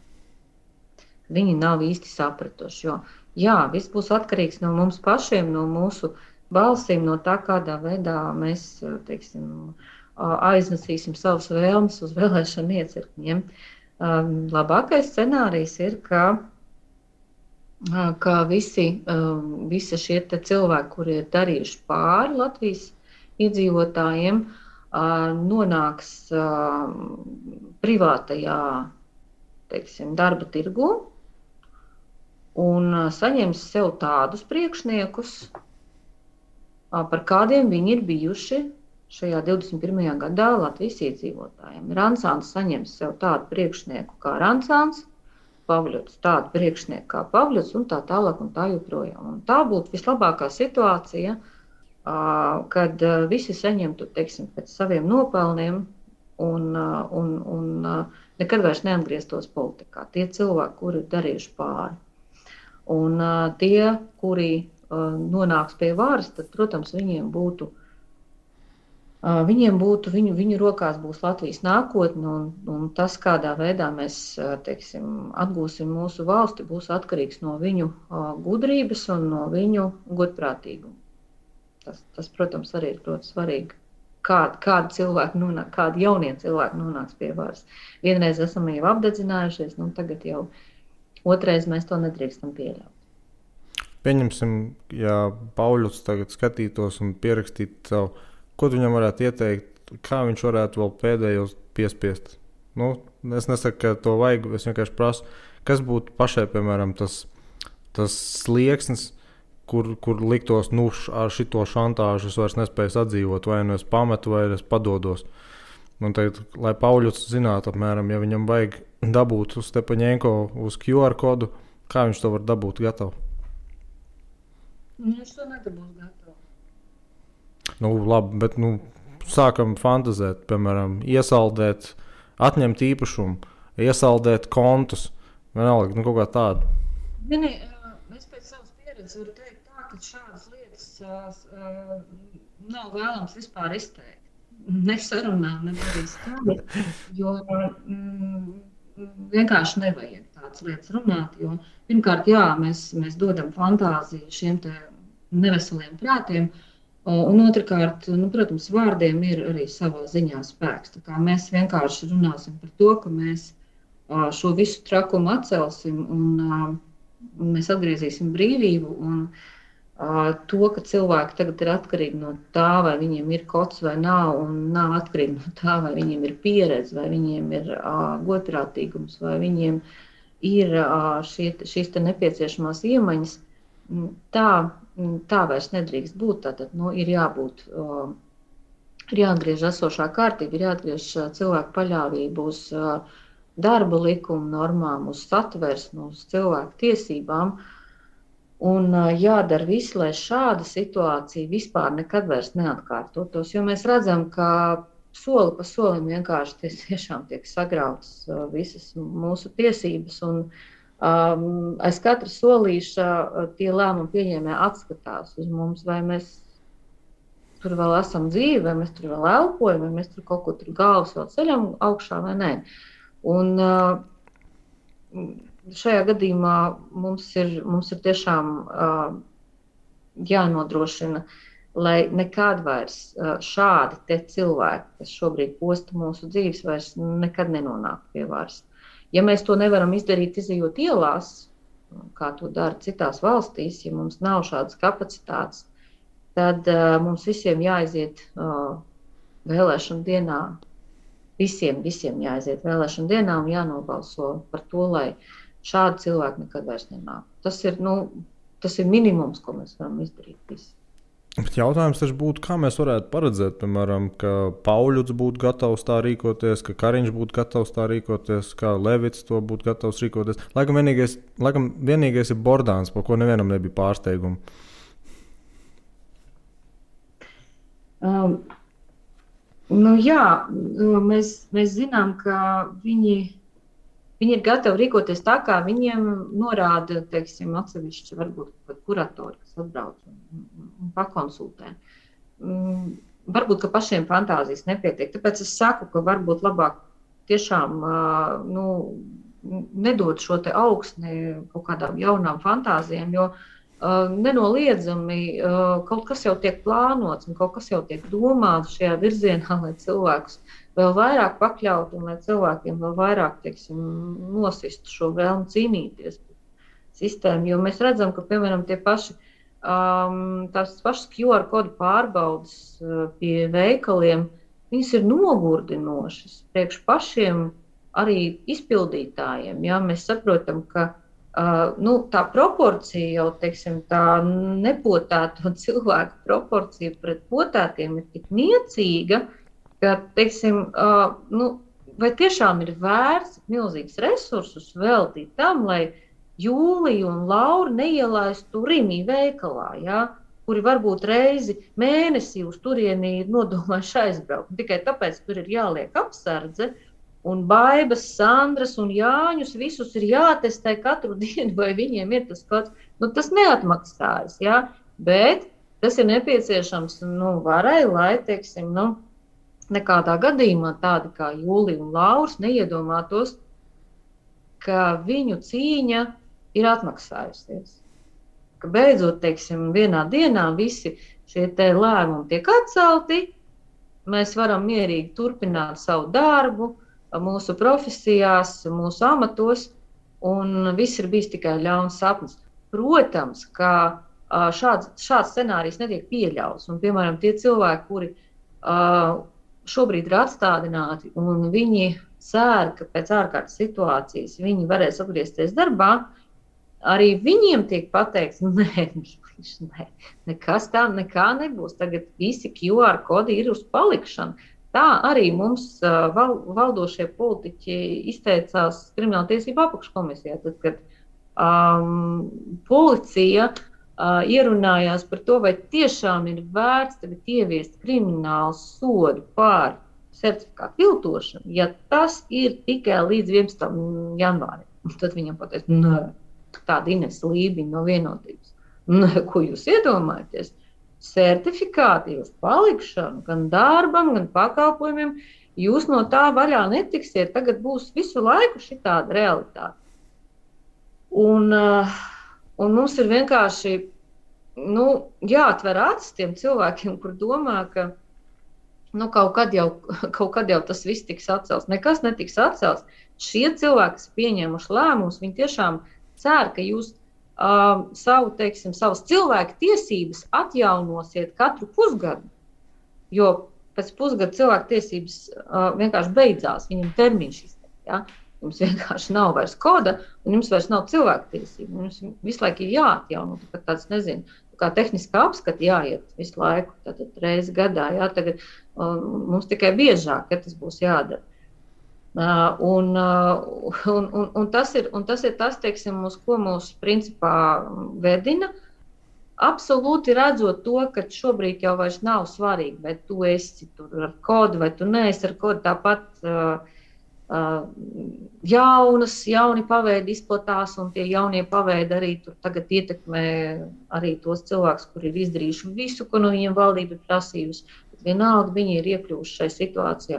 Viņi nav īsti sapratuši, jo, viss būs atkarīgs no mums pašiem, no mūsu balsīm, no tā, kādā veidā mēs, aiznesīsim savas vēlmes uz vēlēšanu iecirkņiem. Labākais scenārijs ir, ka visi šie cilvēki, kuri ir darījuši pāri Latvijas iedzīvotājiem, nonāks privātajā, darba tirgu un saņems sev tādus priekšniekus, par kādiem viņi ir bijuši šajā 21. gadā Latvijas iedzīvotājiem. Rancāns saņems sev tādu priekšnieku kā Rancāns, Pavļots tādu priekšnieku kā Pavļots un tā tālāk un tā joprojām. Un tā būtu vislabākā situācija, kad visi saņemtu, pēc saviem nopelniem un nekad vairs neatgrieztos politikā. Tie cilvēki, kuri ir darījuši pāri. Un tie, kuri nonāks pie varas, tad, protams, viņiem būtu Viņiem būtu, viņu rokās būs Latvijas nākotne, un tas, kādā veidā mēs, teiksim, atgūsim mūsu valsti, būs atkarīgs no viņu gudrības un no viņu godprātīguma. Tas, protams, arī ir ļoti svarīgi. Kādi cilvēki nonāk, kādi jaunie cilvēki nonāks pie varas. Vienreiz esam jau apdedzinājušies, tagad jau otrais mēs to nedrīkstam pieļaut. Pieņemsim, ja Pauļuts tagad skatītos un pierakstītu savu, ko tu viņam varētu ieteikt, kā viņš varētu vēl pēdējos piespiest? Es nesaku, ka to vajag, es vienkārši prasu, kas būtu pašai, piemēram, tas slieksnis, kur liktos, ar šito šantāžu es vairs nespēju sadzīvot, vai es pametu, vai es padodos. Un tagad, lai Pauļuts zinātu apmēram, ja viņam vajag dabūt uz Stepaņenko uz QR kodu, kā viņš to var dabūt gatavu? Viņš to nedabūs gatavu. Labi, bet sākam fantazēt, piemēram, iesaldēt, atņemt īpašumu, iesaldēt kontus, vienalga, kaut kā tādu. Es pēc savas pieredzes varu teikt tā, ka šādas lietas nav vēlams vispār izteikt. Ne sarunā, ne arī skaļi, jo vienkārši nevajag tādas lietas runāt, jo pirmkārt, jā, mēs dodam fantāziju šiem te neveseliem prātiem, un otrkārt, protams, vārdiem ir arī savā ziņā spēks. Tā kā mēs vienkārši runāsim par to, ka mēs šo visu trakumu atcelsim un mēs atgriezīsim brīvību un to, ka cilvēki tagad ir atkarīgi no tā, vai viņiem ir kods vai nav, un nav atkarīgi no tā, vai viņiem ir pieredze, vai viņiem ir godprātīgums, vai viņiem ir šīs te nepieciešamās iemaņas. Tā vairs nedrīkst būt. Tātad ir jābūt, ir jāatgriež esošā kārtība, ir jāatgriež cilvēku paļāvību uz darba likuma normām, uz satversmi, uz cilvēku tiesībām. Un jādara viss, lai šāda situācija vispār nekad vairs neatkārtotos, jo mēs redzam, ka soli pa solim vienkārši tiešām tiek sagrautas visas mūsu tiesības un aiz katra solīša tie lēmumu pieņēmēji atskatās uz mums, vai mēs tur vēl esam dzīvi, vai mēs tur vēl elpojam, vai mēs tur kaut ko tur galvas vēl ceļam augšā vai nē. Un šajā gadījumā mums ir tiešām jānodrošina, lai nekad vairs šādi te cilvēki, kas šobrīd posta mūsu dzīves, vairs nekad nenonāk pie varas. Ja mēs to nevaram izdarīt, izejot ielās, kā to dara citās valstīs, ja mums nav šādas kapacitātes, tad mums visiem jāaiziet vēlēšanu dienā, visiem jāaiziet vēlēšanu dienā un jānobalso par to, lai šādi cilvēki nekad vairs nenāk. Tas ir minimums, ko mēs varam izdarīt visi. Bet jautājums taču būtu, kā mēs varētu paredzēt, piemēram, ka Pauļuts būtu gatavs tā rīkoties, ka Kariņš būtu gatavs tā rīkoties, kā Levits to būtu gatavs rīkoties. Laikam vienīgais ir Bordāns, par ko nevienam nebija pārsteigumu. Mēs zinām, ka viņi ir gatavi rīkoties tā, kā viņiem norāda, teiksim, atsevišķi varbūt kuratori, kas atbrauc un pakonsultē. Varbūt, ka pašiem fantāzijas nepietiek. Tāpēc es saku, ka varbūt labāk tiešām nedot šo te augsni kaut kādām jaunām fantāzijām, jo nenoliedzami kaut kas jau tiek plānots un kaut kas jau tiek domāts šajā virzienā, lai cilvēkus vēl vairāk pakļaut un lai cilvēkiem vēl vairāk, teiksim, nosistu šo vēlmu cīnīties par sistēmu. Jo mēs redzam, ka, piemēram, tās pašas QR kodu pārbaudas pie veikaliem, viņas ir nogurdinošas priekš pašiem arī izpildītājiem. Ja? Mēs saprotam, ka tā proporcija jau, teiksim, tā nepotēto cilvēku proporcija pret potētiem ir tik niecīga, ka, teiksim, vai tiešām ir vērts milzīgs resursus veltīt tam, lai Jūlija un Laura neielaistu Rimī veikalā, ja, kuri varbūt reizi mēnesī uz turieni ir nodomājuši aizbraukt. Tikai tāpēc tur ir jāliek apsardze, un Baibas, Sandras un Jāņus visus ir jātestē katru dienu, vai viņiem ir tas kods. Tas neatmaksājas, ja, bet tas ir nepieciešams varai, lai, teiksim, nekādā gadījumā tādi kā Jūlija un Lauris neiedomātos, ka viņu cīņa ir atmaksājusies. Ka beidzot, teiksim, vienā dienā visi šie lēmumi tiek atcelti, mēs varam mierīgi turpināt savu darbu, mūsu profesijās, mūsu amatos, un viss ir bijis tikai ļauns sapnis. Protams, ka šāds scenārijs netiek pieļauts, un, piemēram, tie cilvēki, kuri šobrīd ir atstādināti, un viņi cer, ka pēc ārkārtas situācijas viņi varēs atgriezties darbā, arī viņiem tiek pateikts, nē, nekas tā nekā nebūs. Tagad visi QR kodi ir uz palikšanu. Tā arī mums valdošie politiķi izteicās Krimināltiesību apakškomisijā, tad, kad policija ierunājās par to, vai tiešām ir vērts tagad ieviest kriminālu sodu par certifikātu viltošanu, ja tas ir tikai līdz 11. janvārim. Tad viņam pateica, nē, tāda Ines Lībiņa no Vienotības. Nē, ko jūs iedomājaties? Certifikāti uz palikšanu, gan darbam, gan pakalpojumiem, jūs no tā vaļā netiksiet. Tagad būs visu laiku šitāda realitāte. Un mums ir vienkārši jāatver acis tiem cilvēkiem, kur domā, ka kaut kad jau tas viss tiks atcelts. Nekas netiks atcelts. Šie cilvēki, kas pieņēmuši lēmumus, viņi tiešām cer, ka jūs savas cilvēku tiesības atjaunosiet katru pusgadu. Jo pēc pusgada cilvēku tiesības vienkārši beidzās, viņam termiņš izteikt. Ja? Jums vienkārši nav vairs koda, un jums vairs nav cilvēku tiesību. Jums visu laiku ir jāatjauno, tāds, nezinu, kā tehniskā apskata jāiet visu laiku, tātad reizi gadā. Jā, tagad mums tikai biežāk, ja tas būs jādara. Un tas ir tas, teiksim, uz ko mūs principā vedina. Absolūti redzot to, ka šobrīd jau vairs nav svarīgi, vai tu esi tur ar kodu, vai tu neesi ar kodu. Tāpat jauni paveidi izplatās, un tie jaunie paveidi arī tur tagad ietekmē arī tos cilvēkus, kuri ir izdarījuši visu, ko no viņiem valdība ir prasījusi. Bet vienalga viņi ir iekļuvuši šai situācijā.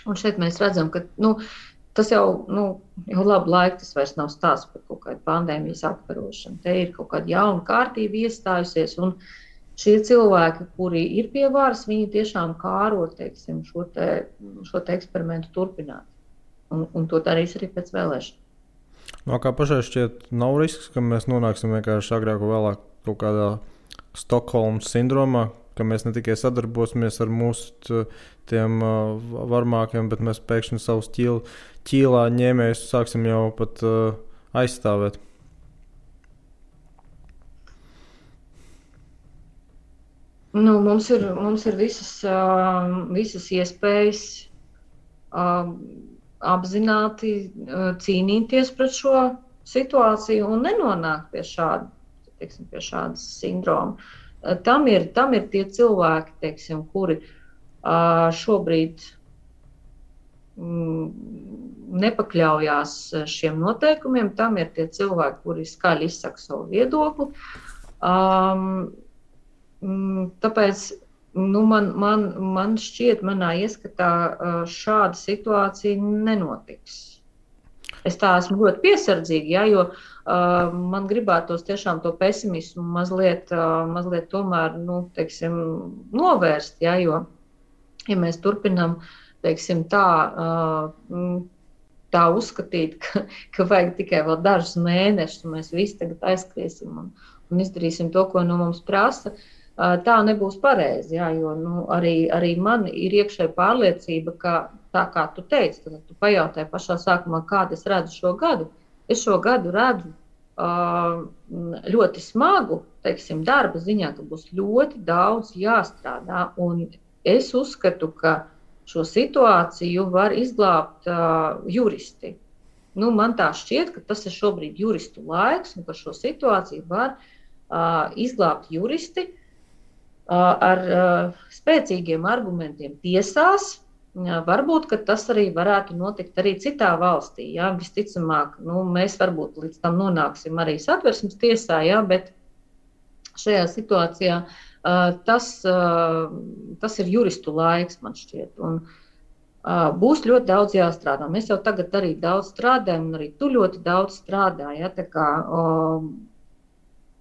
Un šeit mēs redzam, ka tas jau labu laiku tas vairs nav stāsts par kaut kādu pandēmijas apkarošanu. Te ir kaut kāda jauna kārtība iestājusies, un šie cilvēki, kuri ir pie varas, viņi tiešām kāro, teiksim, šo te eksperimentu turpināt. Un to darīs arī pēc vēlēšanām. Kā pašai šķiet, nav risks, ka mēs nonāksim vienkārši agrāk vai vēlāk kaut kādā Stokholmas sindromā, ka mēs ne tikai sadarbosimies ar mūsu tiem varmākiem, bet mēs pēkšņi savus ķīlā ņēmējus sāksim jau pat aizstāvēt. Mums ir visas iespējas apzināti cīnīties pret šo situāciju un nenonākt pie šādas sindroma. Tam ir tie cilvēki, teiksim, kuri šobrīd nepakļaujās šiem noteikumiem. Tam ir tie cilvēki, kuri skaļi izsaka savu viedokli. Tāpēc man šķiet, manā ieskatā šāda situācija nenotiks. Es tā esmu ļoti piesardzīga, ja, jo man gribētos tiešām to pesimismu mazliet tomēr, teiksim, novērst, ja, jo, ja mēs turpinām, teiksim, tā uzskatīt, ka vajag tikai vēl dažus mēnešus, un mēs visi tagad aizskriesim un izdarīsim to, ko no mums prasa, tā nebūs pareizi, jā, jo arī man ir iekšēja pārliecība, ka tā kā tu teici, tad tu pajautāji pašā sākumā, kādu es redzu šo gadu. Es šo gadu redzu ļoti smagu, teiksim, darba ziņā, ka būs ļoti daudz jāstrādā, un es uzskatu, ka šo situāciju var izglābt juristi. Man tā šķiet, ka tas ir šobrīd juristu laiks, un ka šo situāciju var izglābt juristi ar spēcīgiem argumentiem tiesās. Varbūt, ka tas arī varētu notikt arī citā valstī. Jā. Visticamāk, mēs varbūt līdz tam nonāksim arī Satversmes tiesā, jā, bet šajā situācijā Tas ir juristu laiks, man šķiet. Un, būs ļoti daudz jāstrādā. Mēs jau tagad arī daudz strādājam, un arī tu ļoti daudz strādā. Ja?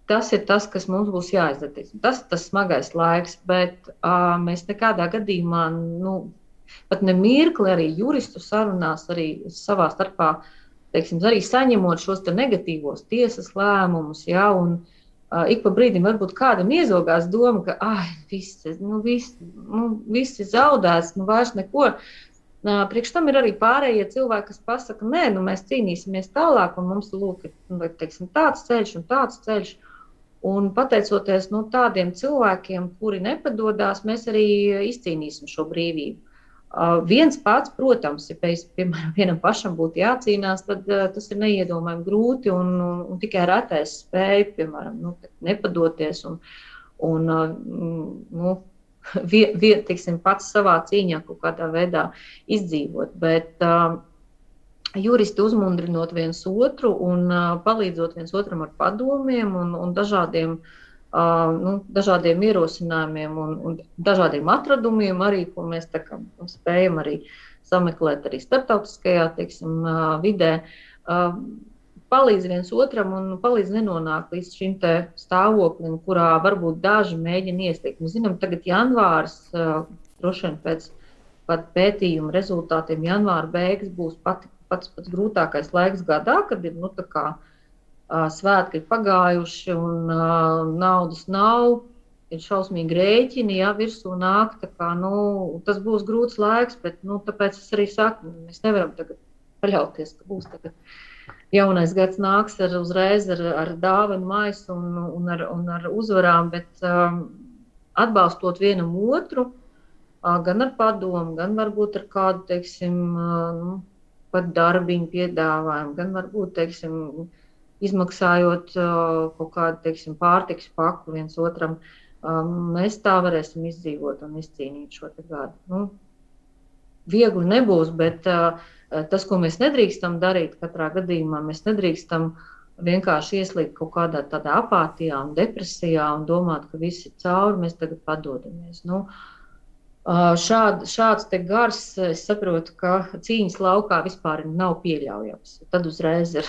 Tas ir tas, kas mums būs jāizdara. Tas ir tas smagais laiks, bet mēs nekādā gadījumā, pat ne mirkli arī juristu sarunās, arī savā starpā, teiksim, arī saņemot šos negatīvos tiesas lēmumus, ja, un ik pa brīdim varbūt kādam iezogās doma, ka viss ir zaudēts, vairs neko. Priekš tam ir arī pārējie cilvēki, kas pasaka, nē, mēs cīnīsimies tālāk, un mums ir teiksim, tāds ceļš un tāds ceļš. Un pateicoties tādiem cilvēkiem, kuri nepadodās, mēs arī izcīnīsim šo brīvību. Viens pats, protams, ja piemēram vienam pašam būtu jācīnās, tad tas ir neiedomājami grūti un tikai retais spēja, piemēram, nepadoties un teiksim, pats savā cīņā kaut kādā veidā izdzīvot. Bet juristi uzmundrinot viens otru un palīdzot viens otram ar padomiem un dažādiem ierosinājumiem un dažādiem atradumiem arī, ko mēs spējam arī sameklēt arī starptautiskajā, teiksim, vidē, palīdz viens otram un palīdz nenonākt līdz šim te stāvoklim, kurā varbūt daži mēģina iestiekt. Mēs zinām, tagad janvārs, droši vien pēc pētījuma rezultātiem janvāra beigas būs pats grūtākais laiks gadā, kad ir svētki ir pagājuši un naudas nav, ir šausmīgi rēķini, virsū nāk, tas būs grūts laiks, bet tāpēc es arī saku, mēs nevaram tagad paļauties, ka būs tagad jaunais gads nāks uzreiz ar dāvanu maisu un ar uzvarām, bet atbalstot vienam otru, gan ar padomu, gan varbūt ar kādu, teiksim, pat darbiņu piedāvājumu, gan varbūt, teiksim, izmaksājot kaut kādu, teiksim, pārtikas paku viens otram, mēs tā varēsim izdzīvot un izcīnīt šo te gadu. Viegli nebūs, bet tas, ko mēs nedrīkstam darīt katrā gadījumā, mēs nedrīkstam vienkārši ieslīgt kaut kādā tādā apātijā un depresijā un domāt, ka viss ir cauri, mēs tagad padodamies. Šāds te gars, es saprotu, ka cīņas laukā vispār nav pieļaujams. Tad uzreiz ir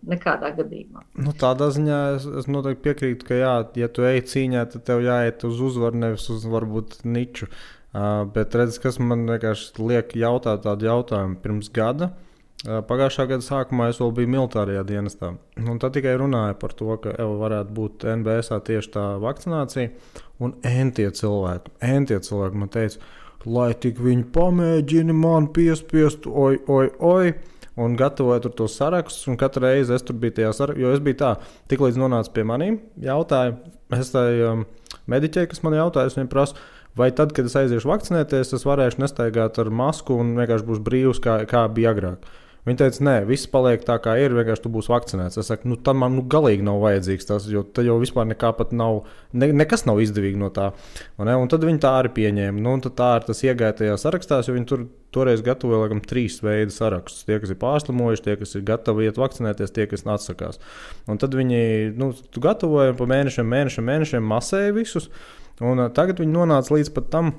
nekādā gadījumā. Tādā ziņā es noteikti piekrītu, ka ja tu ej cīņā, tad tev jāiet uz uzvaru, nevis uz varbūt niču. Bet redz, kas man vienkārši liek jautāt tādu jautājumu pirms gada. Pagājušā gada sākumā es vēl biju militārajā dienestā. Un tad tikai runāju par to, ka varētu būt NBS tieši tā vakcinācija. Un entie cilvēki man teica, lai tik viņi pamēģina man piespiest, oi. Un gatavoju tur tos sarakstus, un katru reizi es tur biju tajā sarakstā, jo es biju tā, tik līdz nonācu pie manīm, jautāju, es tai mediķei, kas man jautāja, es viņiem prasu, vai tad, kad es aiziešu vakcinēties, es varēšu nestaigāt ar masku un vienkārši būs brīvs, kā bija agrāk. Viņi teica, nē, viss paliek tā, kā ir, vienkārši tu būsi vakcinēts. Es saku, tad man galīgi nav vajadzīgs tas, jo tad jau vispār nekā pat nav, nekas nav izdevīgi no tā. Un tad viņi tā arī pieņēma. Un tad tā ir tas iegāja tajā sarakstās, jo viņi toreiz gatavoja, laikam, 3 veidu sarakstus. Tie, kas ir pārslimojuši, tie, kas ir gatavi iet vakcinēties, tie, kas atsakās. Un tad viņi, tu gatavoja pa mēnešiem masēja visus. Un tagad viņi nonāca līdz pat tam,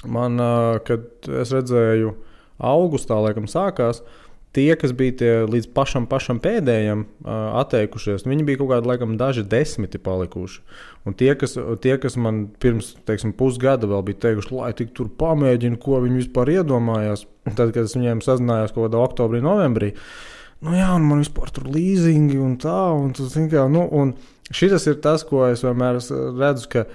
kad es redzēju augustā, laikam, sākās, tie, kas bija tie līdz pašam pēdējiem atteikušies, viņi bija kaut kādi, laikam, daži 10 palikuši. Un tie, kas man pirms, teiksim, pusgada vēl bija teikuši, lai tik tur pamēģina, ko viņi vispār iedomājās, tad, kad es viņiem sazinājos kaut kādā oktobrī, novembrī, un man vispār tur līzingi un tā, un tas, un šitas ir tas, ko es vienmēr redzu, ka,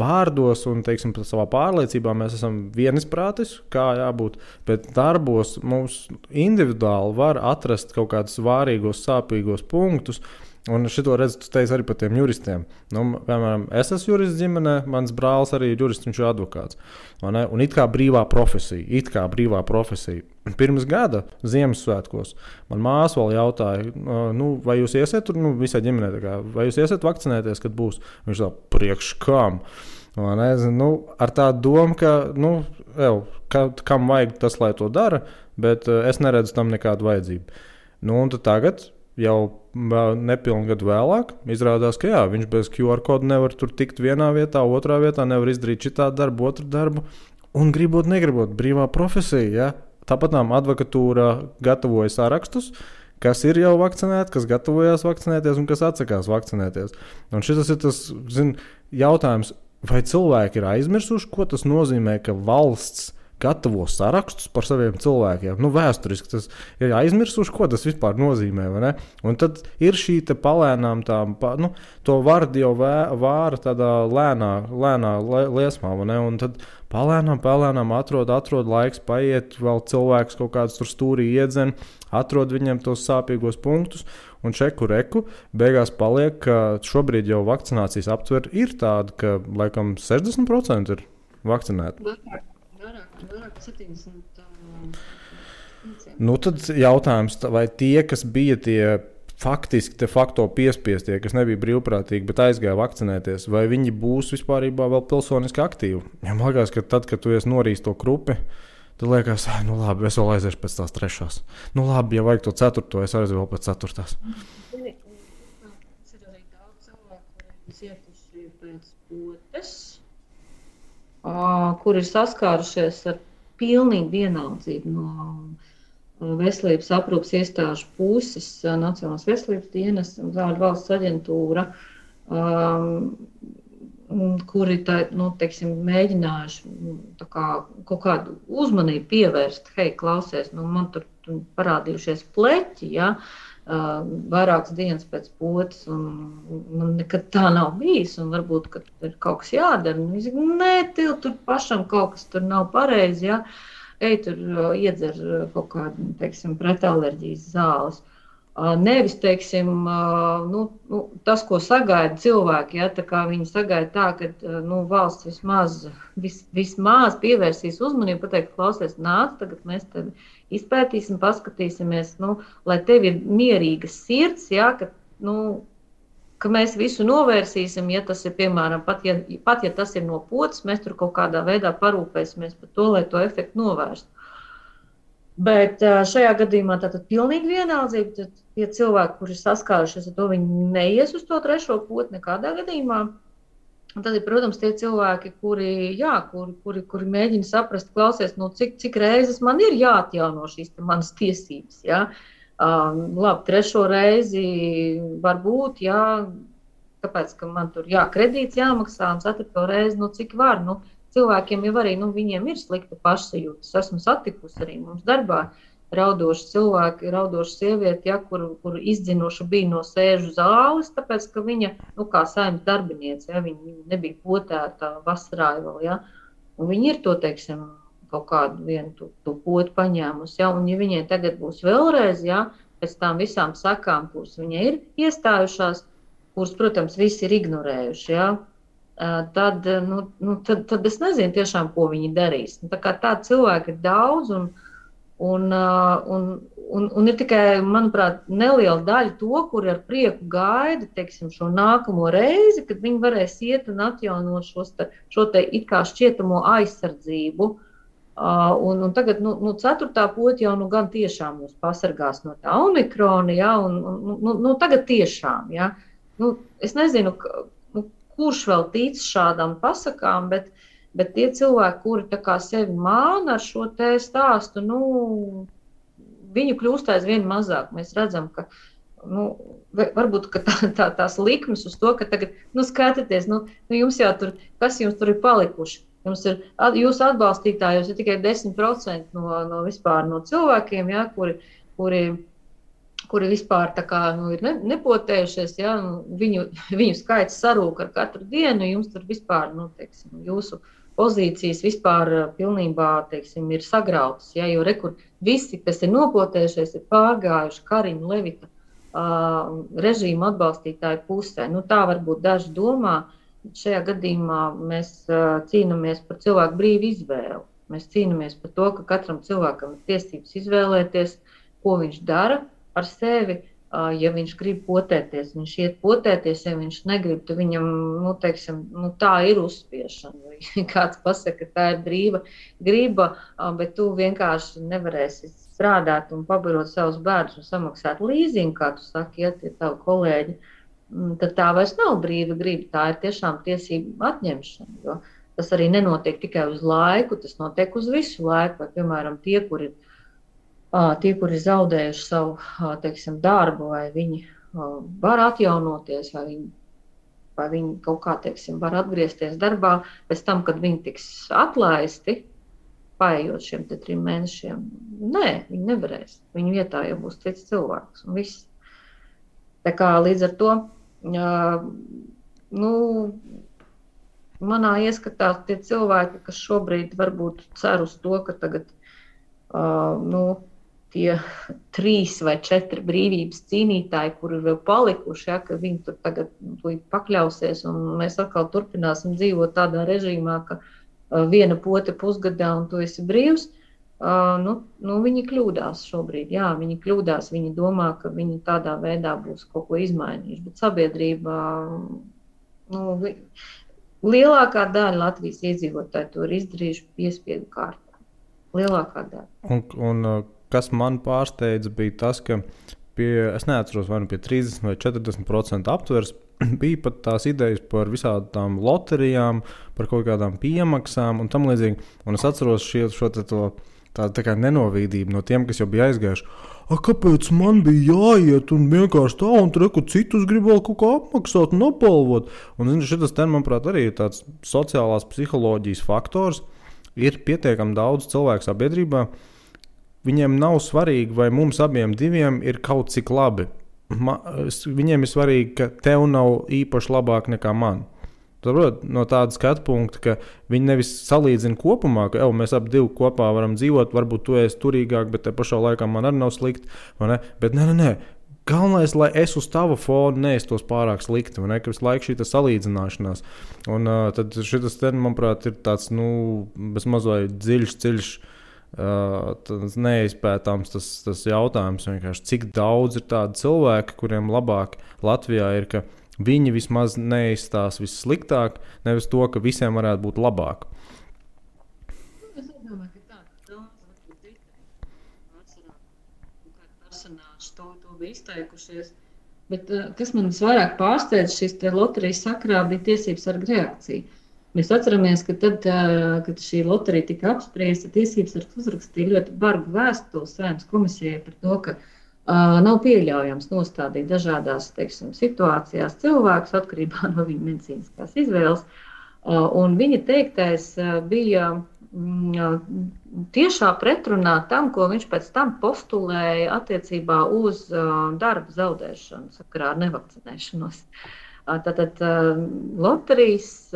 vārdos un, teiksim, savā pārliecībā mēs esam vienisprātis, kā jābūt, bet darbos mums individuāli var atrast kaut kādus vārīgos, sāpīgos punktus, un šito redzu, tu teici arī par tiem juristiem. Piemēram, es esmu jurists ģimenē, mans brālis arī ir jurists, viņš ir advokāts. Un it kā brīvā profesija. Pirms gada Ziemassvētkos man māsa vēl jautāja, vai jūs iesiet tur, visai ģimenē, vai jūs iesiet vakcinēties, kad būs? Viņš tā, priekš kam? Ar tādu domu, ka kam vajag tas, lai to dara, bet es neredzu tam nekādu vajadzību. Un tad tagad jau nepilnu gadu vēlāk izrādās, ka jā, viņš bez QR kodu nevar tur tikt vienā vietā, otrā vietā, nevar izdarīt šitā darbu, otru darbu. Un gribot, negribot, brīvā profesija. Ja? Tāpat advokatūra gatavoja sārakstus, kas ir jau vakcinēti, kas gatavojās vakcinēties un kas atsakās vakcinēties. Un šis ir tas jautājums, vai cilvēki ir aizmirsuši, ko tas nozīmē, ka valsts gatavo sarakstus par saviem cilvēkiem. Vēsturiski tas ir aizmirsuši, ko tas vispār nozīmē. Un tad ir šī palēnām, to vardi jau vāra tādā lēnā liesmā. Un tad palēnām atrod laiks, paiet, vēl cilvēks kaut kāds tur stūrī iedzen, atrod viņiem tos sāpīgos punktus. Un čeku reku beigās paliek, ka šobrīd jau vakcinācijas aptver ir tāda, ka laikam 60% ir vakcinēti. Vairāk 70. Tad jautājums, vai tie, kas bija tie faktiski de facto piespiestie, kas nebija brīvprātīgi, bet aizgāja vakcinēties, vai viņi būs vispārībā vēl pilsoniski aktīvi? Ja man liekas, ka tad, kad tu esi norījis to krupi, tad liekas, labi, es vēl aiziešu pēc tās 3. Labi, ja vajag to 4, es aiziešu vēl pēc 4. Ir arī daudz cilvēku, kuriem cietuši pēc potes, kur ir saskārušies ar pilnīgu vienaldzību no veselības aprūpes iestāžu puses, Nacionālās veselības dienas un valsts aģentūra, kuri mēģinājuši kaut kādu uzmanību pievērst. Hei, klausies, man tur parādījušies pleķi, ja? Vairākas dienas pēc potes, un man nekad tā nav bijis, un varbūt, ka ir kaut kas jādara. Viņš saka, nē, tur pašam kaut kas tur nav pareizi, ja? Ej, tur iedzer kaut kādu, pretallerģijas zāles. Nevis, tas, ko sagaida cilvēki, ja, tā kā viņi sagaida tā, ka valsts vismaz pievērsīs uzmanību, pateikt, klausies, nāc, tagad mēs tevi izpētīsim, paskatīsimies, lai tev ir mierīga sirds, ja, ka mēs visu novērsīsim, ja tas ir, piemēram, pat ja tas ir no potes, mēs tur kaut kādā veidā parūpēsimies par to, lai to efektu novērstu. Bet šajā gadījumā tātad pilnīgi vienaldzība, tad tie cilvēki, kuri saskārušies ar to, viņi neies uz to 3. poti nekādā gadījumā. Un tad ir, protams, tie cilvēki, kuri mēģina saprast, klausies, cik reizes man ir jāatjauno šīs manas tiesības. Ja? Labi, 3. reizi varbūt, ja, kāpēc, ka man tur kredīts jāmaksā, un 4. reizi, cik var. Cilvēkiem jau arī, viņiem ir slikta pašsajūta. Es esmu satikusi arī mums darbā raudoši cilvēki, raudoši sievieti, ja, kuru izdzinuši bija no sēžu zāles, tāpēc, ka viņa, kā saimnes darbiniece, ja, viņa nebija potēta vasarā vēl, ja, un viņa ir to, kaut kādu vienu to potu paņēmusi, ja, un ja viņai tagad būs vēlreiz, ja, pēc tām visām sakām, kuras viņai ir iestājušās, kuras, protams, visi ir ignorējuši, ja, tad es nezinu tiešām, ko viņi darīs. Tā kā tādi cilvēki ir daudz, un ir tikai, manuprāt, neliela daļa to, kuri ar prieku gaida, šo nākamo reizi, kad viņi varēs iet un atjaunot šo te it kā šķietamo aizsardzību. Un tagad, 4. poti jau gan tiešām mūs pasargās no tā omikrona, ja, un tagad tiešām, ja. Es nezinu, kurš vēl tic šādām pasakām, bet tie cilvēki, kuri tā kā sevi māna ar šo te stāstu, viņu kļūst aizvien mazāk. Mēs redzam, ka varbūt ka tās likmes uz to, ka tagad, skatieties, jums jau tur, kas jums tur ir palikuši? Jums ir, jūsu atbalstītājos ir tikai 10% no vispār no cilvēkiem, ja, kuri vispār tā kā, ir nepotējušies, ja, viņu skaits sarūk ar katru dienu, jums tur vispār, jūsu pozīcijas vispār pilnībā, ir sagrautas, ja, jo rekur visi, kas ir nopotējušies, ir pārgājuši Kariņu Levita režīmu atbalstītāju pusē. Tā varbūt daži domā, šajā gadījumā mēs cīnāmies par cilvēku brīvu izvēli. Mēs cīnāmies par to, ka katram cilvēkam ir tiesības izvēlēties, ko viņš dara ar sevi, ja viņš grib potēties, viņš iet potēties, ja viņš negrib, tad viņam, tā ir uzspiešana. Vai kāds pasaka, ka tā ir brīva griba, bet tu vienkārši nevarēsi strādāt un pabarot savus bērnus un samaksāt līzingu, kā tu saki, ja tie tavi kolēģi, tad tā vairs nav brīva griba, tā ir tiešām tiesība atņemšana, jo tas arī nenotiek tikai uz laiku, tas notiek uz visu laiku, vai, piemēram, tie, kuri zaudējuši savu, teiksim, darbu, vai viņi var atjaunoties, vai viņi kaut kā, teiksim, var atgriezties darbā pēc tam, kad viņi tiks atlaisti, paējot šiem 3 mēnešiem. Nē, viņi nevarēs. Viņu vietā jau būs cits cilvēks un viss. Tā kā līdz ar to, manā ieskatā tie cilvēki, kas šobrīd varbūt cer uz to, ka tagad tie 3 vai 4 brīvības cīnītāji, kuri vēl palikuši, ja, ka viņi tur tagad pakļausies un mēs atkal turpināsim dzīvot tādā režīmā, ka viena pote pusgadā un tu esi brīvs, viņi kļūdās šobrīd. Jā, viņi kļūdās, viņi domā, ka viņi tādā veidā būs kaut ko izmainījuši, bet sabiedrība, lielākā daļa Latvijas iedzīvotāji to ir izdarījuši piespiedu kārtā. Lielākā daļa. Un kas man pārsteidza bija tas, ka es neatceros, vai pie 30 vai 40% aptvers bija pat tās idejas par visādām loterijām, par kaut kādām piemaksām un tam līdzīgi. Un es atceros tā kā nenovīdību no tiem, kas jau bija aizgājuši. Kāpēc man bija jāiet un vienkārši tā, un tur citus grib vēl kaut kā apmaksāt un apbalvot? Un šitas ten, manuprāt, arī ir tāds sociālās psiholoģijas faktors. Ir pietiekami daudz cilvēku sabiedrībā. Viņiem nav svarīgi, vai mums abiem diviem ir kaut cik labi. Viņiem ir svarīgi, ka tev nav īpaši labāk nekā man. No tāda skatu punkta, ka viņi nevis salīdzina kopumā, ka mēs abi divi kopā varam dzīvot, varbūt tu esi turīgāk, bet te pašā laikā man arī nav slikti, vai ne? Bet nē. Galvenais, lai es uz tava fona neestos pārāk slikti, vai ne? Ka visu laiku šī salīdzināšanās. Un tad šitas, manuprāt, ir tāds, bezmaz vai dziļš, neizpētāms tas jautājums, vienkārši cik daudz ir tādi cilvēki, kuriem labāk Latvijā ir, ka viņi vismaz neizstās vissliktāk, nevis to, ka visiem varētu būt labāk. Es domāju, ka tā varbūt atcerā, kādi personāži to bija izteikušies. Bet kas man visvairāk pārsteidz šīs loterijas sakrā bija tiesības sarga reakcija. Mēs atceramies, ka tad, kad šī loterija tika apspriesta, tiesības sargs uzrakstīja ļoti bargu vēstuli Saeimas komisijai par to, ka nav pieļaujams nostādīt dažādās, teiksim, situācijās cilvēkus atkarībā no viņa medicīniskās izvēles. Un viņa teiktais bija tiešā pretrunā tam, ko viņš pēc tam postulēja attiecībā uz darba zaudēšanu sakarā ar nevakcinēšanos. Tātad loterijas,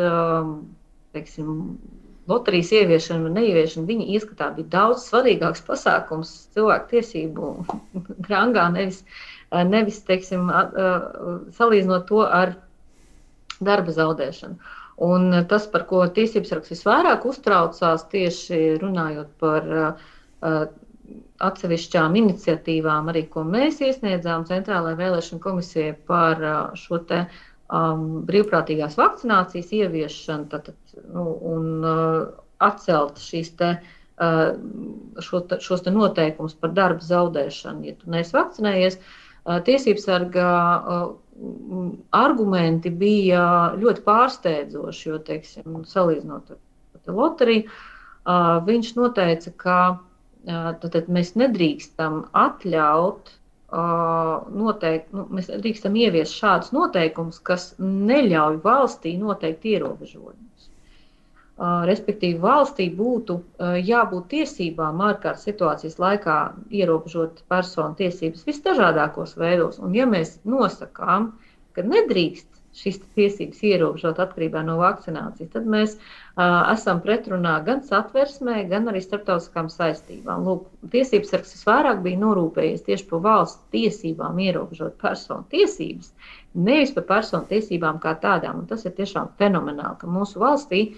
teiksim, loterijas ieviešana un neieviešana viņa ieskatā bija daudz svarīgāks pasākums cilvēku tiesību rangā, nevis teiksim, salīdzinot to ar darba zaudēšanu. Un tas, par ko tiesības sargs visvairāk uztraucās, tieši runājot par atsevišķām iniciatīvām, arī ko mēs iesniedzām Centrālajai vēlēšanu komisijai par šo te brīvprātīgās vakcinācijas ieviešanu un atcelt šos te noteikumus par darba zaudēšanu. Ja tu neesi vakcinējies, tiesības sarga argumenti bija ļoti pārsteidzoši, jo, teiksim, salīdzinot ar loteriju, viņš noteica, ka mēs nedrīkstam atļaut mēs drīkstam ieviest šādus noteikumus, kas neļauj valstī noteikt ierobežojumus. Respektīvi, valstī būtu jābūt tiesībām ārkārtas situācijas laikā ierobežot personu tiesības visdažādākos veidos. Un ja mēs nosakām, ka nedrīkst šīs tiesības ierobežot atkarībā no vakcinācijas, tad mēs esam pretrunā gan satversmē, gan arī starptautiskām saistībām. Lūk, tiesības sargs visvairāk bija norūpējies tieši par valsts tiesībām ierobežot personu tiesības, nevis par personu tiesībām kā tādām. Un tas ir tiešām fenomenāli, ka mūsu valstī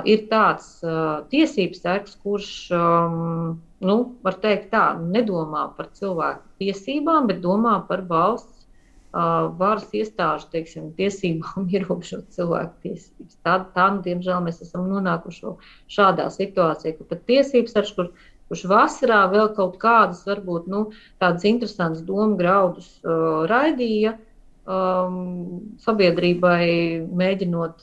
ir tāds tiesības sargs, kurš, var teikt tā, nedomā par cilvēku tiesībām, bet domā par valsts varas iestāžu, teiksim, tiesībām ierobežot cilvēku tiesības. Tā, diemžēl, mēs esam nonākuši šādā situācijā, ka pat tiesības sargs, kur kurš vasarā vēl kaut kādus, varbūt, tādas interesantas domu graudus raidīja sabiedrībai, mēģinot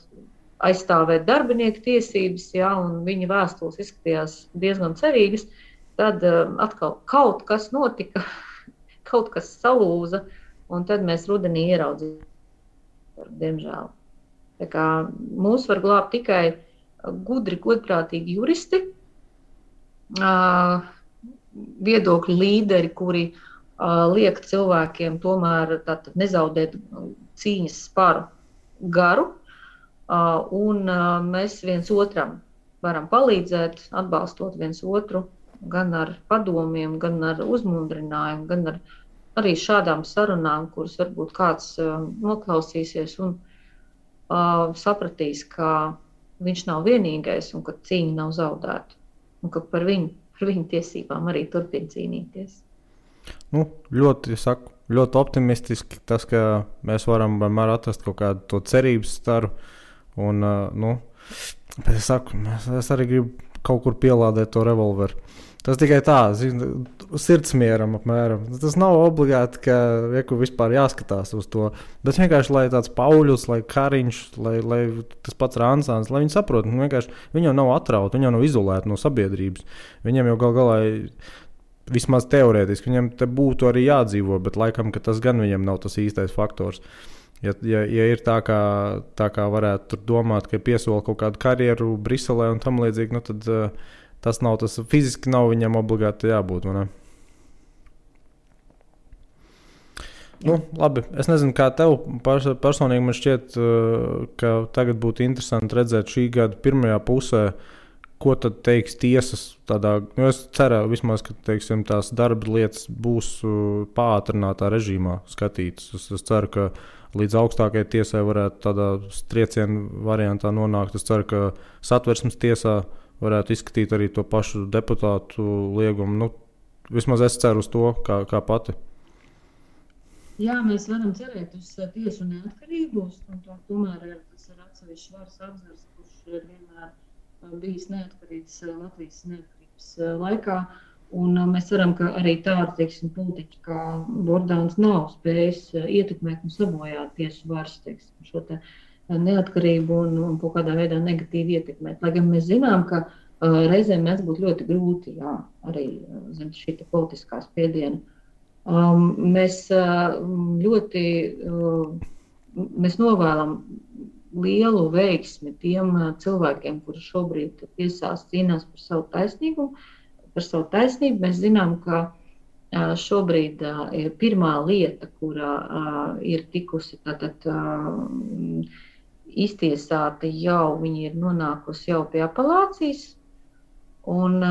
aizstāvēt darbinieku tiesības, ja, un viņa vēstules izskatījās diezgan cerīgas, tad atkal kaut kas notika, kaut kas salūza, un tad mēs rudenī ieraudzījām, diemžēl. Tā kā mūs var glābt tikai gudri, godprātīgi juristi, viedokļu līderi, kuri liek cilvēkiem tomēr nezaudēt cīņas sparu garu, un mēs viens otram varam palīdzēt, atbalstot viens otru, gan ar padomiem, gan ar uzmundrinājumu, gan ar arī šādām sarunām, kuras varbūt kāds noklausīsies un sapratīs, ka viņš nav vienīgais un ka cīņa nav zaudēta. Un ka par viņu tiesībām arī turpina cīnīties. Ļoti optimistiski tas, ka mēs varam vienmēr atrast kaut kādu to cerības staru. Un, es arī gribu kaut kur pielādēt to revolveru. Tas tikai tā, sirdsmieram apmēram. Tas nav obligāti, ka vispār jāskatās uz to. Bet vienkārši, lai tāds Pauļus, lai Kariņš, lai tas pats Ransāns, lai viņi saprot, viņi jau nav atrauti, viņi jau nav izolēti no sabiedrības. Viņiem jau galā, vismaz teorētiski, viņiem te būtu arī jādzīvo, bet laikam, ka tas gan viņiem nav tas īstais faktors. Ja ir tā kā varētu tur domāt, ka piesola kaut kādu karjeru Briselē un tam līdzīgi, tad tas nav tas, fiziski nav viņam obligāti jābūt, vai ne? Labi, es nezinu, kā tev personīgi man šķiet, ka tagad būtu interesanti redzēt šī gada pirmajā pusē, ko tad teiks tiesas tādā, es ceru vismaz, ka, teiksim, tās darba lietas būs pātrinātā režīmā skatītas. Es ceru, ka līdz augstākajai tiesai varētu tādā triecienu variantā nonākt. Es ceru, ka Satversmes tiesā varētu izskatīt arī to pašu deputātu liegumu. Vismaz es ceru uz to, kā pati. Jā, mēs varam cerēt uz tiesu neatkarību, un tomēr tas ir atsevišķs varas apzars, kurš ir vienmēr bijis neatkarīgs Latvijas neatkarības laikā. Un mēs ceram, ka arī tādi, politiķi kā Bordāns nav spējis ietekmēt un sabojāt tiesu varas, šo te neatkarību un kaut kādā veidā negatīvi ietekmēt. Lai gan mēs zinām, ka reizēm mēs būtu ļoti grūti, arī zem šī politiskā spiediena. Mēs mēs novēlam lielu veiksmi tiem cilvēkiem, kuri šobrīd tiesās cīnās par savu taisnīgumu, par savu taisnību. Mēs zinām, ka šobrīd ir pirmā lieta, kurā ir tikusi iztiesāta jau, viņi ir nonākusi jau pie apelācijas, un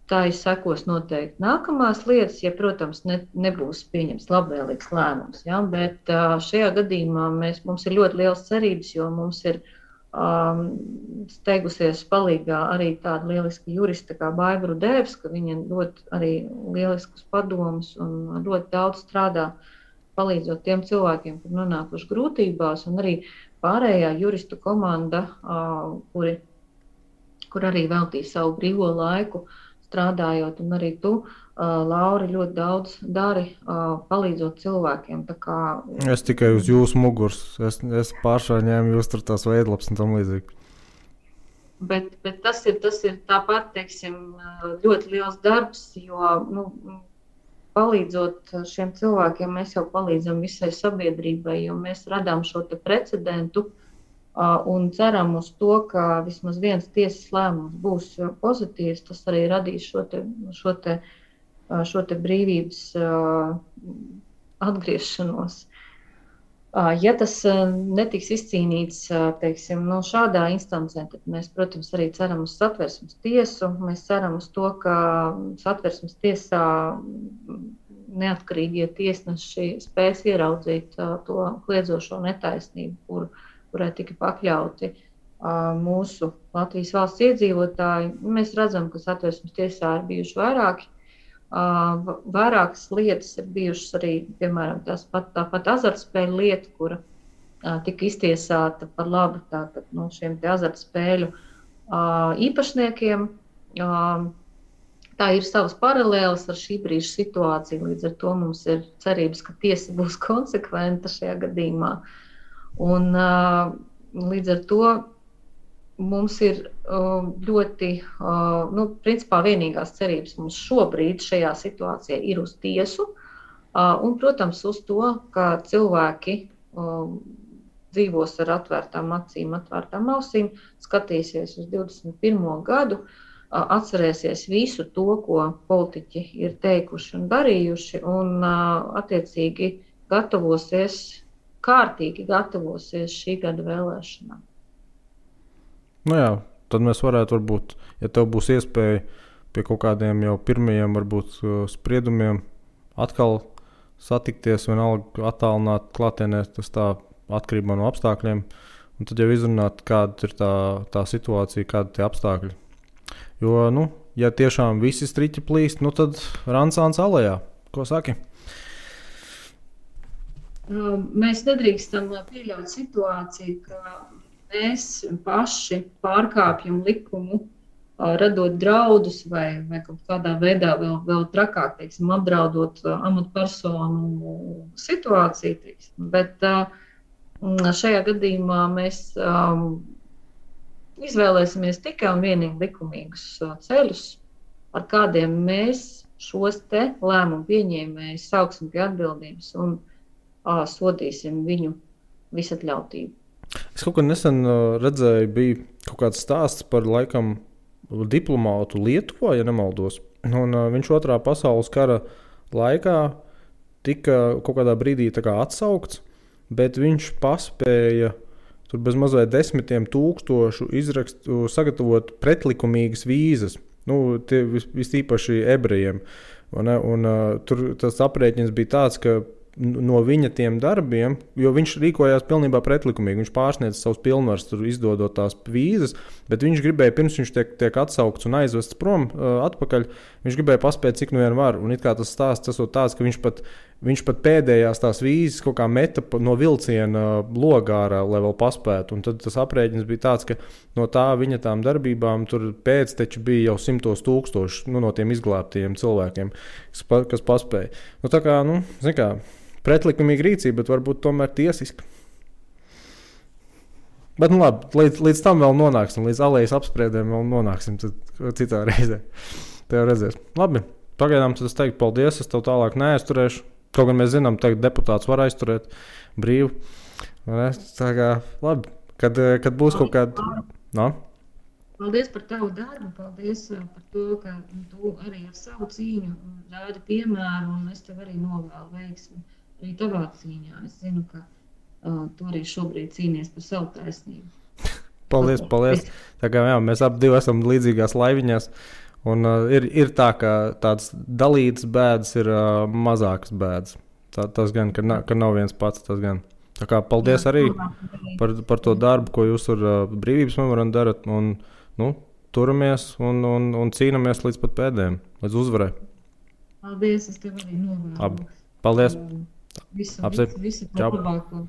tā ir sekos noteikti nākamās lietas, ja, protams, nebūs pieņems labvēlīgs lēmums. Ja? Bet šajā gadījumā mums ir ļoti liels cerības, jo mums ir steigusies palīgā arī tāda lieliska jurista kā Baiba Rudēvska, viņa ļoti arī lieliskus padomus un ļoti daudz strādā, palīdzot tiem cilvēkiem, kur nonākuši grūtībās, un arī pārējā juristu komanda, kur arī veltīja savu brīvo laiku strādājot, un arī tu, Lauri, ļoti daudz dari, palīdzot cilvēkiem. Tā kā... Es tikai uz jūsu muguras, es pāršā ņēmu jūs tur tās veidlaps un tam līdzīgi. Bet tas ir tāpat, ļoti liels darbs, jo, palīdzot šiem cilvēkiem, mēs jau palīdzam visai sabiedrībai, jo mēs radām šo te precedentu un ceram uz to, ka vismaz viens tiesas lēmums būs pozitīvs. Tas arī radīs šo te brīvības atgriešanos. Ja tas netiks izcīnīts, šādā instancē, tad mēs, protams, arī ceram uz Satversmes tiesu. Mēs ceram uz to, ka Satversmes tiesā neatkarīgie tiesneši spēs ieraudzīt to kliedzošo netaisnību, kurai tika pakļauti mūsu Latvijas valsts iedzīvotāji. Mēs redzam, ka Satversmes tiesā ir bijuši vairākas lietas, ir bijušas arī, piemēram, tāpat azartspēļu lieta, kura tika iztiesāta par labu šiem te azartspēļu īpašniekiem. Tā ir savas paralēlas ar šī brīža situāciju. Līdz ar to mums ir cerības, ka tiesa būs konsekventa šajā gadījumā. Un, līdz ar to mums ir ļoti, principā vienīgās cerības mums šobrīd šajā situācijā ir uz tiesu. Un, protams, uz to, ka cilvēki dzīvos ar atvērtām acīm, atvērtām ausīm, skatīsies uz 21. gadu, atcerēsies visu to, ko politiķi ir teikuši un darījuši, un attiecīgi kārtīgi gatavosies šī gada vēlēšanām. Nu jā, tad mēs varētu varbūt, ja tev būs iespēja pie kaut kādiem jau pirmajiem varbūt spriedumiem atkal satikties, vienalga attālināt klātienē, tas tā atkarībā no apstākļiem, un tad jau izrunāt, kāda ir tā situācija, kāda tie apstākļi. Jo, ja tiešām visi striķi plīst, tad Ransāns alejā. Ko saki? Mēs nedrīkstam pieļaut situāciju, ka mēs paši pārkāpjam likumu, radot draudus vai kaut kādā veidā vēl trakāk, teiksim, apdraudot amatpersonu situāciju. Teiksim. Bet šajā gadījumā mēs izvēlēsimies tikai un vienīgi likumīgus ceļus, ar kādiem mēs šos te lēmumu pieņēmējus sauksim pie atbildības un sodīsim viņu visatļautību. Es kaut kad nesen redzēju, bija kaut kāds stāsts par laikam diplomātu Lietuvā, ja nemaldos. Un viņš Otrā pasaules kara laikā tika kaut kādā brīdī atsaukts, bet viņš paspēja tur bez mazliet 10 000 sagatavot pretlikumīgas vīzas. Tie vistīpaši ebrejiem. Un tur tas aprēķins bija tāds, ka no viņa tiem darbiem, jo viņš rīkojās pilnībā pretlikumīgi, viņš pārsniedz savus pilnvaras, tur izdodot tās vīzas, bet viņš gribēja, pirms viņš tiek atsaukts un aizvests prom atpakaļ, viņš gribēja paspēt, cik nu vien var. Un it kā tas stāsts esot tāds, ka viņš pat pēdējās tās vīzes kaut kā meta no vilciena logā ārā, lai vēl paspētu. Un tad tas aprēķins bija tāds, ka no tā viņa tām darbībām tur pēcteči bija jau 100 000 no tiem izglābtajiem cilvēkiem, kas paspēja. Tā kā, zin kā, pretlikumīga rīcība, bet varbūt tomēr tiesiska. Bet labi, līdz tam vēl nonāksim, līdz alejas apspriedēm vēl nonāksim citā reizē. Tev redzēs. Labi, pagaidām tad es teiktu paldies, es tev tālāk neaizturēšu. Kaut gan mēs zinām, ka deputāts var aizturēt brīvu. Tā kā, labi, kad būs kaut kāda... No? Paldies par tavu darbu, paldies par to, ka tu arī ar savu cīņu rādi piemēru, un es tev arī novēlu veiksmi arī tavā cīņā. Es zinu, ka tu arī šobrīd cīnies par savu taisnību. Paldies. Tā kā jā, mēs abi esam līdzīgās laiviņās, un ir tā, ka tāds dalītas bēdas ir mazākas bēdas. Tas gan, ka nav viens pats, tas gan. Tā kā paldies arī par to darbu, ko jūs ar brīvības memorandu darat, un turamies un cīnamies līdz pat pēdējiem, līdz uzvarai. Paldies, es tev arī novēlu. Paldies. Visu labāko.